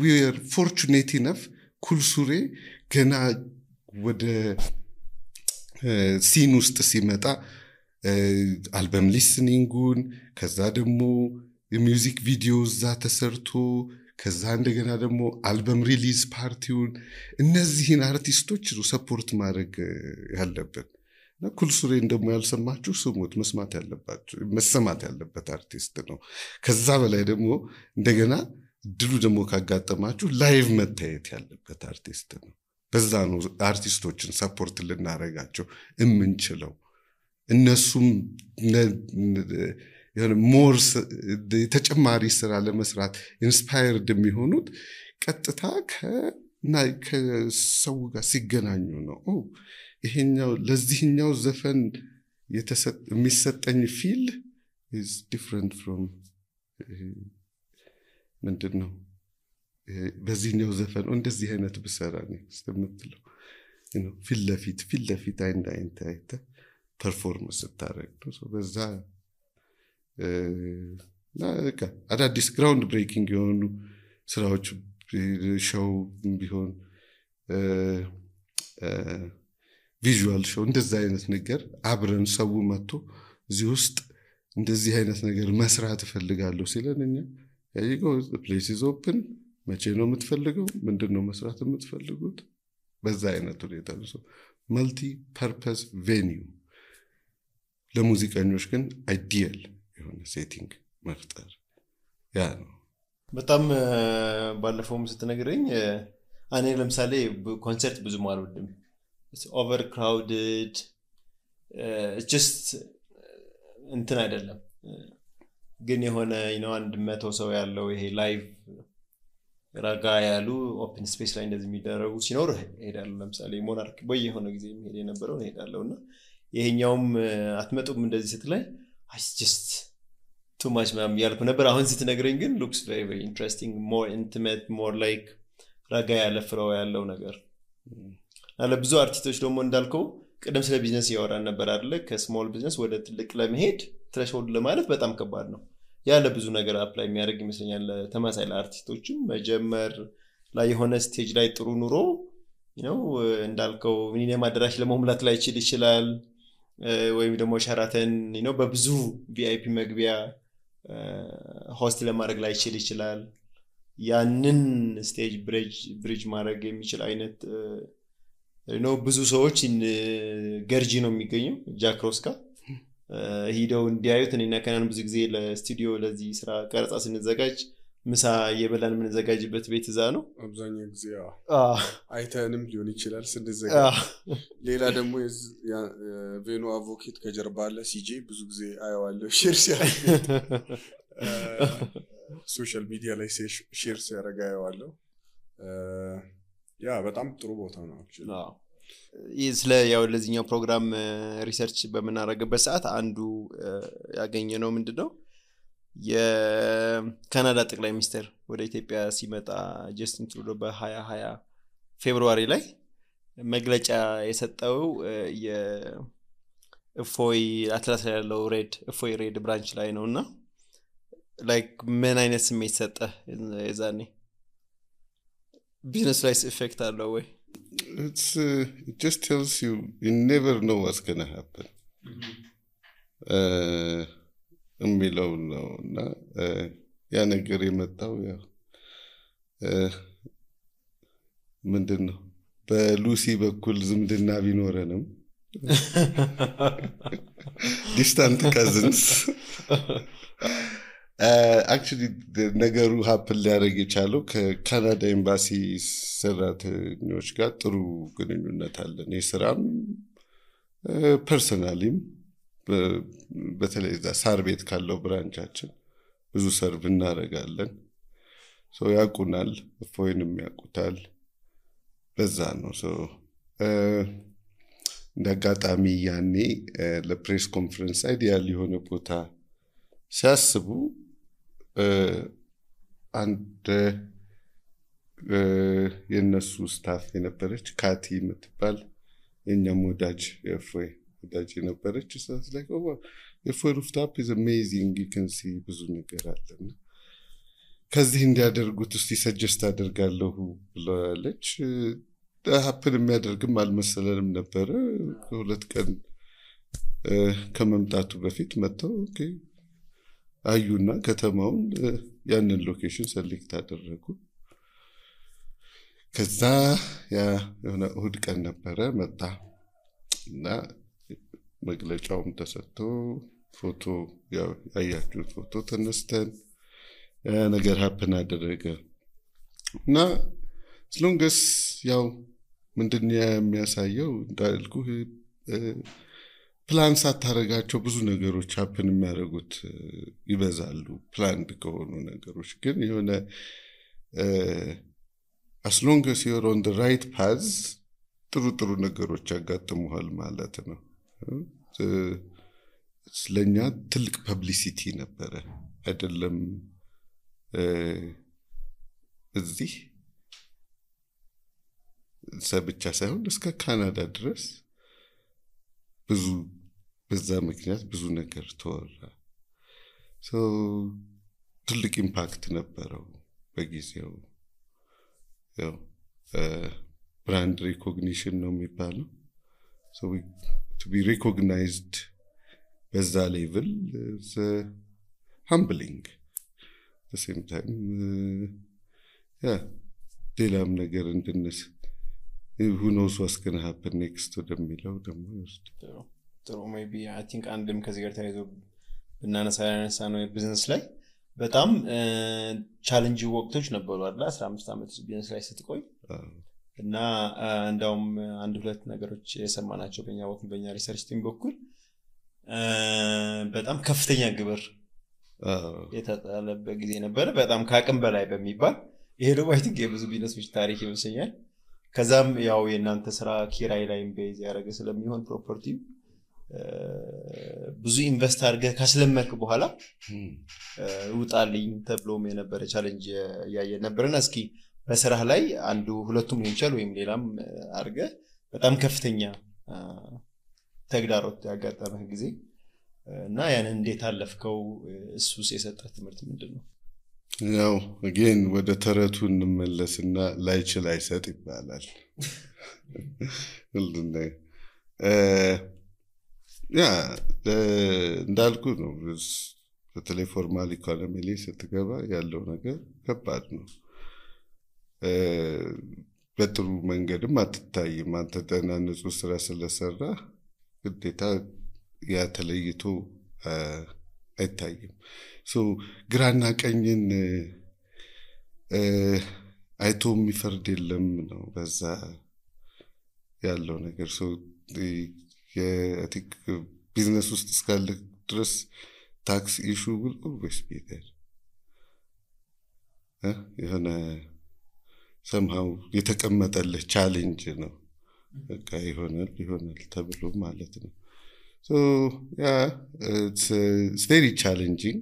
we are fortunate enough ኩል ሱሬ ገና ወደ ሲን ውስጥ ሲመጣ አልበም ሊስኒንጉን ከዛ ደግሞ የሚውዚክ ቪዲዮ እዛ ተሰርቶ ከዛ እንደገና ደግሞ አልበም ሪሊዝ ፓርቲውን እነዚህን አርቲስቶች ሰፖርት ማድረግ ያለብን እና ኩል ሱሬን ደግሞ ያልሰማችሁ ስሙት መስማት ያለበት አርቲስት ነው ከዛ በላይ ደግሞ እንደገና ድሉ ደግሞ ካጋጠማችሁ ላይቭ መታየት ያለበት አርቲስት ነው በዛ ነው አርቲስቶችን ሰፖርት ልናረጋቸው እምንችለው እነሱም ሞር ተጨማሪ ስራ ለመስራት ኢንስፓየርድ የሚሆኑት ቀጥታ ከሰው ጋር ሲገናኙ ነው ይሄኛው ለዚህኛው ዘፈን የሚሰጠኝ ፊል is different from ምንድነው በዚህኛው ዘፈን እንደዚህ አይነት ብሰራ ነው ስለምትለው ፊት ለፊት አይንተ ፐርፎርማንስ ታረግ ነው በዛ አዳዲስ ግራውንድ ብሬኪንግ የሆኑ ስራዎች ሾው ቢሆን ቪዥዋል ሾው እንደዛ አይነት ነገር አብረን ሰው መጥቶ እዚህ ውስጥ እንደዚህ አይነት ነገር መስራት እፈልጋለሁ ሲለንኛ ያይጎ the place is open መቼ ነው የምትፈልገው ምንድነው መስራት የምትፈልጉት በዛ አይነት ሁኔታ ነው መልቲ ፐርፐስ ቬኒው ለሙዚቀኞች ግን አይዲያል የሆነ ሴቲንግ መፍጠር ያ ነው በጣም ባለፈውም ስትነግረኝ እኔ ለምሳሌ ኮንሰርት ብዙ ማልወድም it's overcrowded it's just እንትን አይደለም ግን የሆነ አንድ 100 ሰው ያለው ይሄ ላይቭ ረጋ ያሉ ኦፕን ስፔስ ላይ እንደዚህ የሚደረጉ ሲኖር ሄዳለሁ ለምሳሌ ሞናርክ በየሆነ ጊዜ የሚሄድ የነበረው ሄዳለሁና ይሄኛውም አትመጡም እንደዚህ ስትላይ it's just too much ማም ያልኩ ነበር አሁን ስትነግረኝ ግን looks very very interesting more intimate more like ረጋ ያለ ፍራው ያለው ነገር አለ ብዙ አርቲስቶች ደግሞ እንዳልከው ቀደም ስለ ቢዝነስ ያወራን ነበር አይደለ ከስሞል ቢዝነስ ወደ ትልቅ ለመሄድ ትሬሽሆልድ ለማለፍ በጣም ከባድ ነው ያለ ብዙ ነገር አፕላይ የሚያደርግ ይመስለኛል ተማሳይ ለአርቲስቶችም መጀመር ላይ የሆነ ስቴጅ ላይ ጥሩ ኑሮ እንዳልከው ሚኒመም አድራሽ ለመሙላት ላይ ይችላል ወይም ደግሞ ሸራተን በብዙ ቪአይፒ መግቢያ ሆስት ለማድረግ ላይ ይችላል ያንን ስቴጅ ብሪጅ ማድረግ የሚችል አይነት ብዙ ሰዎች ገርጂ ነው የሚገኘው ጃክሮስካ ሄደው እንዲያዩት እኔና ከናን ብዙ ጊዜ ለስቱዲዮ ለዚህ ስራ ቀረጻ ስንዘጋጅ ምሳ የበላን ምን ዘጋጅበት ቤት እዛ ነው አብዛኛው ጊዜ አይተንም ሊሆን ይችላል ስንዘጋጅ ሌላ ደግሞ ቬኑ አቮኬት ከጀርባ አለ ሲጂ ብዙ ጊዜ አያዋለሁ ሼር ሲያደርግ ሶሻል ሚዲያ ላይ ሼር ሲያደርግ አያዋለሁ በጣም ጥሩ ቦታ ነው ስለ ለዚህኛው ፕሮግራም ሪሰርች በመናረግበት ሰዓት አንዱ ያገኘነው ምንድነው የካናዳ ጠቅላይ ሚኒስትር ወደ ኢትዮጵያ ሲመጣ ጀስቲን ትሩዶ በ2020 ፌብሩዋሪ ላይ መግለጫ የሰጠው የእፎይ አትላስ ያለው እፎይ ሬድ ብራንች ላይ ነውና ላይክ ምን አይነት ስሜት ሰጠ የዛኔ business life effect አለው ወይ it just tells you never know what's going to happen የሚለው ነውና ያ ነገር የመጣው ምንድነው በሉሲ በኩል ዝምድና ቢኖረንም distant cousins actually ነገሩ happen ሊያደርግ የቻለው ከካናዳ ኤምባሲ ሰራተኞች ጋር ጥሩ ግንኙነት አለን የስራም ፐርሰናሊም በተለይ ሳር ቤት ካለው ብራንቻችን ብዙ ሰርቭ እናደርጋለን ሶ ያቁናል ፎይንም ያቁታል በዛ ነው ሶ እንደጋጣሚ ያኔ ለፕሬስ ኮንፈረንስ አይዲያል የሆነ ቦታ ሲያስቡ አንድ የነሱ ስታፍ የነበረች ካቲ የምትባል የኛም ወዳጅ የፎይ ወዳጅ የነበረች ሳስ ላይ የፎይ ሩፍታፕ is amazing you can see ብዙ ነገር አለና ከዚህ እንዲያደርጉት እስቲ ሰጀስት አደርጋለሁ ብላለች ሀፕን የሚያደርግም አልመሰለንም ነበር ሁለት ቀን ከመምጣቱ በፊት መጥተው ኦኬ አዩና ከተማውን ያንን ሎኬሽን ሰሌክት አደረጉ ከዛ ያ የሆነ እሁድ ቀን ነበረ መጣ እና መግለጫውም ተሰጥቶ ፎቶ ያያችሁት ፎቶ ተነስተን ነገር ሀፕን አደረገ እና ስለንገስ ያው ምንድነው የሚያሳየው እንዳልኩ ፕላን ሳታረጋቸው ብዙ ነገሮች ሀፕን የሚያደርጉት ይበዛሉ ፕላንድ ከሆኑ ነገሮች ግን የሆነ as long as you're on the right path ጥሩ ነገሮች ያጋጥሙሃል ማለት ነው ስለኛ ትልቅ ፐብሊሲቲ ነበረ አይደለም እዚህ ሰብቻ ሳይሆን እስከ ካናዳ ድረስ ብዙ በዛ ምክንያት ብዙ ነገር ተወራ so ትልቅ ኢምፓክት ነበረው በጊዜው ያው brand recognition ነው የሚባለው so to be recognized በዛ ሌቭል is humbling at the same time ሌላም ነገር እንድንስ who knows what's going to happen next to the ሚለው ደግሞ ጥሩ maybe I think አንድም ከዚህ ጋር ተያይዞ ብናነሳ ነው ቢዝነስ ላይ በጣም ቻሌንጅ ወቅቶች ነበሩ አይደል 15 አመት ቢዝነስ ላይ ስትቆይ እና እንደውም አንድ ሁለት ነገሮች የሰማናቸው በእኛ በኩል በእኛ ሪሰርች ቲም በኩል በጣም ከፍተኛ ግብር የተጣለበት ጊዜ ነበር በጣም ካቅም በላይ በሚባል ይሄ ደግሞ አይ ቲንክ የብዙ ቢዝነሶች ታሪክ ይመስለኛል ከዛም ያው የናንተ ስራ ኪራይ ላይም ቤዝ ያደረገ ስለሚሆን ፕሮፐርቲ ብዙ ኢንቨስት አድርገህ ካስለመርክ በኋላ ውጣልኝ ተብሎም የነበረ ቻሌንጅ ያየ ነበርና እስኪ በስራህ ላይ አንዱ ሁለቱም ሊሆን ይችላል ወይም ሌላም አድርገህ በጣም ከፍተኛ ተግዳሮት ያጋጠመህ ጊዜ እና ያን እንዴት አለፍከው እሱስ የሰጠህ ትምህርት ምንድነው ያው again ወደ ተረቱ እንመለስና ላይችል አይሰጥ ይባላል ሁሉና እንዳልኩ ነው በተለይ ፎርማል ኢኮኖሚ ላይ ስትገባ ያለው ነገር ከባድ ነው በጥሩ መንገድም አትታይም አንተ ተናነጹ ስራ ስለሰራ ግዴታ ያ ተለይቶ አይታይም so ግራና ቀኝን አይቶ የሚፈርድ የለም ነው በዛ ያለው ነገር so I think business ውስጥ እስካለ ድረስ tax issue will always be there የሆነ somehow የተቀመጠልህ ቻሌንጅ ነው በቃ ይሆናል ተብሎ ማለት ነው so it's very challenging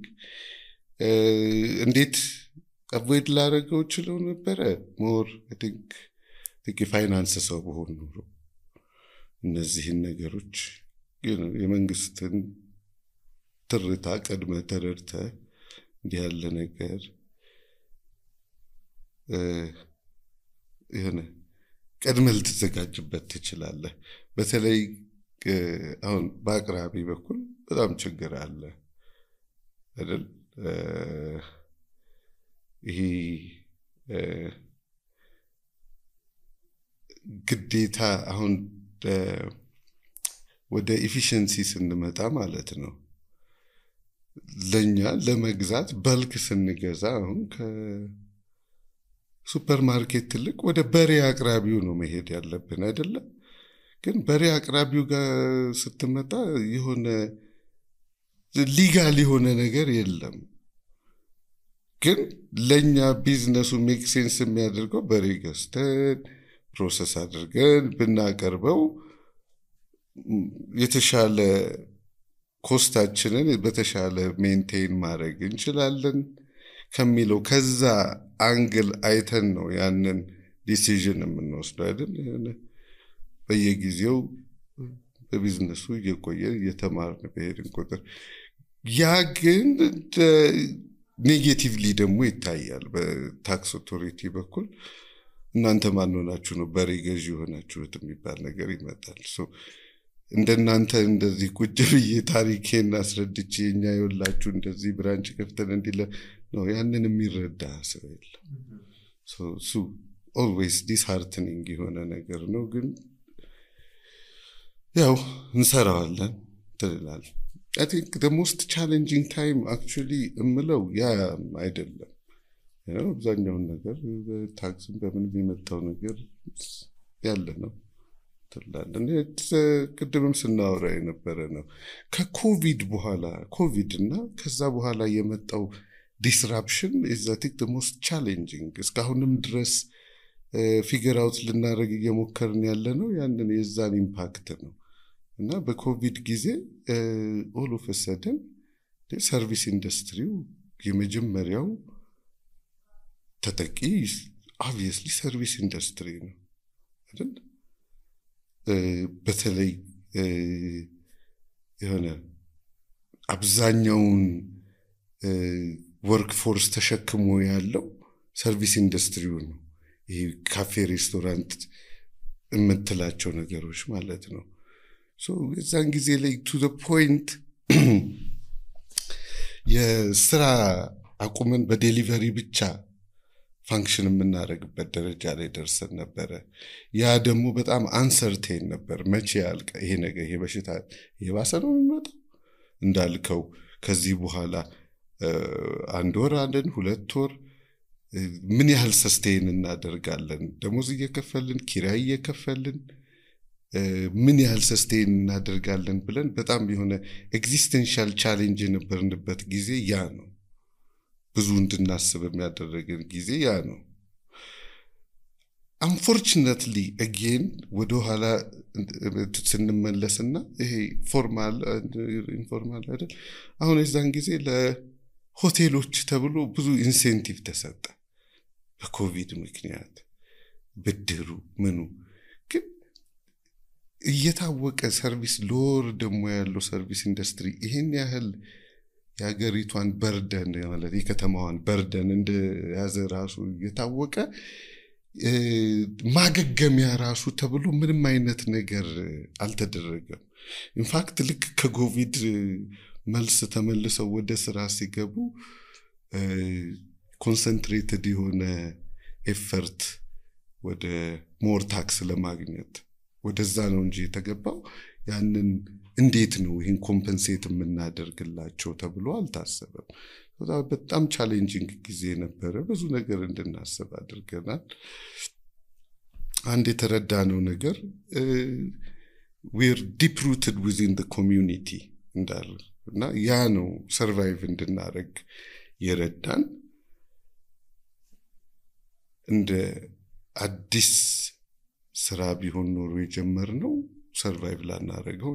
እንዴት avoid ላደርገው ይችላል ነበር more I think የፋይናንስ ሰው በሆን ኖሮ እነዚህን ነገሮች የመንግስትን ትርታ ቀድመ ተረድተ እንዲህ ያለ ነገር የሆነ ቀድመ ልትዘጋጅበት ትችላለህ በተለይ አሁን በአቅራቢ በኩል በጣም ችግር አለ አይደል ይሄ ግዴታ አሁን ወደ ኤፊሺየንሲ ስንመጣ ማለት ነው ለኛ ለመግዛት በልክ ስንገዛ አሁን ከሱፐርማርኬት ትልቅ ወደ በሬ አቅራቢው ነው መሄድ ያለብን አይደለ ግን በሬ አቅራቢው ጋር ስትመጣ የሆነ ሊጋል የሆነ ነገር የለም ግን ለኛ ቢዝነሱ ሜክ ሴንስ የሚያደርገው በሬ ገዝተን ፕሮሰስ አድርገን ብናቀርበው የተሻለ ኮስታችንን በተሻለ ሜንቴን ማድረግ እንችላለን ከሚለው ከዛ አንግል አይተን ነው ያንን ዲሲዥን የምንወስደው አይደል? በየጊዜው በቢዝነሱ እየቆየን እየተማርን በሄድን ቁጥር ያ ግን ኔጌቲቭሊ ደግሞ ይታያል በታክስ ኦቶሪቲ በኩል። እናንተ ማን ሆናችሁ ነው በሬ ገዢ ሆናችሁት የሚባል ነገር ይመጣል። እንደናንተ እንደዚህ ቁጭ ብዬ ታሪኬን አስረድቼ እኛ ይወላችሁ እንደዚህ ብራንች ከፍተን እንዲለ ነው ያንን የሚረዳ ሰው የለም። ሶ always disheartening የሆነ ነገር ነው። ግን ያው እንሰራዋለን ትላል። I think the most challenging time actually እምለው ያ አይደለም። አብዛኛውን ነገር ታክስን በምን የሚመጣው ነገር ያለ ነው ትላለን። ቅድምም ስናወራ የነበረ ነው። ከኮቪድ በኋላ ኮቪድ እና ከዛ በኋላ የመጣው disruption is I think the most challenging እስካሁንም ድረስ ፊገር አውት ልናደርግ እየሞከርን ያለ ነው ያንን የዛን ኢምፓክት ነው። እና በኮቪድ ጊዜ all of a sudden ሰርቪስ ኢንዱስትሪው የመጀመሪያው ተጠቂ obviously ሰርቪስ ኢንዱስትሪ ነው አይደል? በተለይ የሆነ አብዛኛውን ወርክፎርስ ተሸክሞ ያለው ሰርቪስ ኢንዱስትሪው ነው። ይሄ ካፌ ሬስቶራንት የምትላቸው ነገሮች ማለት ነው። እዛን ጊዜ ላይ to the point የስራ አቁመን በዴሊቨሪ ብቻ ፋንክሽን የምናደርግበት ደረጃ ላይ ደርሰን ነበረ። ያ ደግሞ በጣም አንሰርቴን ነበር። መቼ ያልቅ ይሄ ነገር ይሄ በሽታ የባሰ ነው የሚመጣው እንዳልከው ከዚህ በኋላ 1 ወር አንደን 2 ወር ምን ያህል ሰስቴን እናደርጋለን? ደሞዝ እየከፈልን ኪራይ እየከፈልን ምን ያህል ሰስቴን እናደርጋለን ብለን በጣም የሆነ ኤግዚስተንሻል ቻሌንጅ የነበርንበት ጊዜ ያ ነው። ብዙ እንድናስብ የሚያደርገን ጊዜ ያ ነው። unfortunately again ወደ ኋላ ስንመለስና ይሄ ፎርማል ኢንፎርማል አይደል? አሁን የዛን ጊዜ ለሆቴሎች ተብሎ ብዙ ኢንሴንቲቭ ተሰጠ በኮቪድ ምክንያት ብድሩ ምኑ ግን እየታወቀ ሰርቪስ ሎር ደግሞ ያለው ሰርቪስ ኢንዱስትሪ ይሄን ያህል ያገሪቷን በርደን ማለት የከተማዋን በርደን እንደያዘ ራሱ እየታወቀ ማገገሚያ ራሱ ተብሎ ምንም አይነት ነገር አልተደረገም። ኢንፋክት ልክ ከኮቪድ መልስ ተመልሰው ወደ ስራ ሲገቡ ኮንሰንትሬትድ የሆነ ኤፈርት ወደ ሞር ታክስ ለማግኘት ወደዛ ነው እንጂ የተገባው ያንን እንዴት ነው ይሄን ኮምፐንሴት የምናደርግላቸው ተብሎ አልታሰበም። በጣም ቻሌንጂንግ ጊዜ ነበረ። ብዙ ነገር እንድናስብ አድርገናል። አንድ የተረዳነው ነገር we're deep rooted within the community እና ያ ነው ሰርቫይቭ እንድናደርግ የረዳን። እንደ አዲስ ስራ ቢሆን ኖሮ የጀመርነው ሰርቫይቭ ላናደርገው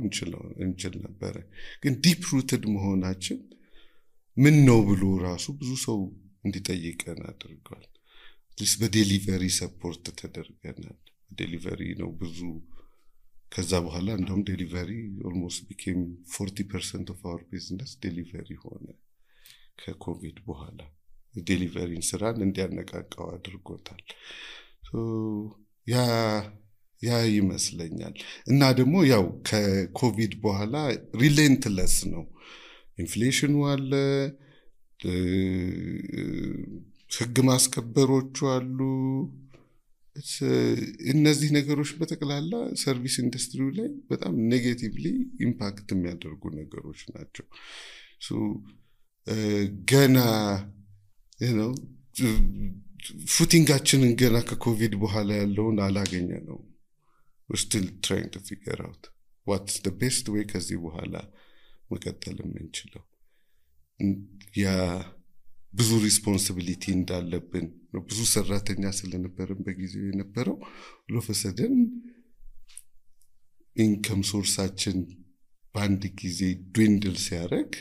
እንችል ነበር። ግን ዲፕ ሩትድ መሆናችን ምን ነው ብሎ ራሱ ብዙ ሰው እንዲጠይቀን አድርጓል። በዴሊቨሪ ሰፖርት ተደርገናል። ዴሊቨሪ ነው ብዙ ከዛ በኋላ እንደውም ዴሊቨሪ almost became 40% of our business ዴሊቨሪ ሆነ። ከኮቪድ በኋላ ዴሊቨሪን ስራን እንዲያነቃቃው አድርጎታል። ያ ይመስለኛል። እና ደግሞ ያው ከኮቪድ በኋላ ሪሌንትለስ ነው። ኢንፍሌሽኑ አለ፣ ህግ ማስከበሮቹ አሉ። እነዚህ ነገሮች በተቀላላ ሰርቪስ ኢንዱስትሪው ላይ በጣም ኔጌቲቭሊ ኢምፓክት የሚያደርጉ ነገሮች ናቸው። ገና ፉቲንጋችንን ገና ከኮቪድ በኋላ ያለውን አላገኘ ነው። we're still trying to figure out what's the best way ከዚህ በኋላ መቀጠል የምንችለው። ያ ብዙ ሪስፖንሲቢሊቲ እንዳለብን ብዙ ሰራተኛ ስለነበረን በጊዜው የነበረው ለፈሰደን ኢንከም ሶርሳችን በአንድ ጊዜ ድዊንድል ሲያደርግ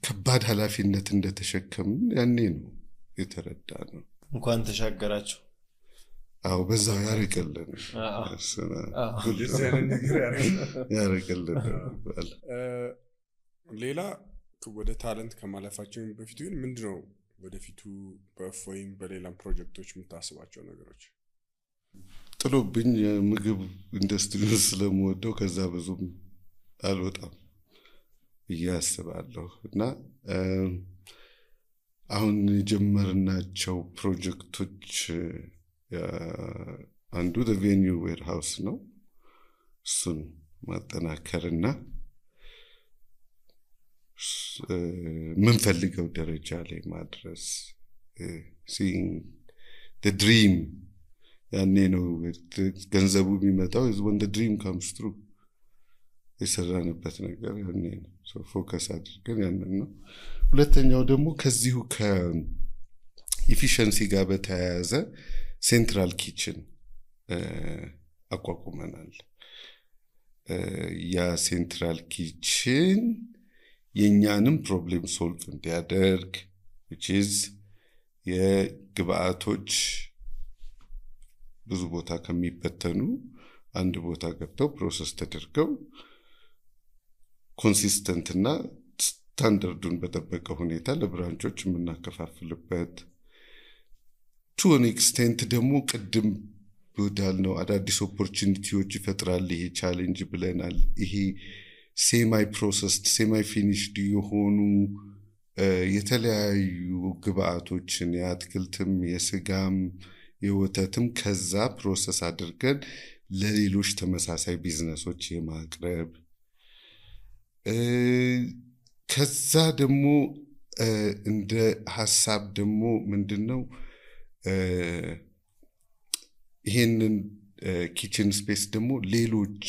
ከባድ ኃላፊነት እንደተሸከምን ያኔ ነው የተረዳ ነው። እንኳን ተሻገራችሁ። አዎ በዛው ያርቅልን ያርቅልን። ሌላ ወደ ታለንት ከማለፋችን በፊት ግን ምንድነው ወደፊቱ በእፎይም በሌላም ፕሮጀክቶች የምታስባቸው ነገሮች? ጥሎብኝ የምግብ ኢንዱስትሪውን ስለምወደው ከዛ ብዙም አልወጣም ብዬ አስባለሁ እና አሁን የጀመርናቸው ፕሮጀክቶች አንዱ ቬኒው ዌርሃውስ ነው። እሱን ማጠናከርና ምንፈልገው ደረጃ ላይ ማድረስ seeing the dream ያኔ ነው ገንዘቡ የሚመጣው when the dream comes true የሰራንበት ነገር ያኔ ነው። ፎከስ አድርገን ያንን ነው። ሁለተኛው ደግሞ ከዚሁ ከኢፊሸንሲ ጋር በተያያዘ ሴንትራል ኪችን አቋቁመናል። ያ ሴንትራል ኪችን የኛንም ፕሮብሌም ሶልቭ እንዲያደርግ which is የግብአቶች ብዙ ቦታ ከሚበተኑ አንድ ቦታ ገብተው ፕሮሰስ ተደርገው ኮንሲስተንት እና ስታንዳርዱን በተጠበቀ ሁኔታ ለብራንቾች የምናከፋፍልበት to an extent ደግሞ ቅድም ወዳልነው አዳዲስ ኦፖርቹኒቲዎች ይፈጥራል ይሄ ቻሌንጅ ብለናል። ይሄ ሴማይ ፕሮሰስድ ሴማይ ፊኒሽድ የሆኑ የተለያዩ ግብአቶችን የአትክልትም የስጋም የወተትም ከዛ ፕሮሰስ አድርገን ለሌሎች ተመሳሳይ ቢዝነሶች የማቅረብ ከዛ ደግሞ እንደ ሐሳብ ደግሞ ምንድነው ይሄንን ኪችን ስፔስ ደግሞ ሌሎች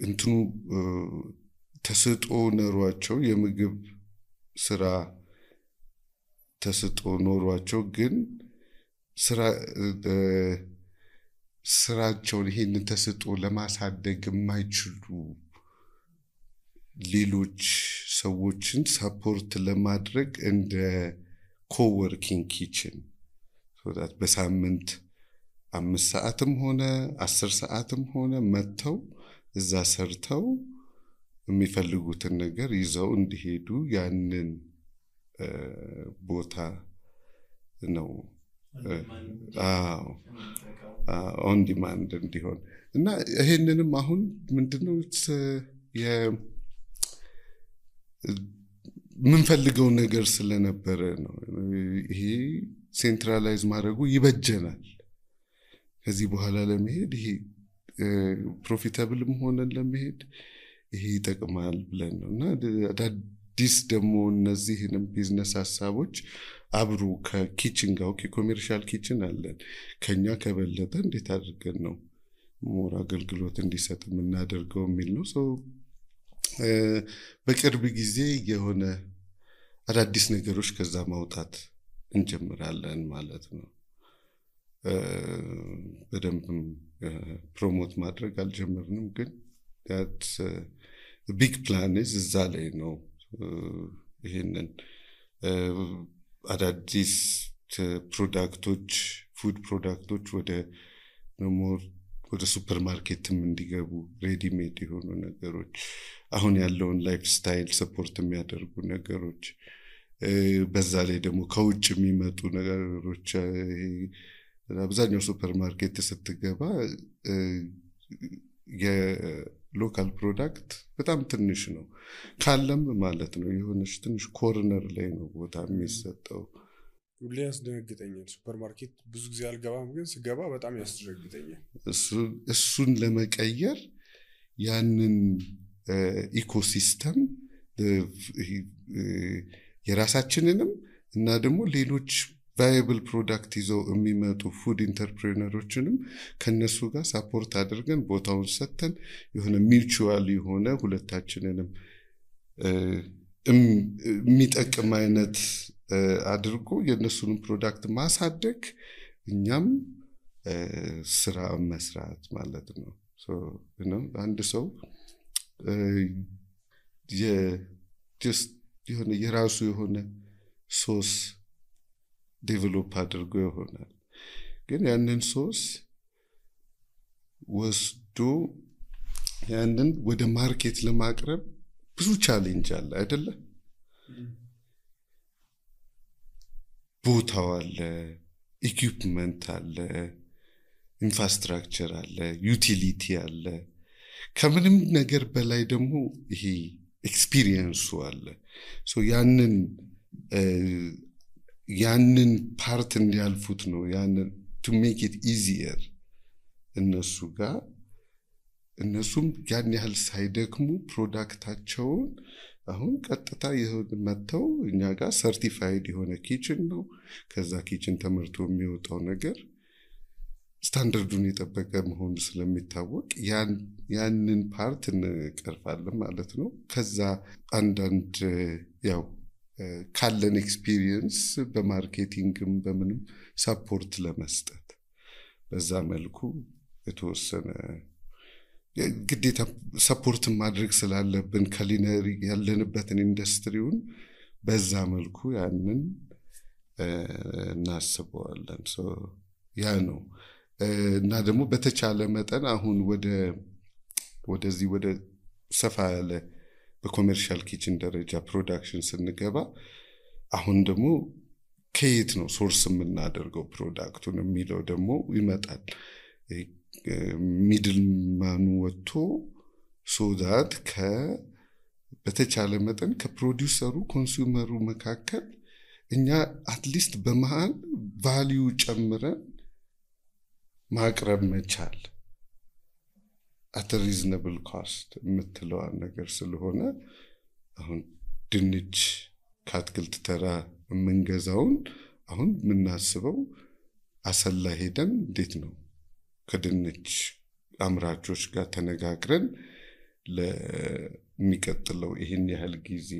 እንትኑ ተስጦ ኖሯቸው የምግብ ስራ ተስጦ ኖሯቸው ግን ስራቸውን ይሄንን ተስጦ ለማሳደግ የማይችሉ ሌሎች ሰዎችን ሰፖርት ለማድረግ እንደ ኮወርኪንግ ኪችን so that በሳምንት 5 ሰዓትም ሆነ 10 ሰዓትም ሆነ መተው እዛ ሰርተው የሚፈልጉትን ነገር ይዘው እንዲሄዱ ያንን ቦታ ነው ኦን ዲማንድ እንዲሆን እና ይሄንንም አሁን ምንድነው ምንፈልገው ነገር ስለነበረ ነው ይሄ ሴንትራላይዝ ማድረጉ ይበጀናል። ከዚህ በኋላ ለመሄድ ይሄ ፕሮፊታብልም ሆነን ለመሄድ ይሄ ይጠቅማል ብለን ነውና አዳዲስ ደግሞ እነዚህንም ቢዝነስ ሐሳቦች አብሮ ከኪችን ጋር ኮሜርሻል ኪችን አለን ከኛ ከበለጠ እንዴት አድርገን ነው ሞር አገልግሎት እንዲሰጥ የምናደርገው የሚል ነው። በቅርብ ጊዜ የሆነ አዳዲስ ነገሮች ከዛ ማውጣት እንጀምራለን ማለት ነው። በደንብ ፕሮሞት ማድረግ አልጀመርንም ግን that big plan is እዛ ላይ ነው። ይሄንን አዳዲስ ፕሮዳክቶች ፉድ ፕሮዳክቶች ወደ ሱፐርማርኬትም እንዲገቡ ሬዲ ሜድ የሆኑ ነገሮች አሁን ያለውን ላይፍ ስታይል ሰፖርት የሚያደርጉ ነገሮች በዛ ላይ ደግሞ ከውጭ የሚመጡ ነገሮች አብዛኛው ሱፐርማርኬት ስትገባ የሎካል ፕሮዳክት በጣም ትንሽ ነው ካለም ማለት ነው የሆነች ትንሽ ኮርነር ላይ ነው ቦታ የሚሰጠው። ሁሌ ያስደነግጠኛል ሱፐርማርኬት ብዙ ጊዜ አልገባም ግን ስገባ በጣም ያስደነግጠኛል። እሱን ለመቀየር ያንን ኢኮሲስተም የራሳችንንም እና ደግሞ ሌሎች ቫያብል ፕሮዳክት ይዘው የሚመጡ ፉድ ኢንተርፕሬነሮችንም ከነሱ ጋር ሳፖርት አድርገን ቦታውን ሰተን የሆነ ሚውቹዋል የሆነ ሁለታችንንም የሚጠቅም አይነት አድርጎ የነሱን ፕሮዳክት ማሳደግ እኛም ስራ መስራት ማለት ነው። አንድ ሰው የራሱ የሆነ ሶስ ዴቨሎፕ አድርጎ ይሆናል። ግን ያንን ሶስ ወስዶ ያንን ወደ ማርኬት ለማቅረብ ብዙ ቻሌንጅ አለ አይደለ? ቦታው አለ፣ ኢኩዊፕመንት አለ፣ ኢንፍራስትራክቸር አለ፣ ዩቲሊቲ አለ። ከምንም ነገር በላይ ደግሞ ይሄ ኤክስፒሪየንሱ አለ። ሶ ያንን ፓርት እንዲያልፉት ነው ያንን to make it easier እነሱ ጋር እነሱም ያን ያህል ሳይደክሙ ፕሮዳክታቸውን አሁን ቀጥታ መተው እኛ ጋር ሰርቲፋይድ የሆነ ኪችን ነው። ከዛ ኪችን ተመርቶ የሚወጣው ነገር ስታንዳርዱን የጠበቀ መሆኑ ስለሚታወቅ ያንን ፓርት እንቀርፋለን ማለት ነው። ከዛ አንዳንድ ያው ካለን ኤክስፒሪየንስ በማርኬቲንግም በምንም ሰፖርት ለመስጠት በዛ መልኩ የተወሰነ ግዴታ ሰፖርት ማድረግ ስላለብን ካሊነሪ ያለንበትን ኢንዱስትሪውን በዛ መልኩ ያንን እናስበዋለን። ያ ነው እና ደግሞ በተቻለ መጠን አሁን ወደዚህ ወደ ሰፋ ያለ በኮሜርሻል ኪችን ደረጃ ፕሮዳክሽን ስንገባ አሁን ደግሞ ከየት ነው ሶርስ የምናደርገው ፕሮዳክቱን የሚለው ደግሞ ይመጣል። ሚድልማኑ ወጥቶ ሶዳት በተቻለ መጠን ከፕሮዲውሰሩ ኮንሱመሩ መካከል እኛ አትሊስት በመሃል ቫልዩ ጨምረን ማቅረብ መቻል at a reasonable cost የምትለው ነገር ስለሆነ አሁን ድንች ከአትክልት ተራ የምንገዛውን አሁን የምናስበው አሰላ ሄደን እንዴት ነው ከድንች አምራቾች ጋር ተነጋግረን ለሚቀጥለው ይሄን ያህል ጊዜ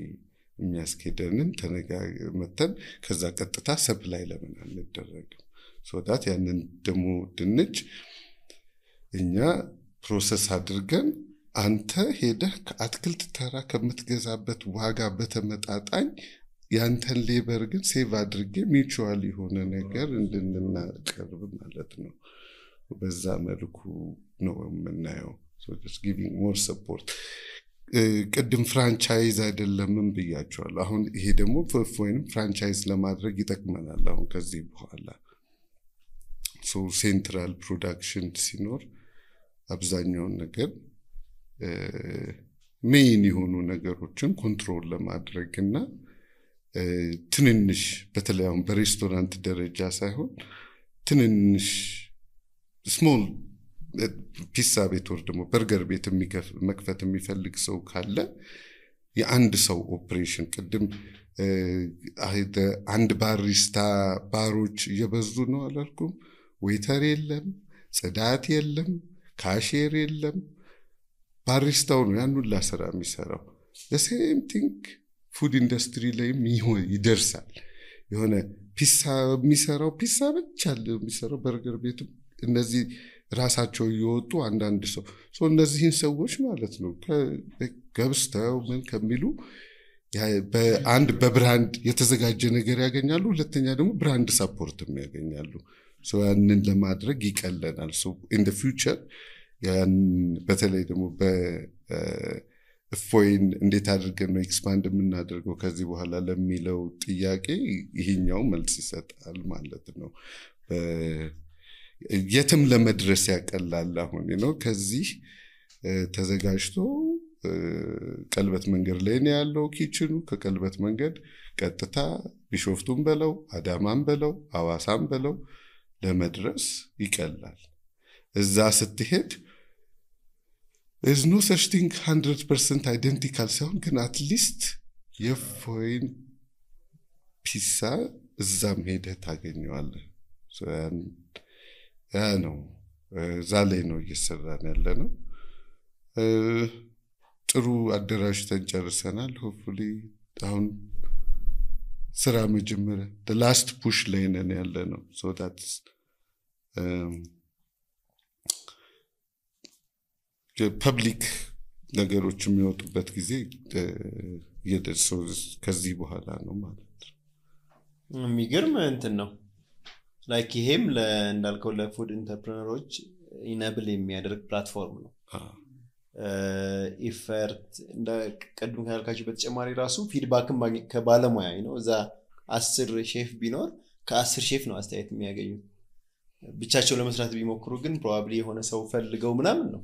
የሚያስኬደንን ተነጋግረን ከዛ ቀጥታ ሰፕላይ ለምን አንደረግም ሶዳት ያንን ደሞ ድንች እኛ ፕሮሰስ አድርገን አንተ ሄደህ ከአትክልት ተራ ከምትገዛበት ዋጋ በተመጣጣኝ ያንተን ሌበር ግን ሴቭ አድርጌ ሚቹዋል የሆነ ነገር እንድንናቀርብ ማለት ነው። በዛ መልኩ ነው የምናየው። so just giving more support ቅድም ፍራንቻይዝ አይደለምም ብያቸዋለሁ። አሁን ይሄ ደግሞ ወይንም ፍራንቻይዝ ለማድረግ ይጠቅመናል አሁን ከዚህ በኋላ so ሴንትራል ፕሮዳክሽን ሲኖር አብዛኛውን ነገር ሜን የሆኑ ነገሮችን ኮንትሮል ለማድረግና ትንንሽ በተለይ አሁን በሬስቶራንት ደረጃ ሳይሆን ትንንሽ ስሞል ፒሳ ቤት ወር ደግሞ በርገር ቤት መክፈት የሚፈልግ ሰው ካለ የአንድ ሰው ኦፕሬሽን ቅድም አንድ ባሪስታ ባሮች እየበዙ ነው አላልኩም? ዌተር የለም፣ ጽዳት የለም፣ ካሼር የለም። ባሪስታው ነው ያን ሁሉ ስራ የሚሰራው። the same thing ፉድ ኢንዱስትሪ ላይም ይደርሳል። የሆነ ፒሳ የሚሰራው ፒሳ ብቻ የሚሰራው በርገር ቤት እነዚህ ራሳቸው ይወጡ አንዳንድ ሰው እነዚህን ሰዎች ማለት ነው ከገብስተው ምን ከሚሉ በአንድ በብራንድ የተዘጋጀ ነገር ያገኛሉ። ሁለተኛ ደግሞ ብራንድ ሰፖርትም ያገኛሉ። ያንን ለማድረግ ይቀለናል። in the future ያን በተለይ ደግሞ በፎይን እንዴት አድርገን ነው ኤክስፓንድ የምናደርገው ከዚህ በኋላ ለሚለው ጥያቄ ይሄኛው መልስ ይሰጣል ማለት ነው። የትም ለመድረስ ያቀላል። አሁን ነው ከዚህ ተዘጋጅቶ ቀልበት መንገድ ላይ ነው ያለው ኪችኑ። ከቀልበት መንገድ ቀጥታ ቢሾፍቱን በለው አዳማን በለው አዋሳን በለው ለመድረስ ይቀላል። እዛ ስትሄድ there's no such thing 100% identical ሳይሆን ግን at least የፎይን ፒሳ እዛም ሄደህ ታገኘዋለህ። ያ ነው ዛሬ ነው እየሰራን ያለ ነው። ጥሩ አደራጅተን ጨርሰናል። ሆፕፉሊ አሁን ስራ መጀመሪያ the last push ላይ ነን ያለ ነው። so that's ፐብሊክ ነገሮች የሚወጡበት ጊዜ የደርሰው ከዚህ በኋላ ነው ማለት ነው። የሚገርም እንትን ነው ላይክ ይሄም እንዳልከው ለፉድ ኢንተርፕረነሮች ኢነብል የሚያደርግ ፕላትፎርም ነው ኢፈርት እንደ ቀድም ካልካችሁ በተጨማሪ ራሱ ፊድባክም ከባለሙያ ነው እዛ 10 ሼፍ ቢኖር ከ10 ሼፍ ነው አስተያየት የሚያገኙት ብቻቸው ለመስራት ቢሞክሩ ግን ፕሮባብሊ የሆነ ሰው ፈልገው ምናምን ነው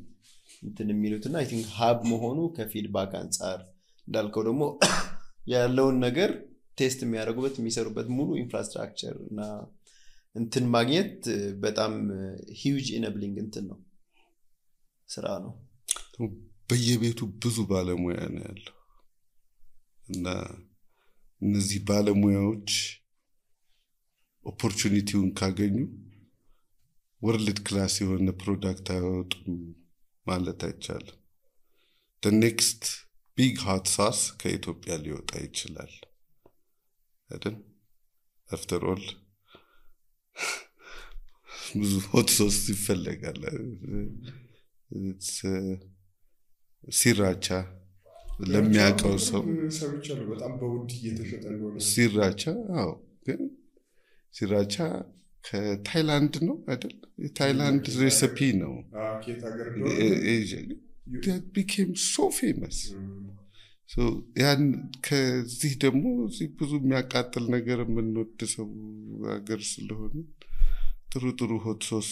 እንትን የሚሉትና አይ ቲንክ ሀብ መሆኑ ከፊድባክ አንፃር እንዳልከው ደግሞ ያለውን ነገር ቴስት የሚያደርጉበት የሚሰሩበት ሙሉ ኢንፍራስትራክቸር እና እንትን ማግኘት በጣም ሂውጅ ኢነብሊንግ እንትን ነው ስራ ነው በየቤቱ ብዙ ባለሙያ ነው ያለው እና እነዚህ ባለሙያዎች ኦፖርቹኒቲውን ካገኙ ወርልድ ክላስ የሆነ ፕሮዳክት አወጡም ማለት አይቻልም the next big hot sauce ከኢትዮጵያ ሊወጣ ይችላል አይደል after all ብዙ hot sauce ይፈልጋል ሲራቻ ለሚያቀው ሰው ሰምቻለሁ በጣም በውድ እየተሸጠ እንደሆነ ሲራቻ አዎ ግን ሲራቻ ከታይላንድ ነው አይደል የታይላንድ ሬሲፒ ነው ከየት ሀገር that became so famous so ያን ከዚህ ደግሞ ብዙ የሚያቃጥል ነገር የምንወድ ሰው ሀገር ስለሆነ ጥሩ ሆት ሶስ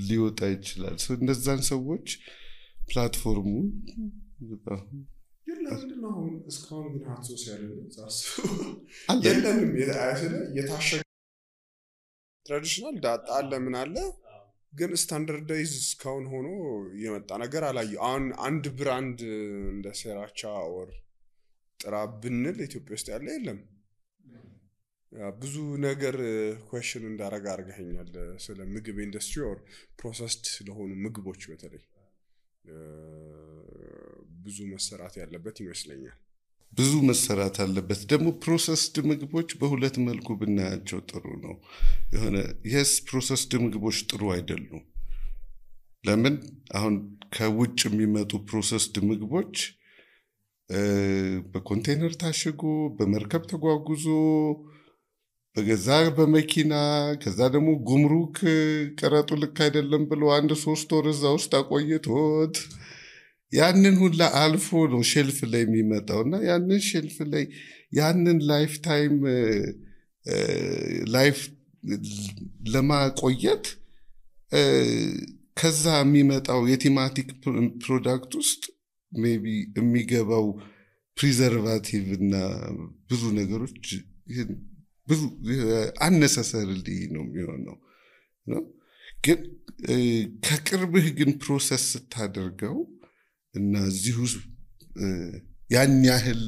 ሊወጣ ይችላል so እነዛን ሰዎች ፕላትፎርሙ የለምንድነው እስካሁን ግን ሆት ሶስ ያለው ዛስ የለንም የታሸገ ትራዲሽናል ዳጣ አለ ምን አለ ግን ስታንዳርዳይዝ እስካሁን ሆኖ የመጣ ነገር አላየሁ አሁን አንድ ብራንድ እንደ ሴራቻ ኦር ጥራ ብንል ኢትዮጵያ ውስጥ ያለ የለም ብዙ ነገር ኩዌስችን እንዳረጋ አርገኛል ስለ ምግብ ኢንደስትሪ ኦር ፕሮሰስድ ስለሆኑ ምግቦች በተለይ ብዙ መሰራት ያለበት ይመስለኛል ብዙ መሰራት አለበት ደግሞ ፕሮሰስድ ምግቦች በሁለት መልኩ ብናያቸው ጥሩ ነው የሆነ yes ፕሮሰስድ ምግቦች ጥሩ አይደሉም ለምን አሁን ከውጭ የሚመጡ ፕሮሰስድ ምግቦች በኮንቴነር ታሽጎ በመርከብ ተጓጉዞ በገዛ በመኪና ከዛ ደግሞ ጉምሩክ ቀረጡ ልክ አይደለም ብሎ 1-3 ወር እዛ ውስጥ አቆይቶት ያንን ሁላ አልፎ ነው ሼልፍ ላይ የሚመጣውና ያንን ሼልፍ ላይ ያንን ላይፍ ታይም ላይፍ ለማቆየት ከዛ የሚመጣው የቲማቲክ ፕሮዳክት ውስጥ ሜቢ የሚገባው ፕሪዘርቫቲቭ እና ብዙ ነገሮች ብዙ unnecessarily ነው የሚሆነው ነው ግን ከቅርብህ ግን ፕሮሰስ ስታደርገው እና እዚሁ ያን ያህል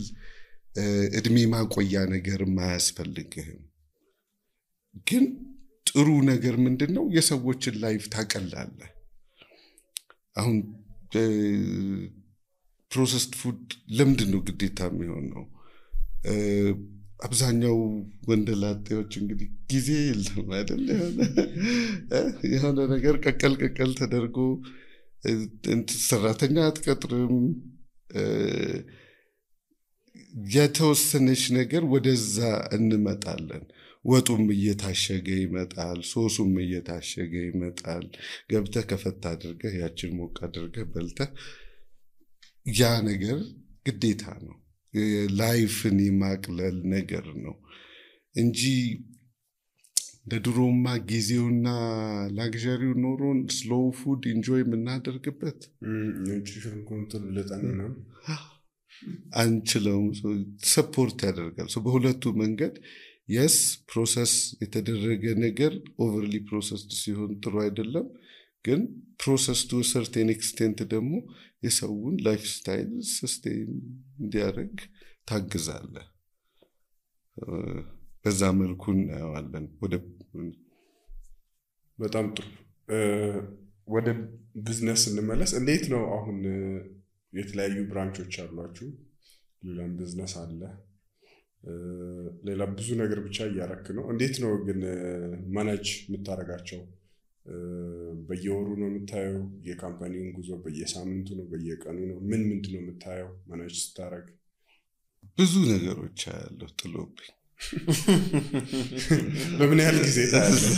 እድሜ ማቆያ ነገር ማያስፈልግህም ግን ጥሩ ነገር ምንድነው የሰዎችን ላይፍ ታቀላለህ አሁን ፕሮሰስድ ፉድ ለምንድነው ግዴታ የሚሆነው አብዛኛው ወንደላጤዎች እንግዲህ ጊዜ የለም አይደል የሆነ ነገር ቀቀል ተደርጎ ሰራተኛ አትቀጥርም የተወሰነች ነገር ወደዛ እንመጣለን ወጡም እየታሸገ ይመጣል ሶሱም እየታሸገ ይመጣል ገብተህ ከፈታ አድርገህ ያችን ሞቅ አድርገህ በልተህ ያ ነገር ግዴታ ነው ላይፍን የማቅለል ነገር ነው እንጂ ለድሮማ ጊዜውና ላግዠሪው ኖሮን ስሎው ፉድ ኢንጆይ የምናደርግበት ኒውትሪሽን ኮንትሮል ለጣና አንችለውም ሰፖርት ያደርጋል በሁለቱ መንገድ yes ፕሮሰስ የተደረገ ነገር ኦቨርሊ ፕሮሰስድ ሲሆን ጥሩ አይደለም ግን ፕሮሰስ to a certain extent ደግሞ የሰውን ላይፍ ስታይል ሰስቴን እንዲያደርግ ታግዛለ በዛ መልኩ እናያለን በጣም ጥሩ ወደ ቢዝነስ እንመለስ እንዴት ነው አሁን የተለያዩ ብራንቾች አሏችሁ ሌላም ቢዝነስ አለ ሌላ ብዙ ነገር ብቻ ያያረክ ነው እንዴት ነው ግን ማኔጅ የምታረጋቸው በየወሩ ነው የምታየው የካምፓኒውን ጉዞ በየሳምንቱ ነው በየቀኑ ነው ምንድነው የምታየው ማኔጅ ስታረግ ብዙ ነገሮች ያለው ጥሎብኝ በምን ያህል ጊዜ ታያለህ?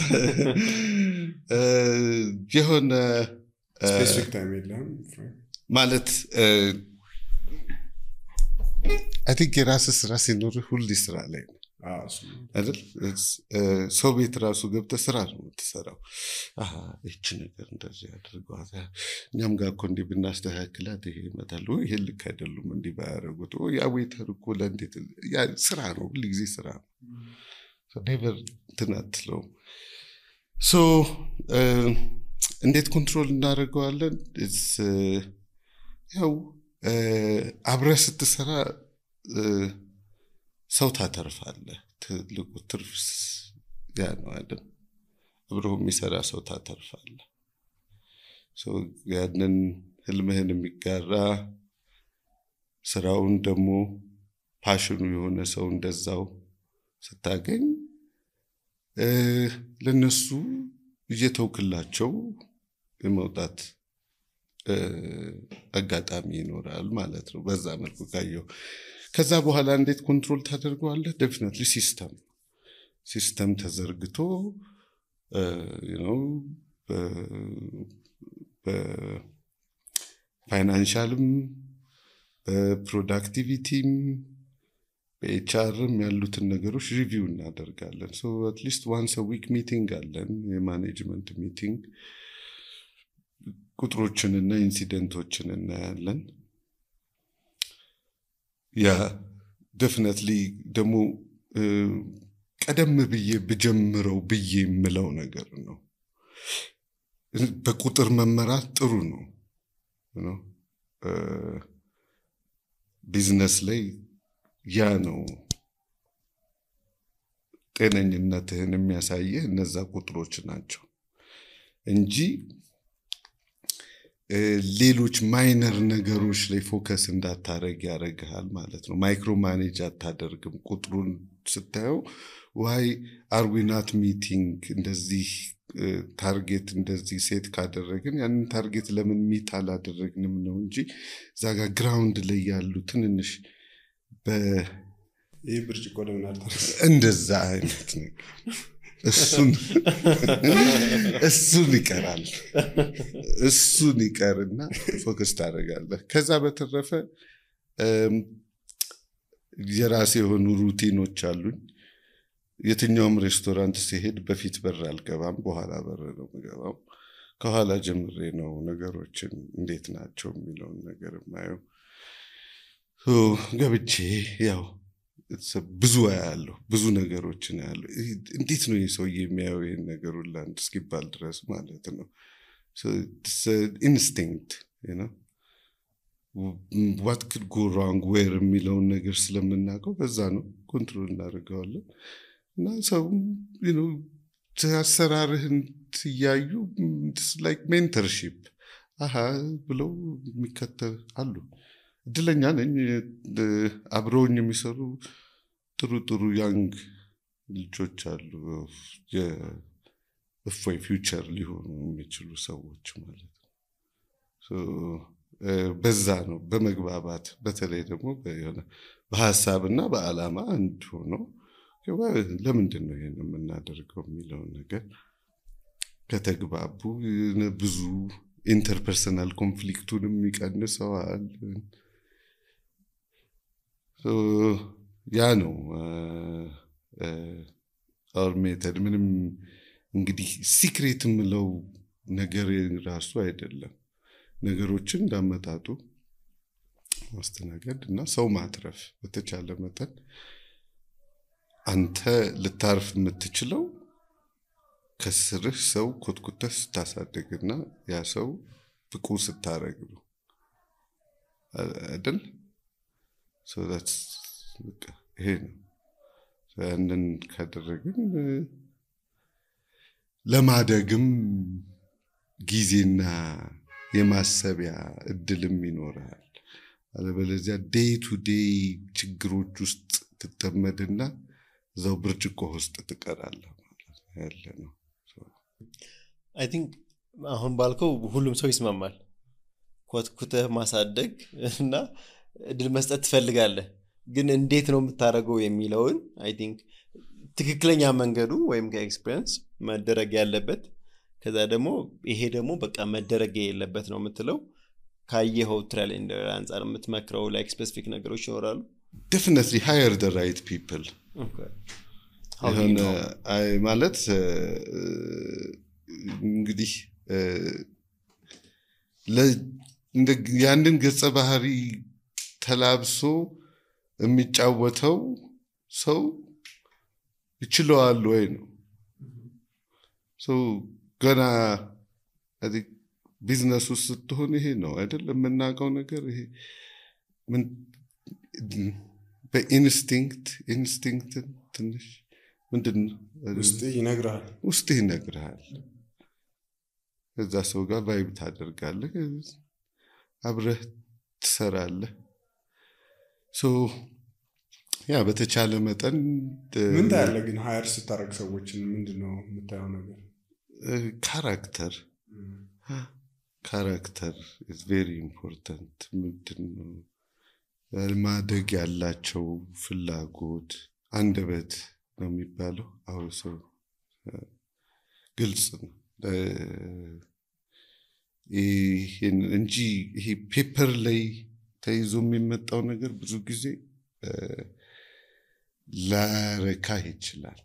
የሆነ ስፔሲፊክ ታይም የለም ማለት I think የራስህ ስራ ሲኖርህ ሁሌ ስራ ላይ ነው አይደል? ሰው ቤት ራሱ ገብተህ ስራ ነው የምትሰራው። እቺ ነገር እንደዚህ አድርጓት፣ እኛም ጋር እኮ እንዲህ ብናስተካክላት ይሄ ይመጣል፣ ይሄ ልክ አይደሉም እንዲህ ባያደርጉት፣ ያ ዌይተር እኮ ለእንዴት ያ ስራ ነው፣ ሁሉ ጊዜ ስራ ነው። ኔቨር ትናትለው እንዴት ኮንትሮል እናደርገዋለን? ያው አብረህ ስትሰራ ሰው ታተርፋለህ። ትልቁ ትርፍ ያ ነው አይደል? አብረው የሚሰራ ሰው ታተርፋለህ። ያንን ህልምህን የሚጋራ ስራውን ደግሞ ፓሽኑ የሆነ ሰው እንደዛው ስታገኝ ለነሱ እየተውክላቸው የመውጣት አጋጣሚ ይኖራል ማለት ነው። በዛ መልኩ ካየው ከዛ በኋላ እንዴት ኮንትሮል ታደርገዋለህ? ዴፊኒትሊ ሲስተም ተዘርግቶ በፋይናንሻልም በፕሮዳክቲቪቲም በኤችአርም ያሉትን ነገሮች ሪቪው እናደርጋለን። አትሊስት ዋንስ አ ዊክ ሚቲንግ አለን፣ የማኔጅመንት ሚቲንግ። ቁጥሮችንና ኢንሲደንቶችን እናያለን። ያ ዴፊኒትሊ ደግሞ ቀደም ብዬ ብጀምረው ብዬ የምለው ነገር ነው። በቁጥር መመራት ጥሩ ነው። ቢዝነስ ላይ ያ ነው ጤነኝነትህን የሚያሳየህ እነዛ ቁጥሮች ናቸው እንጂ ሌሎች ማይነር ነገሮች ላይ ፎከስ እንዳታረግ ያደርግሃል ማለት ነው። ማይክሮ ማኔጅ አታደርግም። ቁጥሩን ስታየው ዋይ አር ዊ ናት ሚቲንግ፣ እንደዚህ ታርጌት እንደዚህ ሴት ካደረግን ያንን ታርጌት ለምን ሚት አላደረግንም ነው እንጂ እዛ ጋር ግራውንድ ላይ ያሉ ትንንሽ ይህ ብርጭቆ ለምን አልተረፈ እንደዛ አይነት ነገር እሱን ይቀራል። እሱን ይቀርና ፎከስ ታደርጋለህ። ከዛ በተረፈ የራሴ የሆኑ ሩቲኖች አሉኝ። የትኛውም ሬስቶራንት ሲሄድ በፊት በር አልገባም፣ በኋላ በር ነው የምገባው። ከኋላ ጀምሬ ነው ነገሮችን እንዴት ናቸው የሚለውን ነገር የማየው። ገብቼ ያው ብዙ ያለው ብዙ ነገሮችን ያለው እንዴት ነው የሰው የሚያየው ይሄን ነገር ሁሉ አንድ እስኪባል ድረስ ማለት ነው። ኢንስቲንክት what could go wrong where የሚለውን ነገር ስለምናውቀው በዛ ነው ኮንትሮል እናደርገዋለን። እና ሰው አሰራርህን ትያዩ like mentorship ብለው የሚከተል አሉ። እድለኛ ነኝ አብረውኝ የሚሰሩ ጥሩ ያንግ ልጆች አሉ። የእፎይ ፊውቸር ሊሆኑ የሚችሉ ሰዎች ማለት ነው። በዛ ነው በመግባባት በተለይ ደግሞ በሀሳብና በዓላማ አንድ ሆኖ ለምንድን ነው ይሄን የምናደርገው የሚለውን ነገር ከተግባቡ ብዙ ኢንተርፐርሰናል ኮንፍሊክቱንም ይቀንሰዋል። ያ ነው our method። ምንም እንግዲህ ሲክሬት የምለው ነገር ራሱ አይደለም። ነገሮችን እንዳመጣጡ ማስተናገድ እና ሰው ማትረፍ በተቻለ መጠን አንተ ልታርፍ የምትችለው ከስርህ ሰው ኮትኩተህ ስታሳድግና ያ ሰው ብቁ ስታረግ ነው አይደል? ይሄ ነው። ያንን ካደረግን ለማደግም ጊዜና የማሰቢያ እድልም ይኖራል። አለበለዚያ ዴይ ቱ ዴይ ችግሮች ውስጥ ትጠመድና እዛው ብርጭቆ ውስጥ ትቀራለህ ማለት ያለ ነው። አይ ቲንክ አሁን ባልከው ሁሉም ሰው ይስማማል። ኮትኩተህ ማሳደግ እና እድል መስጠት ትፈልጋለህ። ግን እንዴት ነው የምታደርገው የሚለውን አይ ቲንክ ትክክለኛ መንገዱ ወይም ከኤክስፒሪየንስ መደረግ ያለበት ከዛ ደግሞ ይሄ ደግሞ በቃ መደረግ የለበት ነው የምትለው ካየኸው ትራያል ኤንድ ኤረር አንፃር የምትመክረው ላይክ ስፔሲፊክ ነገሮች ይኖራሉ? definitely hire the right people. Okay. How do you know? ማለት እንግዲህ ያንን ገጸ ባህሪ ተላብሶ የሚጫወተው ሰው ይችላል ወይ ነው። ገና ቢዝነስ ውስጥ ስትሆን ይሄ ነው አይደል የምናውቀው ነገር ይሄ ምን በኢንስቲንክት ትንሽ ምንድን ውስጥ ይነግርሃል ከዛ ሰው ጋር ቫይብ ታደርጋለህ አብረህ ትሰራለህ ያ በተቻለ መጠን ምን ታያለህ ግን ሃየር ስታረግ ሰዎችን ምንድነው የምታየው ነገር character is very important ምንድነው ማደግ ያላቸው ፍላጎት አንደበት ነው የሚባለው አሁን ሰው ግልጽ ነው እንጂ ይሄ ፔፐር ላይ ተይዞ የሚመጣው ነገር ብዙ ጊዜ ላረካ ይችላል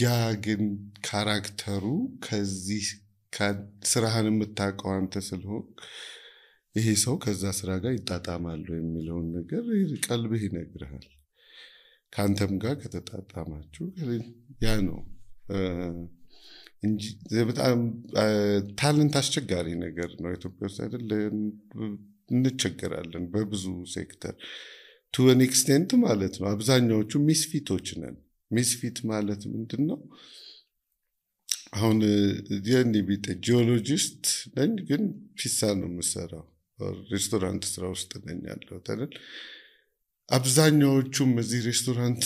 ያ ግን ካራክተሩ ከዚህ ስራህን የምታውቀው አንተ ስለሆን ይሄ ሰው ከዛ ስራ ጋር ይጣጣማል የሚለውን ነገር ቀልብህ ይነግርሃል ካንተም ጋር ከተጣጣማችሁ ያ ነው እንጂ በጣም ታለንት አስቸጋሪ ነገር ነው ኢትዮጵያ ውስጥ አይደል እንቸገራለን በብዙ ሴክተር to an extent ማለት ነው አብዛኛዎቹ ሚስፊቶች ነን ሚስፊት ማለት ምንድነው አሁን የኔ ቢጤ ጂኦሎጂስት ነኝ ግን ፒሳ ነው የምሰራው ሬስቶራንት ስራ ውስጥ ነኝ ያለው አይደል አብዛኛዎቹም እዚህ ሬስቶራንት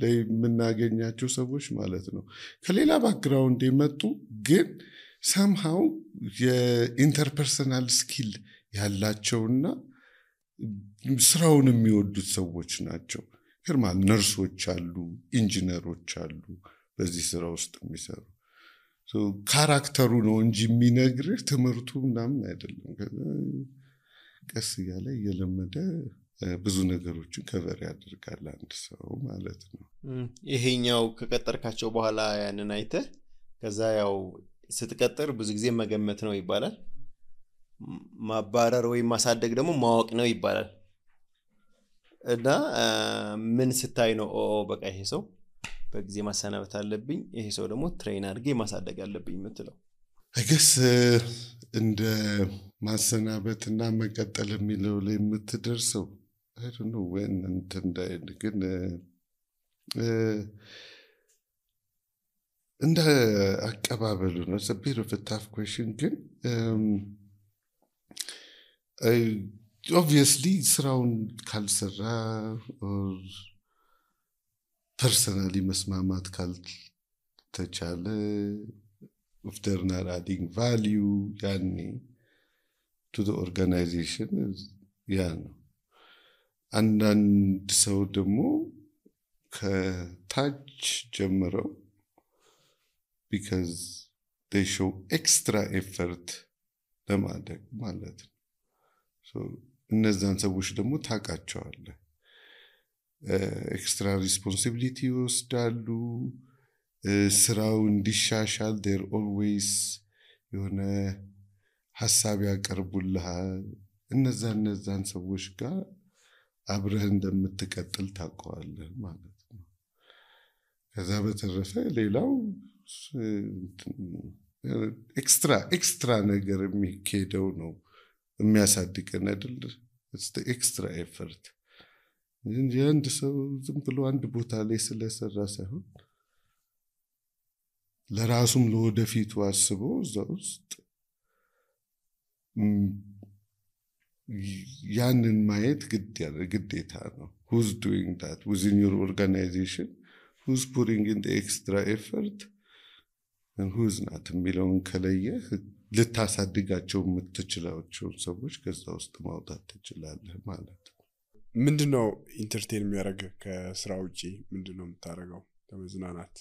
ላይ የምናገኛቸው ሰዎች ማለት ነው ከሌላ ባክግራውንድ የመጡ ግን somehow የኢንተርፐርሰናል ስኪል ያላቸውና ስራውን የሚወዱት ሰዎች ናቸው ግርማል ነርሶች አሉ ኢንጂነሮች አሉ በዚህ ስራ ውስጥ የሚሰሩ ካራክተሩ ነው እንጂ የሚነግርህ ትምህርቱ ምናምን አይደለም ቀስ ያለ እየለመደ ብዙ ነገሮችን ከቨር ያደርጋል አንድ ሰው ማለት ነው ይሄኛው ከቀጠርካቸው በኋላ ያንን አይተህ ከዛ ያው ስትቀጥር ብዙ ጊዜ መገመት ነው ይባላል ማባረር ወይ ማሳደግ ደግሞ ማወቅ ነው ይባላል እና ምን ስታይ ነው በቃ ይሄ ሰው በጊዜ ማሰናበት አለብኝ ይሄ ሰው ደግሞ ትሬን አድርጌ ማሳደግ አለብኝ የምትለው I guess እንደ ማሰናበትና መቀጠል የሚለው ላይ የምትደርሰው I don't know when ግን እንደ አቀባበሉ ነው a bit of a tough question ግን obviously ስራውን ካልሰራ or personally መስማማት ካልተቻለ if they're not adding value to the organization ነው አንዳንድ ሰው ደግሞ ከታች ጀምረው because they show extra effort ለማድረግ ማለት ነው እነዛን ሰዎች ደግሞ ታውቃቸዋለህ ኤክስትራ ሪስፖንሲቢሊቲ ወስዳሉ ስራው እንዲሻሻል they're always የሆነ ሐሳብ ያቀርቡልሃል እነዛን ሰዎች ጋር አብረህ እንደምትቀጥል ታውቀዋለህ ማለት ነው ከዛ በተረፈ ሌላው ኤክስትራ ነገር የሚከደው ነው የሚያሳድገን አይደል it's the extra effort እንጂ አንድ ሰው ዝም ብሎ አንድ ቦታ ላይ ስለሰራ ሳይሆን ለራሱም ለወደፊቱ አስቦ እዛ ውስጥ ያንን ማየት ግዴታ ነው who's doing that within your organization who's putting in the extra effort and who's not የሚለውን ከለየህ ልታሳድጋቸው የምትችላቸው ሰዎች ከዛ ውስጥ ማውጣት ትችላለህ ማለት ነው ምንድነው ኢንተርቴን የሚያደርግ ከስራ ውጪ ምንድነው የምታደርገው ለመዝናናት?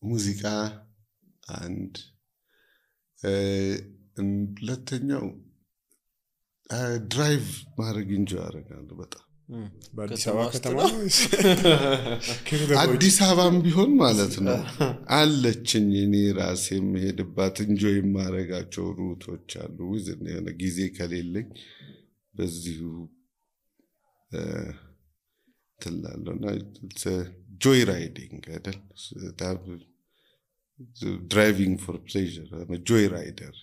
ሙዚቃ አንድ ሁለተኛው ድራይቭ ማድረግ እንጂ አደርጋለሁ በጣም በአዲስ አበባ ከተማ አዲስ አበባም ቢሆን ማለት ነው አለችኝ እኔ ራሴ የምሄድባት እንጆይ የማደርጋቸው ሩቶች አሉ ወዝን የሆነ ጊዜ ከሌለኝ በዚሁ ትላለና ጆይ ራይዲንግ አይደል driving for pleasure I'm a joy rider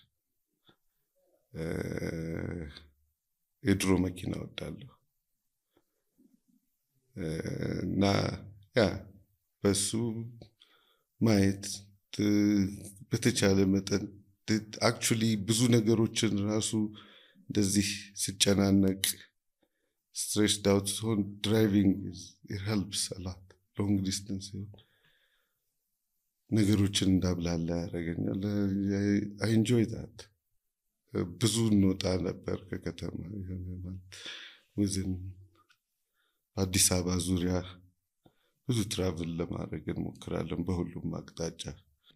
የድሮ መኪና ወዳለሁ እና ያ በሱ ማየት በተቻለ መጠን actually ብዙ ነገሮችን ራሱ እንደዚህ ሲጨናነቅ stressed out so driving it helps a lot long distance ነገሮችን እንዳብላላ ያደርገኛል I enjoy that ብዙ እንወጣ ነበር ከከተማ ወዝን አዲስ አበባ ዙሪያ ብዙ ትራቭል ለማድረግ እንሞክራለን በሁሉም አቅጣጫ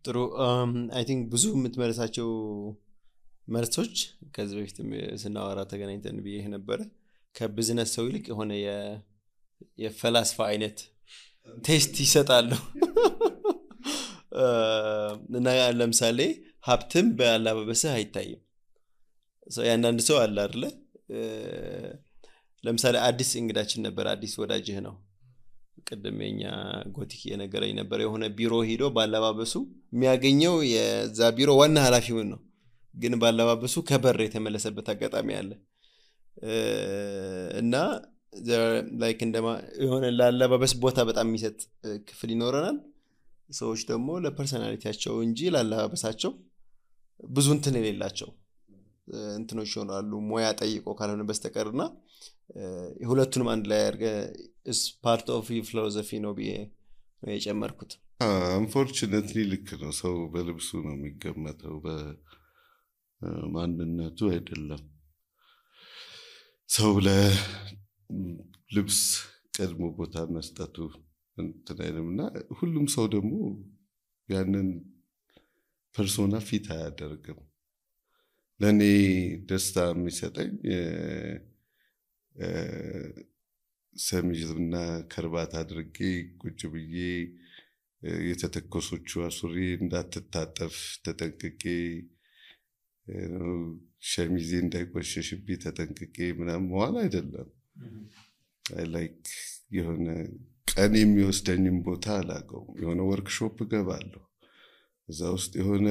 ጥሩ I think ብዙ የምትመለሳቸው መልሶች ከዚህ በፊት ስናወራ ተገናኝተን ብዬ ነበር ከቢዝነስ ሰው ይልቅ የሆነ የፈላስፋ አይነት ቴስት ይሰጣሉ እና ለምሳሌ ሀብትም በአለባበስህ አይታይም ያንዳንድ ሰው አለ አይደለ ለምሳሌ አዲስ እንግዳችን ነበር አዲስ ወዳጅህ ነው ቀደመኛ ጎቲክ የነገረኝ ነበር የሆነ ቢሮ ሄዶ ባለባበሱ የሚያገኘው የዛ ቢሮ ዋና ኃላፊው ነው ግን ባለባበሱ ከበር የተመለሰበት አጋጣሚ አለ እና ላይክ እንደማ የሆነ ላለባበስ ቦታ በጣም የሚሰጥ ክፍል ይኖረናል ሰዎች ደግሞ ለፐርሰናሊቲያቸው እንጂ ላለባበሳቸው ብዙ እንትን የሌላቸው እንትኖች ይሆናሉ ሞያ ጠይቆ ካልሆነ በስተቀርና ሁለቱንም አንድ ላይ አድርገ is part of your philosophy ነው ብዬ ነው የጨመርኩት unfortunately ልክ ነው ሰው በልብሱ ነው የሚገመተው በማንነቱ አይደለም ሰው ለልብስ ቀድሞ ቦታ መስጠቱ እንትናይምና ሁሉም ሰው ደግሞ ያንን ፐርሶና ፊት አያደርግም ለኔ ደስታ የሚሰጠኝ ሰሚዝና ከርባት አድርጌ ቁጭ ብዬ የተተኮሶቹ አሱሪ እንዳትታጠፍ ተጠንቅቄ ሸሚዜ እንዳይቆሽሽብኝ ተጠንቅቄ ምናምን መዋል አይደለም I like የሆነ ቀን የሚወስደኝም ቦታ አላቀው የሆነ ወርክሾፕ ገባለሁ እዛ ውስጥ የሆነ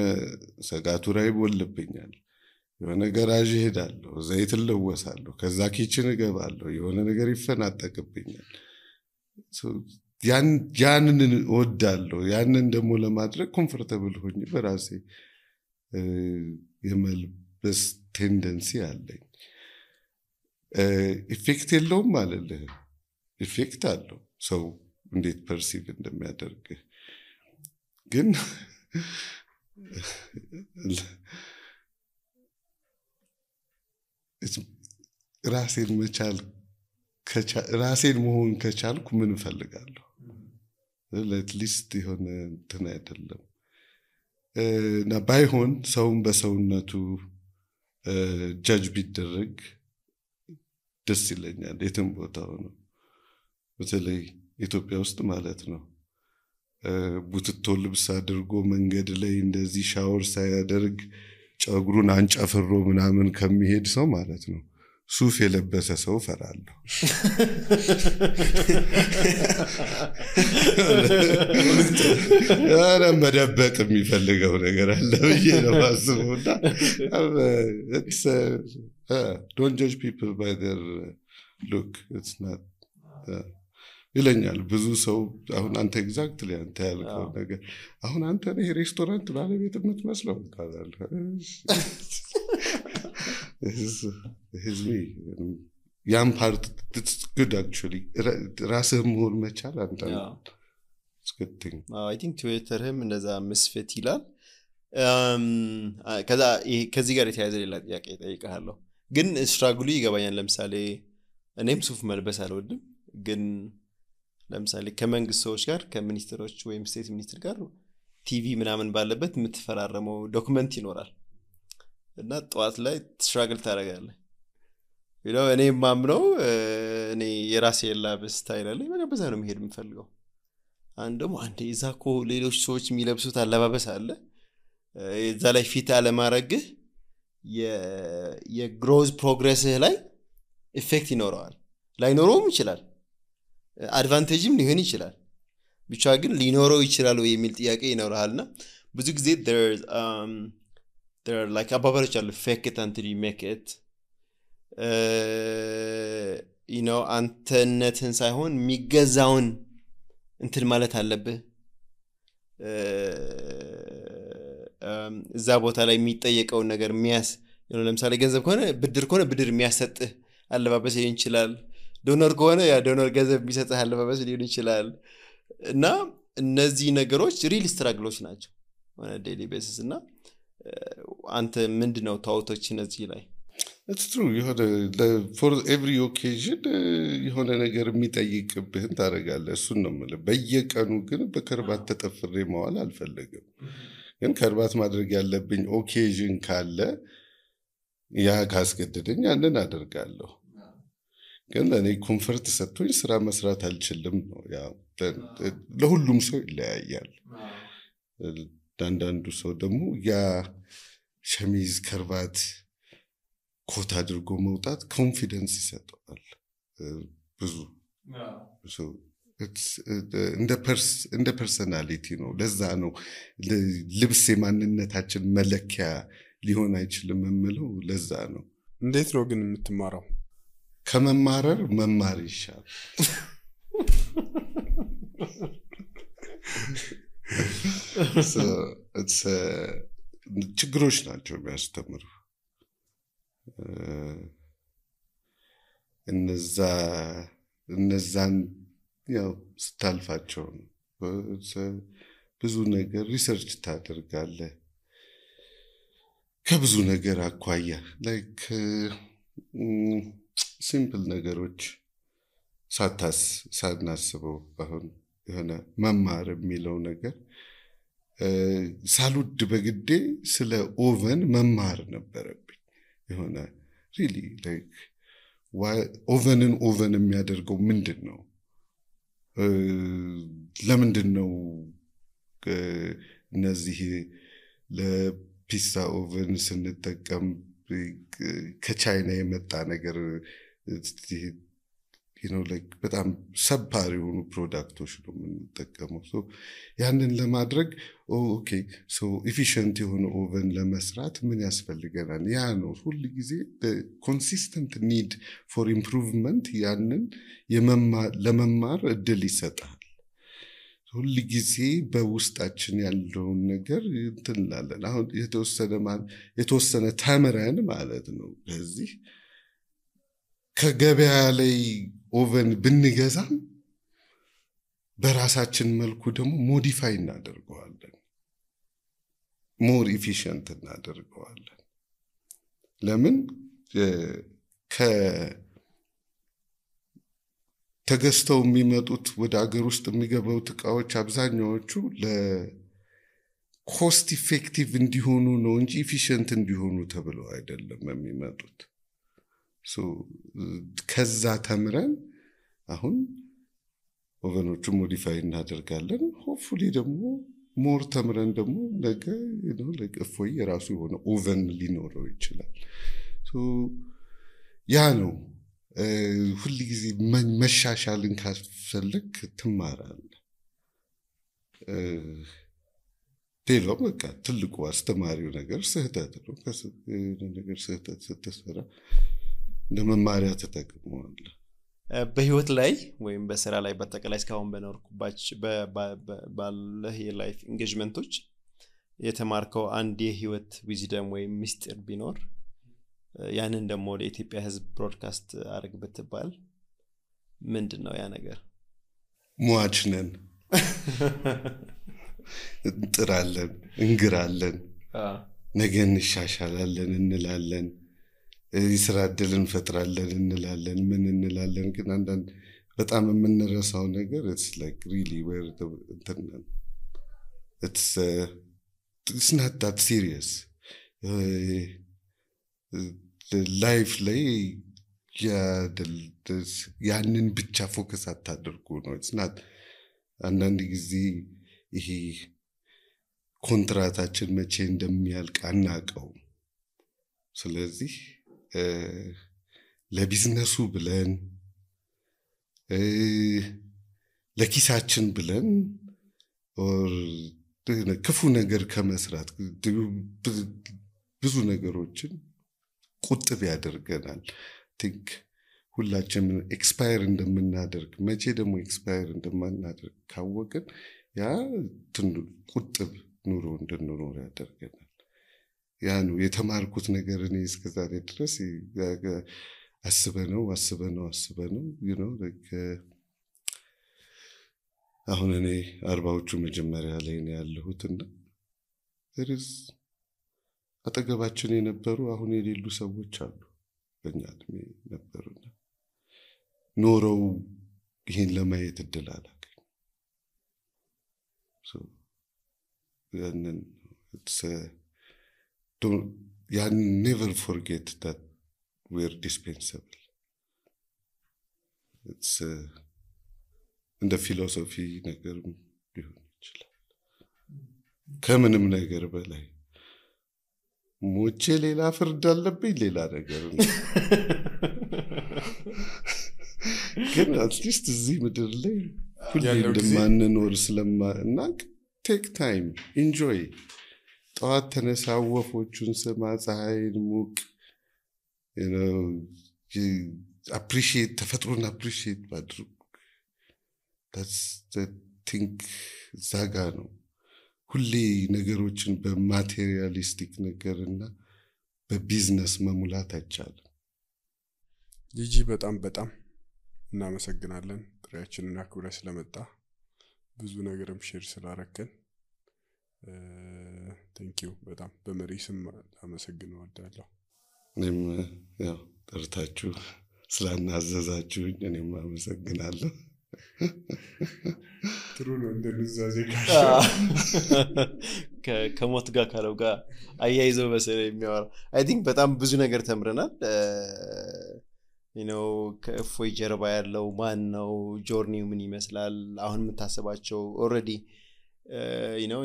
ሰጋቱራ ይቦልብኛል የሆነ ገራዥ ሄዳለሁ ዘይት ለወሳለሁ ከዛ ኪችን ገባለሁ የሆነ ነገር ይፈናጠቅብኛል ያንን ወዳለሁ ያንን ደግሞ ለማድረግ ኮምፎርታብል ሆኜ በራሴ የመልበስ ቴንደንሲ አለኝ ኢፌክት የለውም ማለት ኢፌክት አለው ሰው እንዴት ፐርሲቭ እንደሚያደርግ ግን ራሴን መቻል ራሴን መሆን ከቻልኩ ምን ፈልጋለሁ ለትሊስት የሆነ እንትን አይደለም እና ባይሆን ሰውን በሰውነቱ ጃጅ ቢደረግ ደስ ይለኛል የትም ቦታው ነው በተለይ ኢትዮጵያ ውስጥ ማለት ነው ቡትቶ ልብስ አድርጎ መንገድ ላይ እንደዚህ ሻወር ሳያደርግ ጫጉሩን አንጫፍሮ ምናምን ከሚሄድ ሰው ማለት ነው ሱፍ የለበሰ ሰው ፈራለሁ አረ መደበቅ የሚፈልገው ነገር አለ ብዬ ነው ማስበውና don't judge people by their look it's not ይለኛል ብዙ ሰው አሁን አንተ ኤግዛክትሊ አንተ ያልከው ነገር አሁን አንተ ነህ ሬስቶራንት ባለቤት የምትመስለው ካላል is me ያም part it's good actually ራስህ መሆን መቻል አንተ it's good thing I think Twitterም እንደዛ መስፈት ይላል ከዚህ ጋር የተያያዘ ሌላ ጥያቄ እጠይቅሃለሁ ግን ስትራግሉ ይገባኛል ለምሳሌ እኔም ሱፍ መልበስ አልወድም ግን ለምሳሌ ከመንግስት ሰዎች ጋር ከሚኒስትሮች ወይም ስቴት ሚኒስትር ጋር ቲቪ ምናምን ባለበት የምትፈራረመው ዶክመንት ይኖራል እና ጠዋት ላይ ስትራግል ታደርጋለህ እኔ ማምነው እኔ የራሴ የላብስ ስታይል አለኝ በዛ ነው መሄድ የምፈልገው አንድ እዛኮ ሌሎች ሰዎች የሚለብሱት አለባበስ አለ እዛ ላይ ፊት አለማረግህ የግሮዝ ፕሮግሬስህ ላይ ኢፌክት ይኖረዋል ላይኖረውም ይችላል አድቫንቴጅም ሊሆን ይችላል ብቻ ግን ሊኖረው ይችላል ወይ የሚል ጥያቄ ይኖርሃልና ብዙ ጊዜ there are like አባባሎች አሉ fake it until you make it አንተነትን ሳይሆን የሚገዛውን እንትን ማለት አለብህ እዛ ቦታ ላይ የሚጠየቀውን ነገር ለምሳሌ ገንዘብ ከሆነ ብድር የሚያሰጥህ አለባበስ ሊሆን ይችላል ዶነር ከሆነ ያ ዶነር ገንዘብ የሚሰጥህ አለባበስ ሊሆን ይችላል እና እነዚህ ነገሮች ሪል ስትራግሎች ናቸው on a daily basis እና አንተ ምንድነው ታውቶች እነዚህ ላይ It's true for every occasion የሆነ ነገር የሚጠይቅብህን ታደርጋለህ እሱን ነው የምልህ በየቀኑ ግን በከርባት ተጠፍሬ መዋል አልፈልግም ግን ከርባት ማድረግ ያለብኝ ኦኬዥን ካለ ያ ካስገደደኝ ያንን አደርጋለሁ ግን እኔ ኮምፎርት ሰጥቶኝ ስራ መስራት አልችልም ነው ያው ለሁሉም ሰው ይለያያል አንዳንዱ ሰው ደግሞ ያ ሸሚዝ ከርባት ኮት አድርጎ መውጣት ኮንፊደንስ ይሰጣል ብዙ እንደ ፐርሰናሊቲ ነው ለዛ ነው ልብስ የማንነታችን መለኪያ ሊሆን አይችልም የምለው ለዛ ነው እንዴት ነው ግን የምትማረው ከመማረር መማር ይሻላል ችግሮች ናቸው የሚያስተምሩ እነዛን ያው ስታልፋቸው ብዙ ነገር ሪሰርች ታደርጋለህ ከብዙ ነገር አኳያ ላይክ ሲምፕል ነገሮች ሳናስበው አሁን የሆነ መማር የሚለው ነገር ሳልወድ በግዴ ስለ ኦቨን መማር ነበረብኝ የሆነ ሪሊ ላይክ ኦቨንን ኦቨን የሚያደርገው ምንድነው ለምንድነው እነዚህ ለፒዛ ኦቨን ስንጠቀም ከቻይና የመጣ ነገር like በጣም ሰባሪ የሆኑ ፕሮዳክቶች ነው የምንጠቀመው ሶ ያንን ለማድረግ ኦኬ ሶ ኤፊሺየንት የሆነ ኦቨን ለመስራት ምን ያስፈልገናል ያ ነው ሁሉ ጊዜ ኮንሲስተንት ኒድ ፎር ኢምፕሩቭመንት ያንን ለመማር እድል ይሰጣል ሁሉ ጊዜ በውስጣችን ያለውን ነገር እንትላለን አሁን የተወሰነ ተምረን ማለት ነው በዚህ ከገበያ ላይ ኦቨን ብንገዛም በራሳችን መልኩ ደግሞ ሞዲፋይ እናደርገዋለን ሞር ኤፊሺየንት እናደርገዋለን ለምን ተገዝተው የሚመጡት ወደ አገር ውስጥ የሚገቡት ዕቃዎች አብዛኛዎቹ ለኮስት ኢፌክቲቭ እንዲሆኑ ነው እንጂ ኤፊሺየንት እንዲሆኑ ተብለው አይደለም የሚመጡት ከዛ ተምረን አሁን ኦቨኖቹ ሞዲፋይ እናደርጋለን ሆፕፉሊ ደግሞ ሞር ተምረን ደግሞ ነገ ለእፎይ የራሱ የሆነ ኦቨን ሊኖረው ይችላል ያ ነው ሁሉ ጊዜ መሻሻልን ካስፈልግ ትማራለህ ሌላው በቃ ትልቁ አስተማሪው ነገር ስህተት ነው ነገር ስህተት ስትሰራ ለመማሪያ ተጠቅመዋል በህይወት ላይ ወይም በስራ ላይ በተቀላይ እስካሁን በኖርኩባችሁ ባለህ የላይፍ ኢንጌጅመንቶች የተማርከው አንድ የህይወት ዊዝደም ወይም ሚስጥር ቢኖር ያንን ደግሞ ለኢትዮጵያ ህዝብ ብሮድካስት አድርግ ብትባል ምንድነው ያ ነገር ሟች ነን እንጥራለን እንግራለን ነገ እንሻሻላለን እንላለን የስራ ዕድል እንፈጥራለን እንላለን ምን እንላለን ግን አንዳንድ በጣም የምንረሳው ነገር it's like really where the internet it's not that serious life ላይ ያንን ብቻ ፎከስ አታድርጉ ነው it's not አንዳንድ ጊዜ ይሄ ኮንትራታችን መቼ እንደሚያልቅ አናቀው ስለዚህ ለቢዝነሱ ብለን ለኪሳችን ብለን or ክፉ ነገር ከመስራት ብዙ ነገሮችን ቁጥብ ያደርገናል think ሁላችንም ኤክስፓየር እንደምናደርግ መቼ ደግሞ ኤክስፓየር እንደማናደርግ ካወቅን ያ ቁጥብ ኑሮ እንድንኖር ያደርገናል ያ ነው የተማርኩት ነገር እኔ እስከዛሬ ድረስ አስበነው you know like አሁን እኔ 40ዎቹ መጀመሪያ ላይ ነው ያለሁትና there is አጠገባችን የነበሩ አሁን የሌሉ ሰዎች አሉ በእኛ እድሜ ነበሩና ኖረው ይሄን ለማየት እድል አላገኙ so then it's never forget that we're dispensable it's in the philosophy ነገር ቢሆን ይችላል ከምንም ነገር በላይ ሞቼ ሌላ ፍርድ አለብኝ ሌላ ነገር ነው ግን አትሊስት እዚህ ምድር ላይ ሁሌ እንደማንኖር ስለማናቅ take time enjoy ጠዋት ተነሳ ወፎቹን ስማ ፀሐይን ሙቅ you know appreciate ተፈጥሮን appreciate ማድረግ that's the thing ዛጋ ነው ሁሌ ነገሮችን በማቴሪያሊስቲክ ነገርና በቢዝነስ መሙላት አይቻልም ጂጂ በጣም እናመሰግናለን ጥሪያችንን አክብረህ ስለመጣ ብዙ ነገርም ሼር ስላረከን thank you በጣም በመሪ ስም አመሰግናለሁ ወዳለሁ እኔም ያው ጠርታችሁ ስላናዘዛችሁኝ እኔም አመሰግናለሁ ጥሩ ነው እንደነዛዜ ከሞት ጋር ካለው ጋር አያይዘው በሰለ የሚያወራ I think በጣም ብዙ ነገር ተምረናል you know ከፎይ ጀርባ ያለው ማን ነው ጆርኒው ምን ይመስላል አሁን የምታስባቸው already you know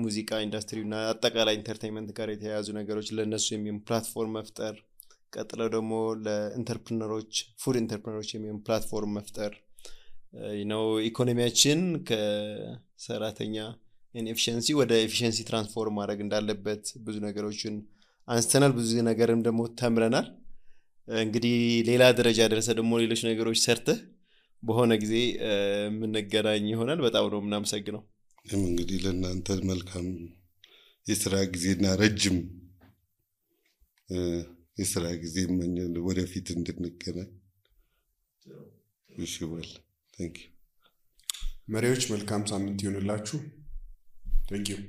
ሙዚቃ ኢንዱስትሪውና አጠቃላይ ኢንተርቴይንመንት ጋር የተያያዙ ነገሮች ለነሱ የሚሆን ፕላትፎርም መፍጠር ቀጥለው ደግሞ ለኢንተርፕረነሮች ፉድ ኢንተርፕረነሮች የሚሆን ፕላትፎርም መፍጠር you know ኢኮኖሚያችን ከሰራተኛ ኢንኤፊሺየንሲ ወደ ኤፊሺየንሲ ትራንስፎርም ማድረግ እንዳለበት ብዙ ነገሮችን አንስተናል ብዙ ነገርም ደግሞ ተምረናል እንግዲህ ሌላ ደረጃ ደረሰ ደግሞ ሌሎች ነገሮች ሰርተ በሆነ ጊዜ ምን ነገራኝ ይሆናል በጣም ነው እናመሰግነው እንግዲህ ለእናንተ መልካም የሥራ ጊዜና ረጅም የሥራ ጊዜ ወደፊት እንድንገናኝ ይሽወል thank you መሪዎች መልካም ሳምንት ይሁንላችሁ thank you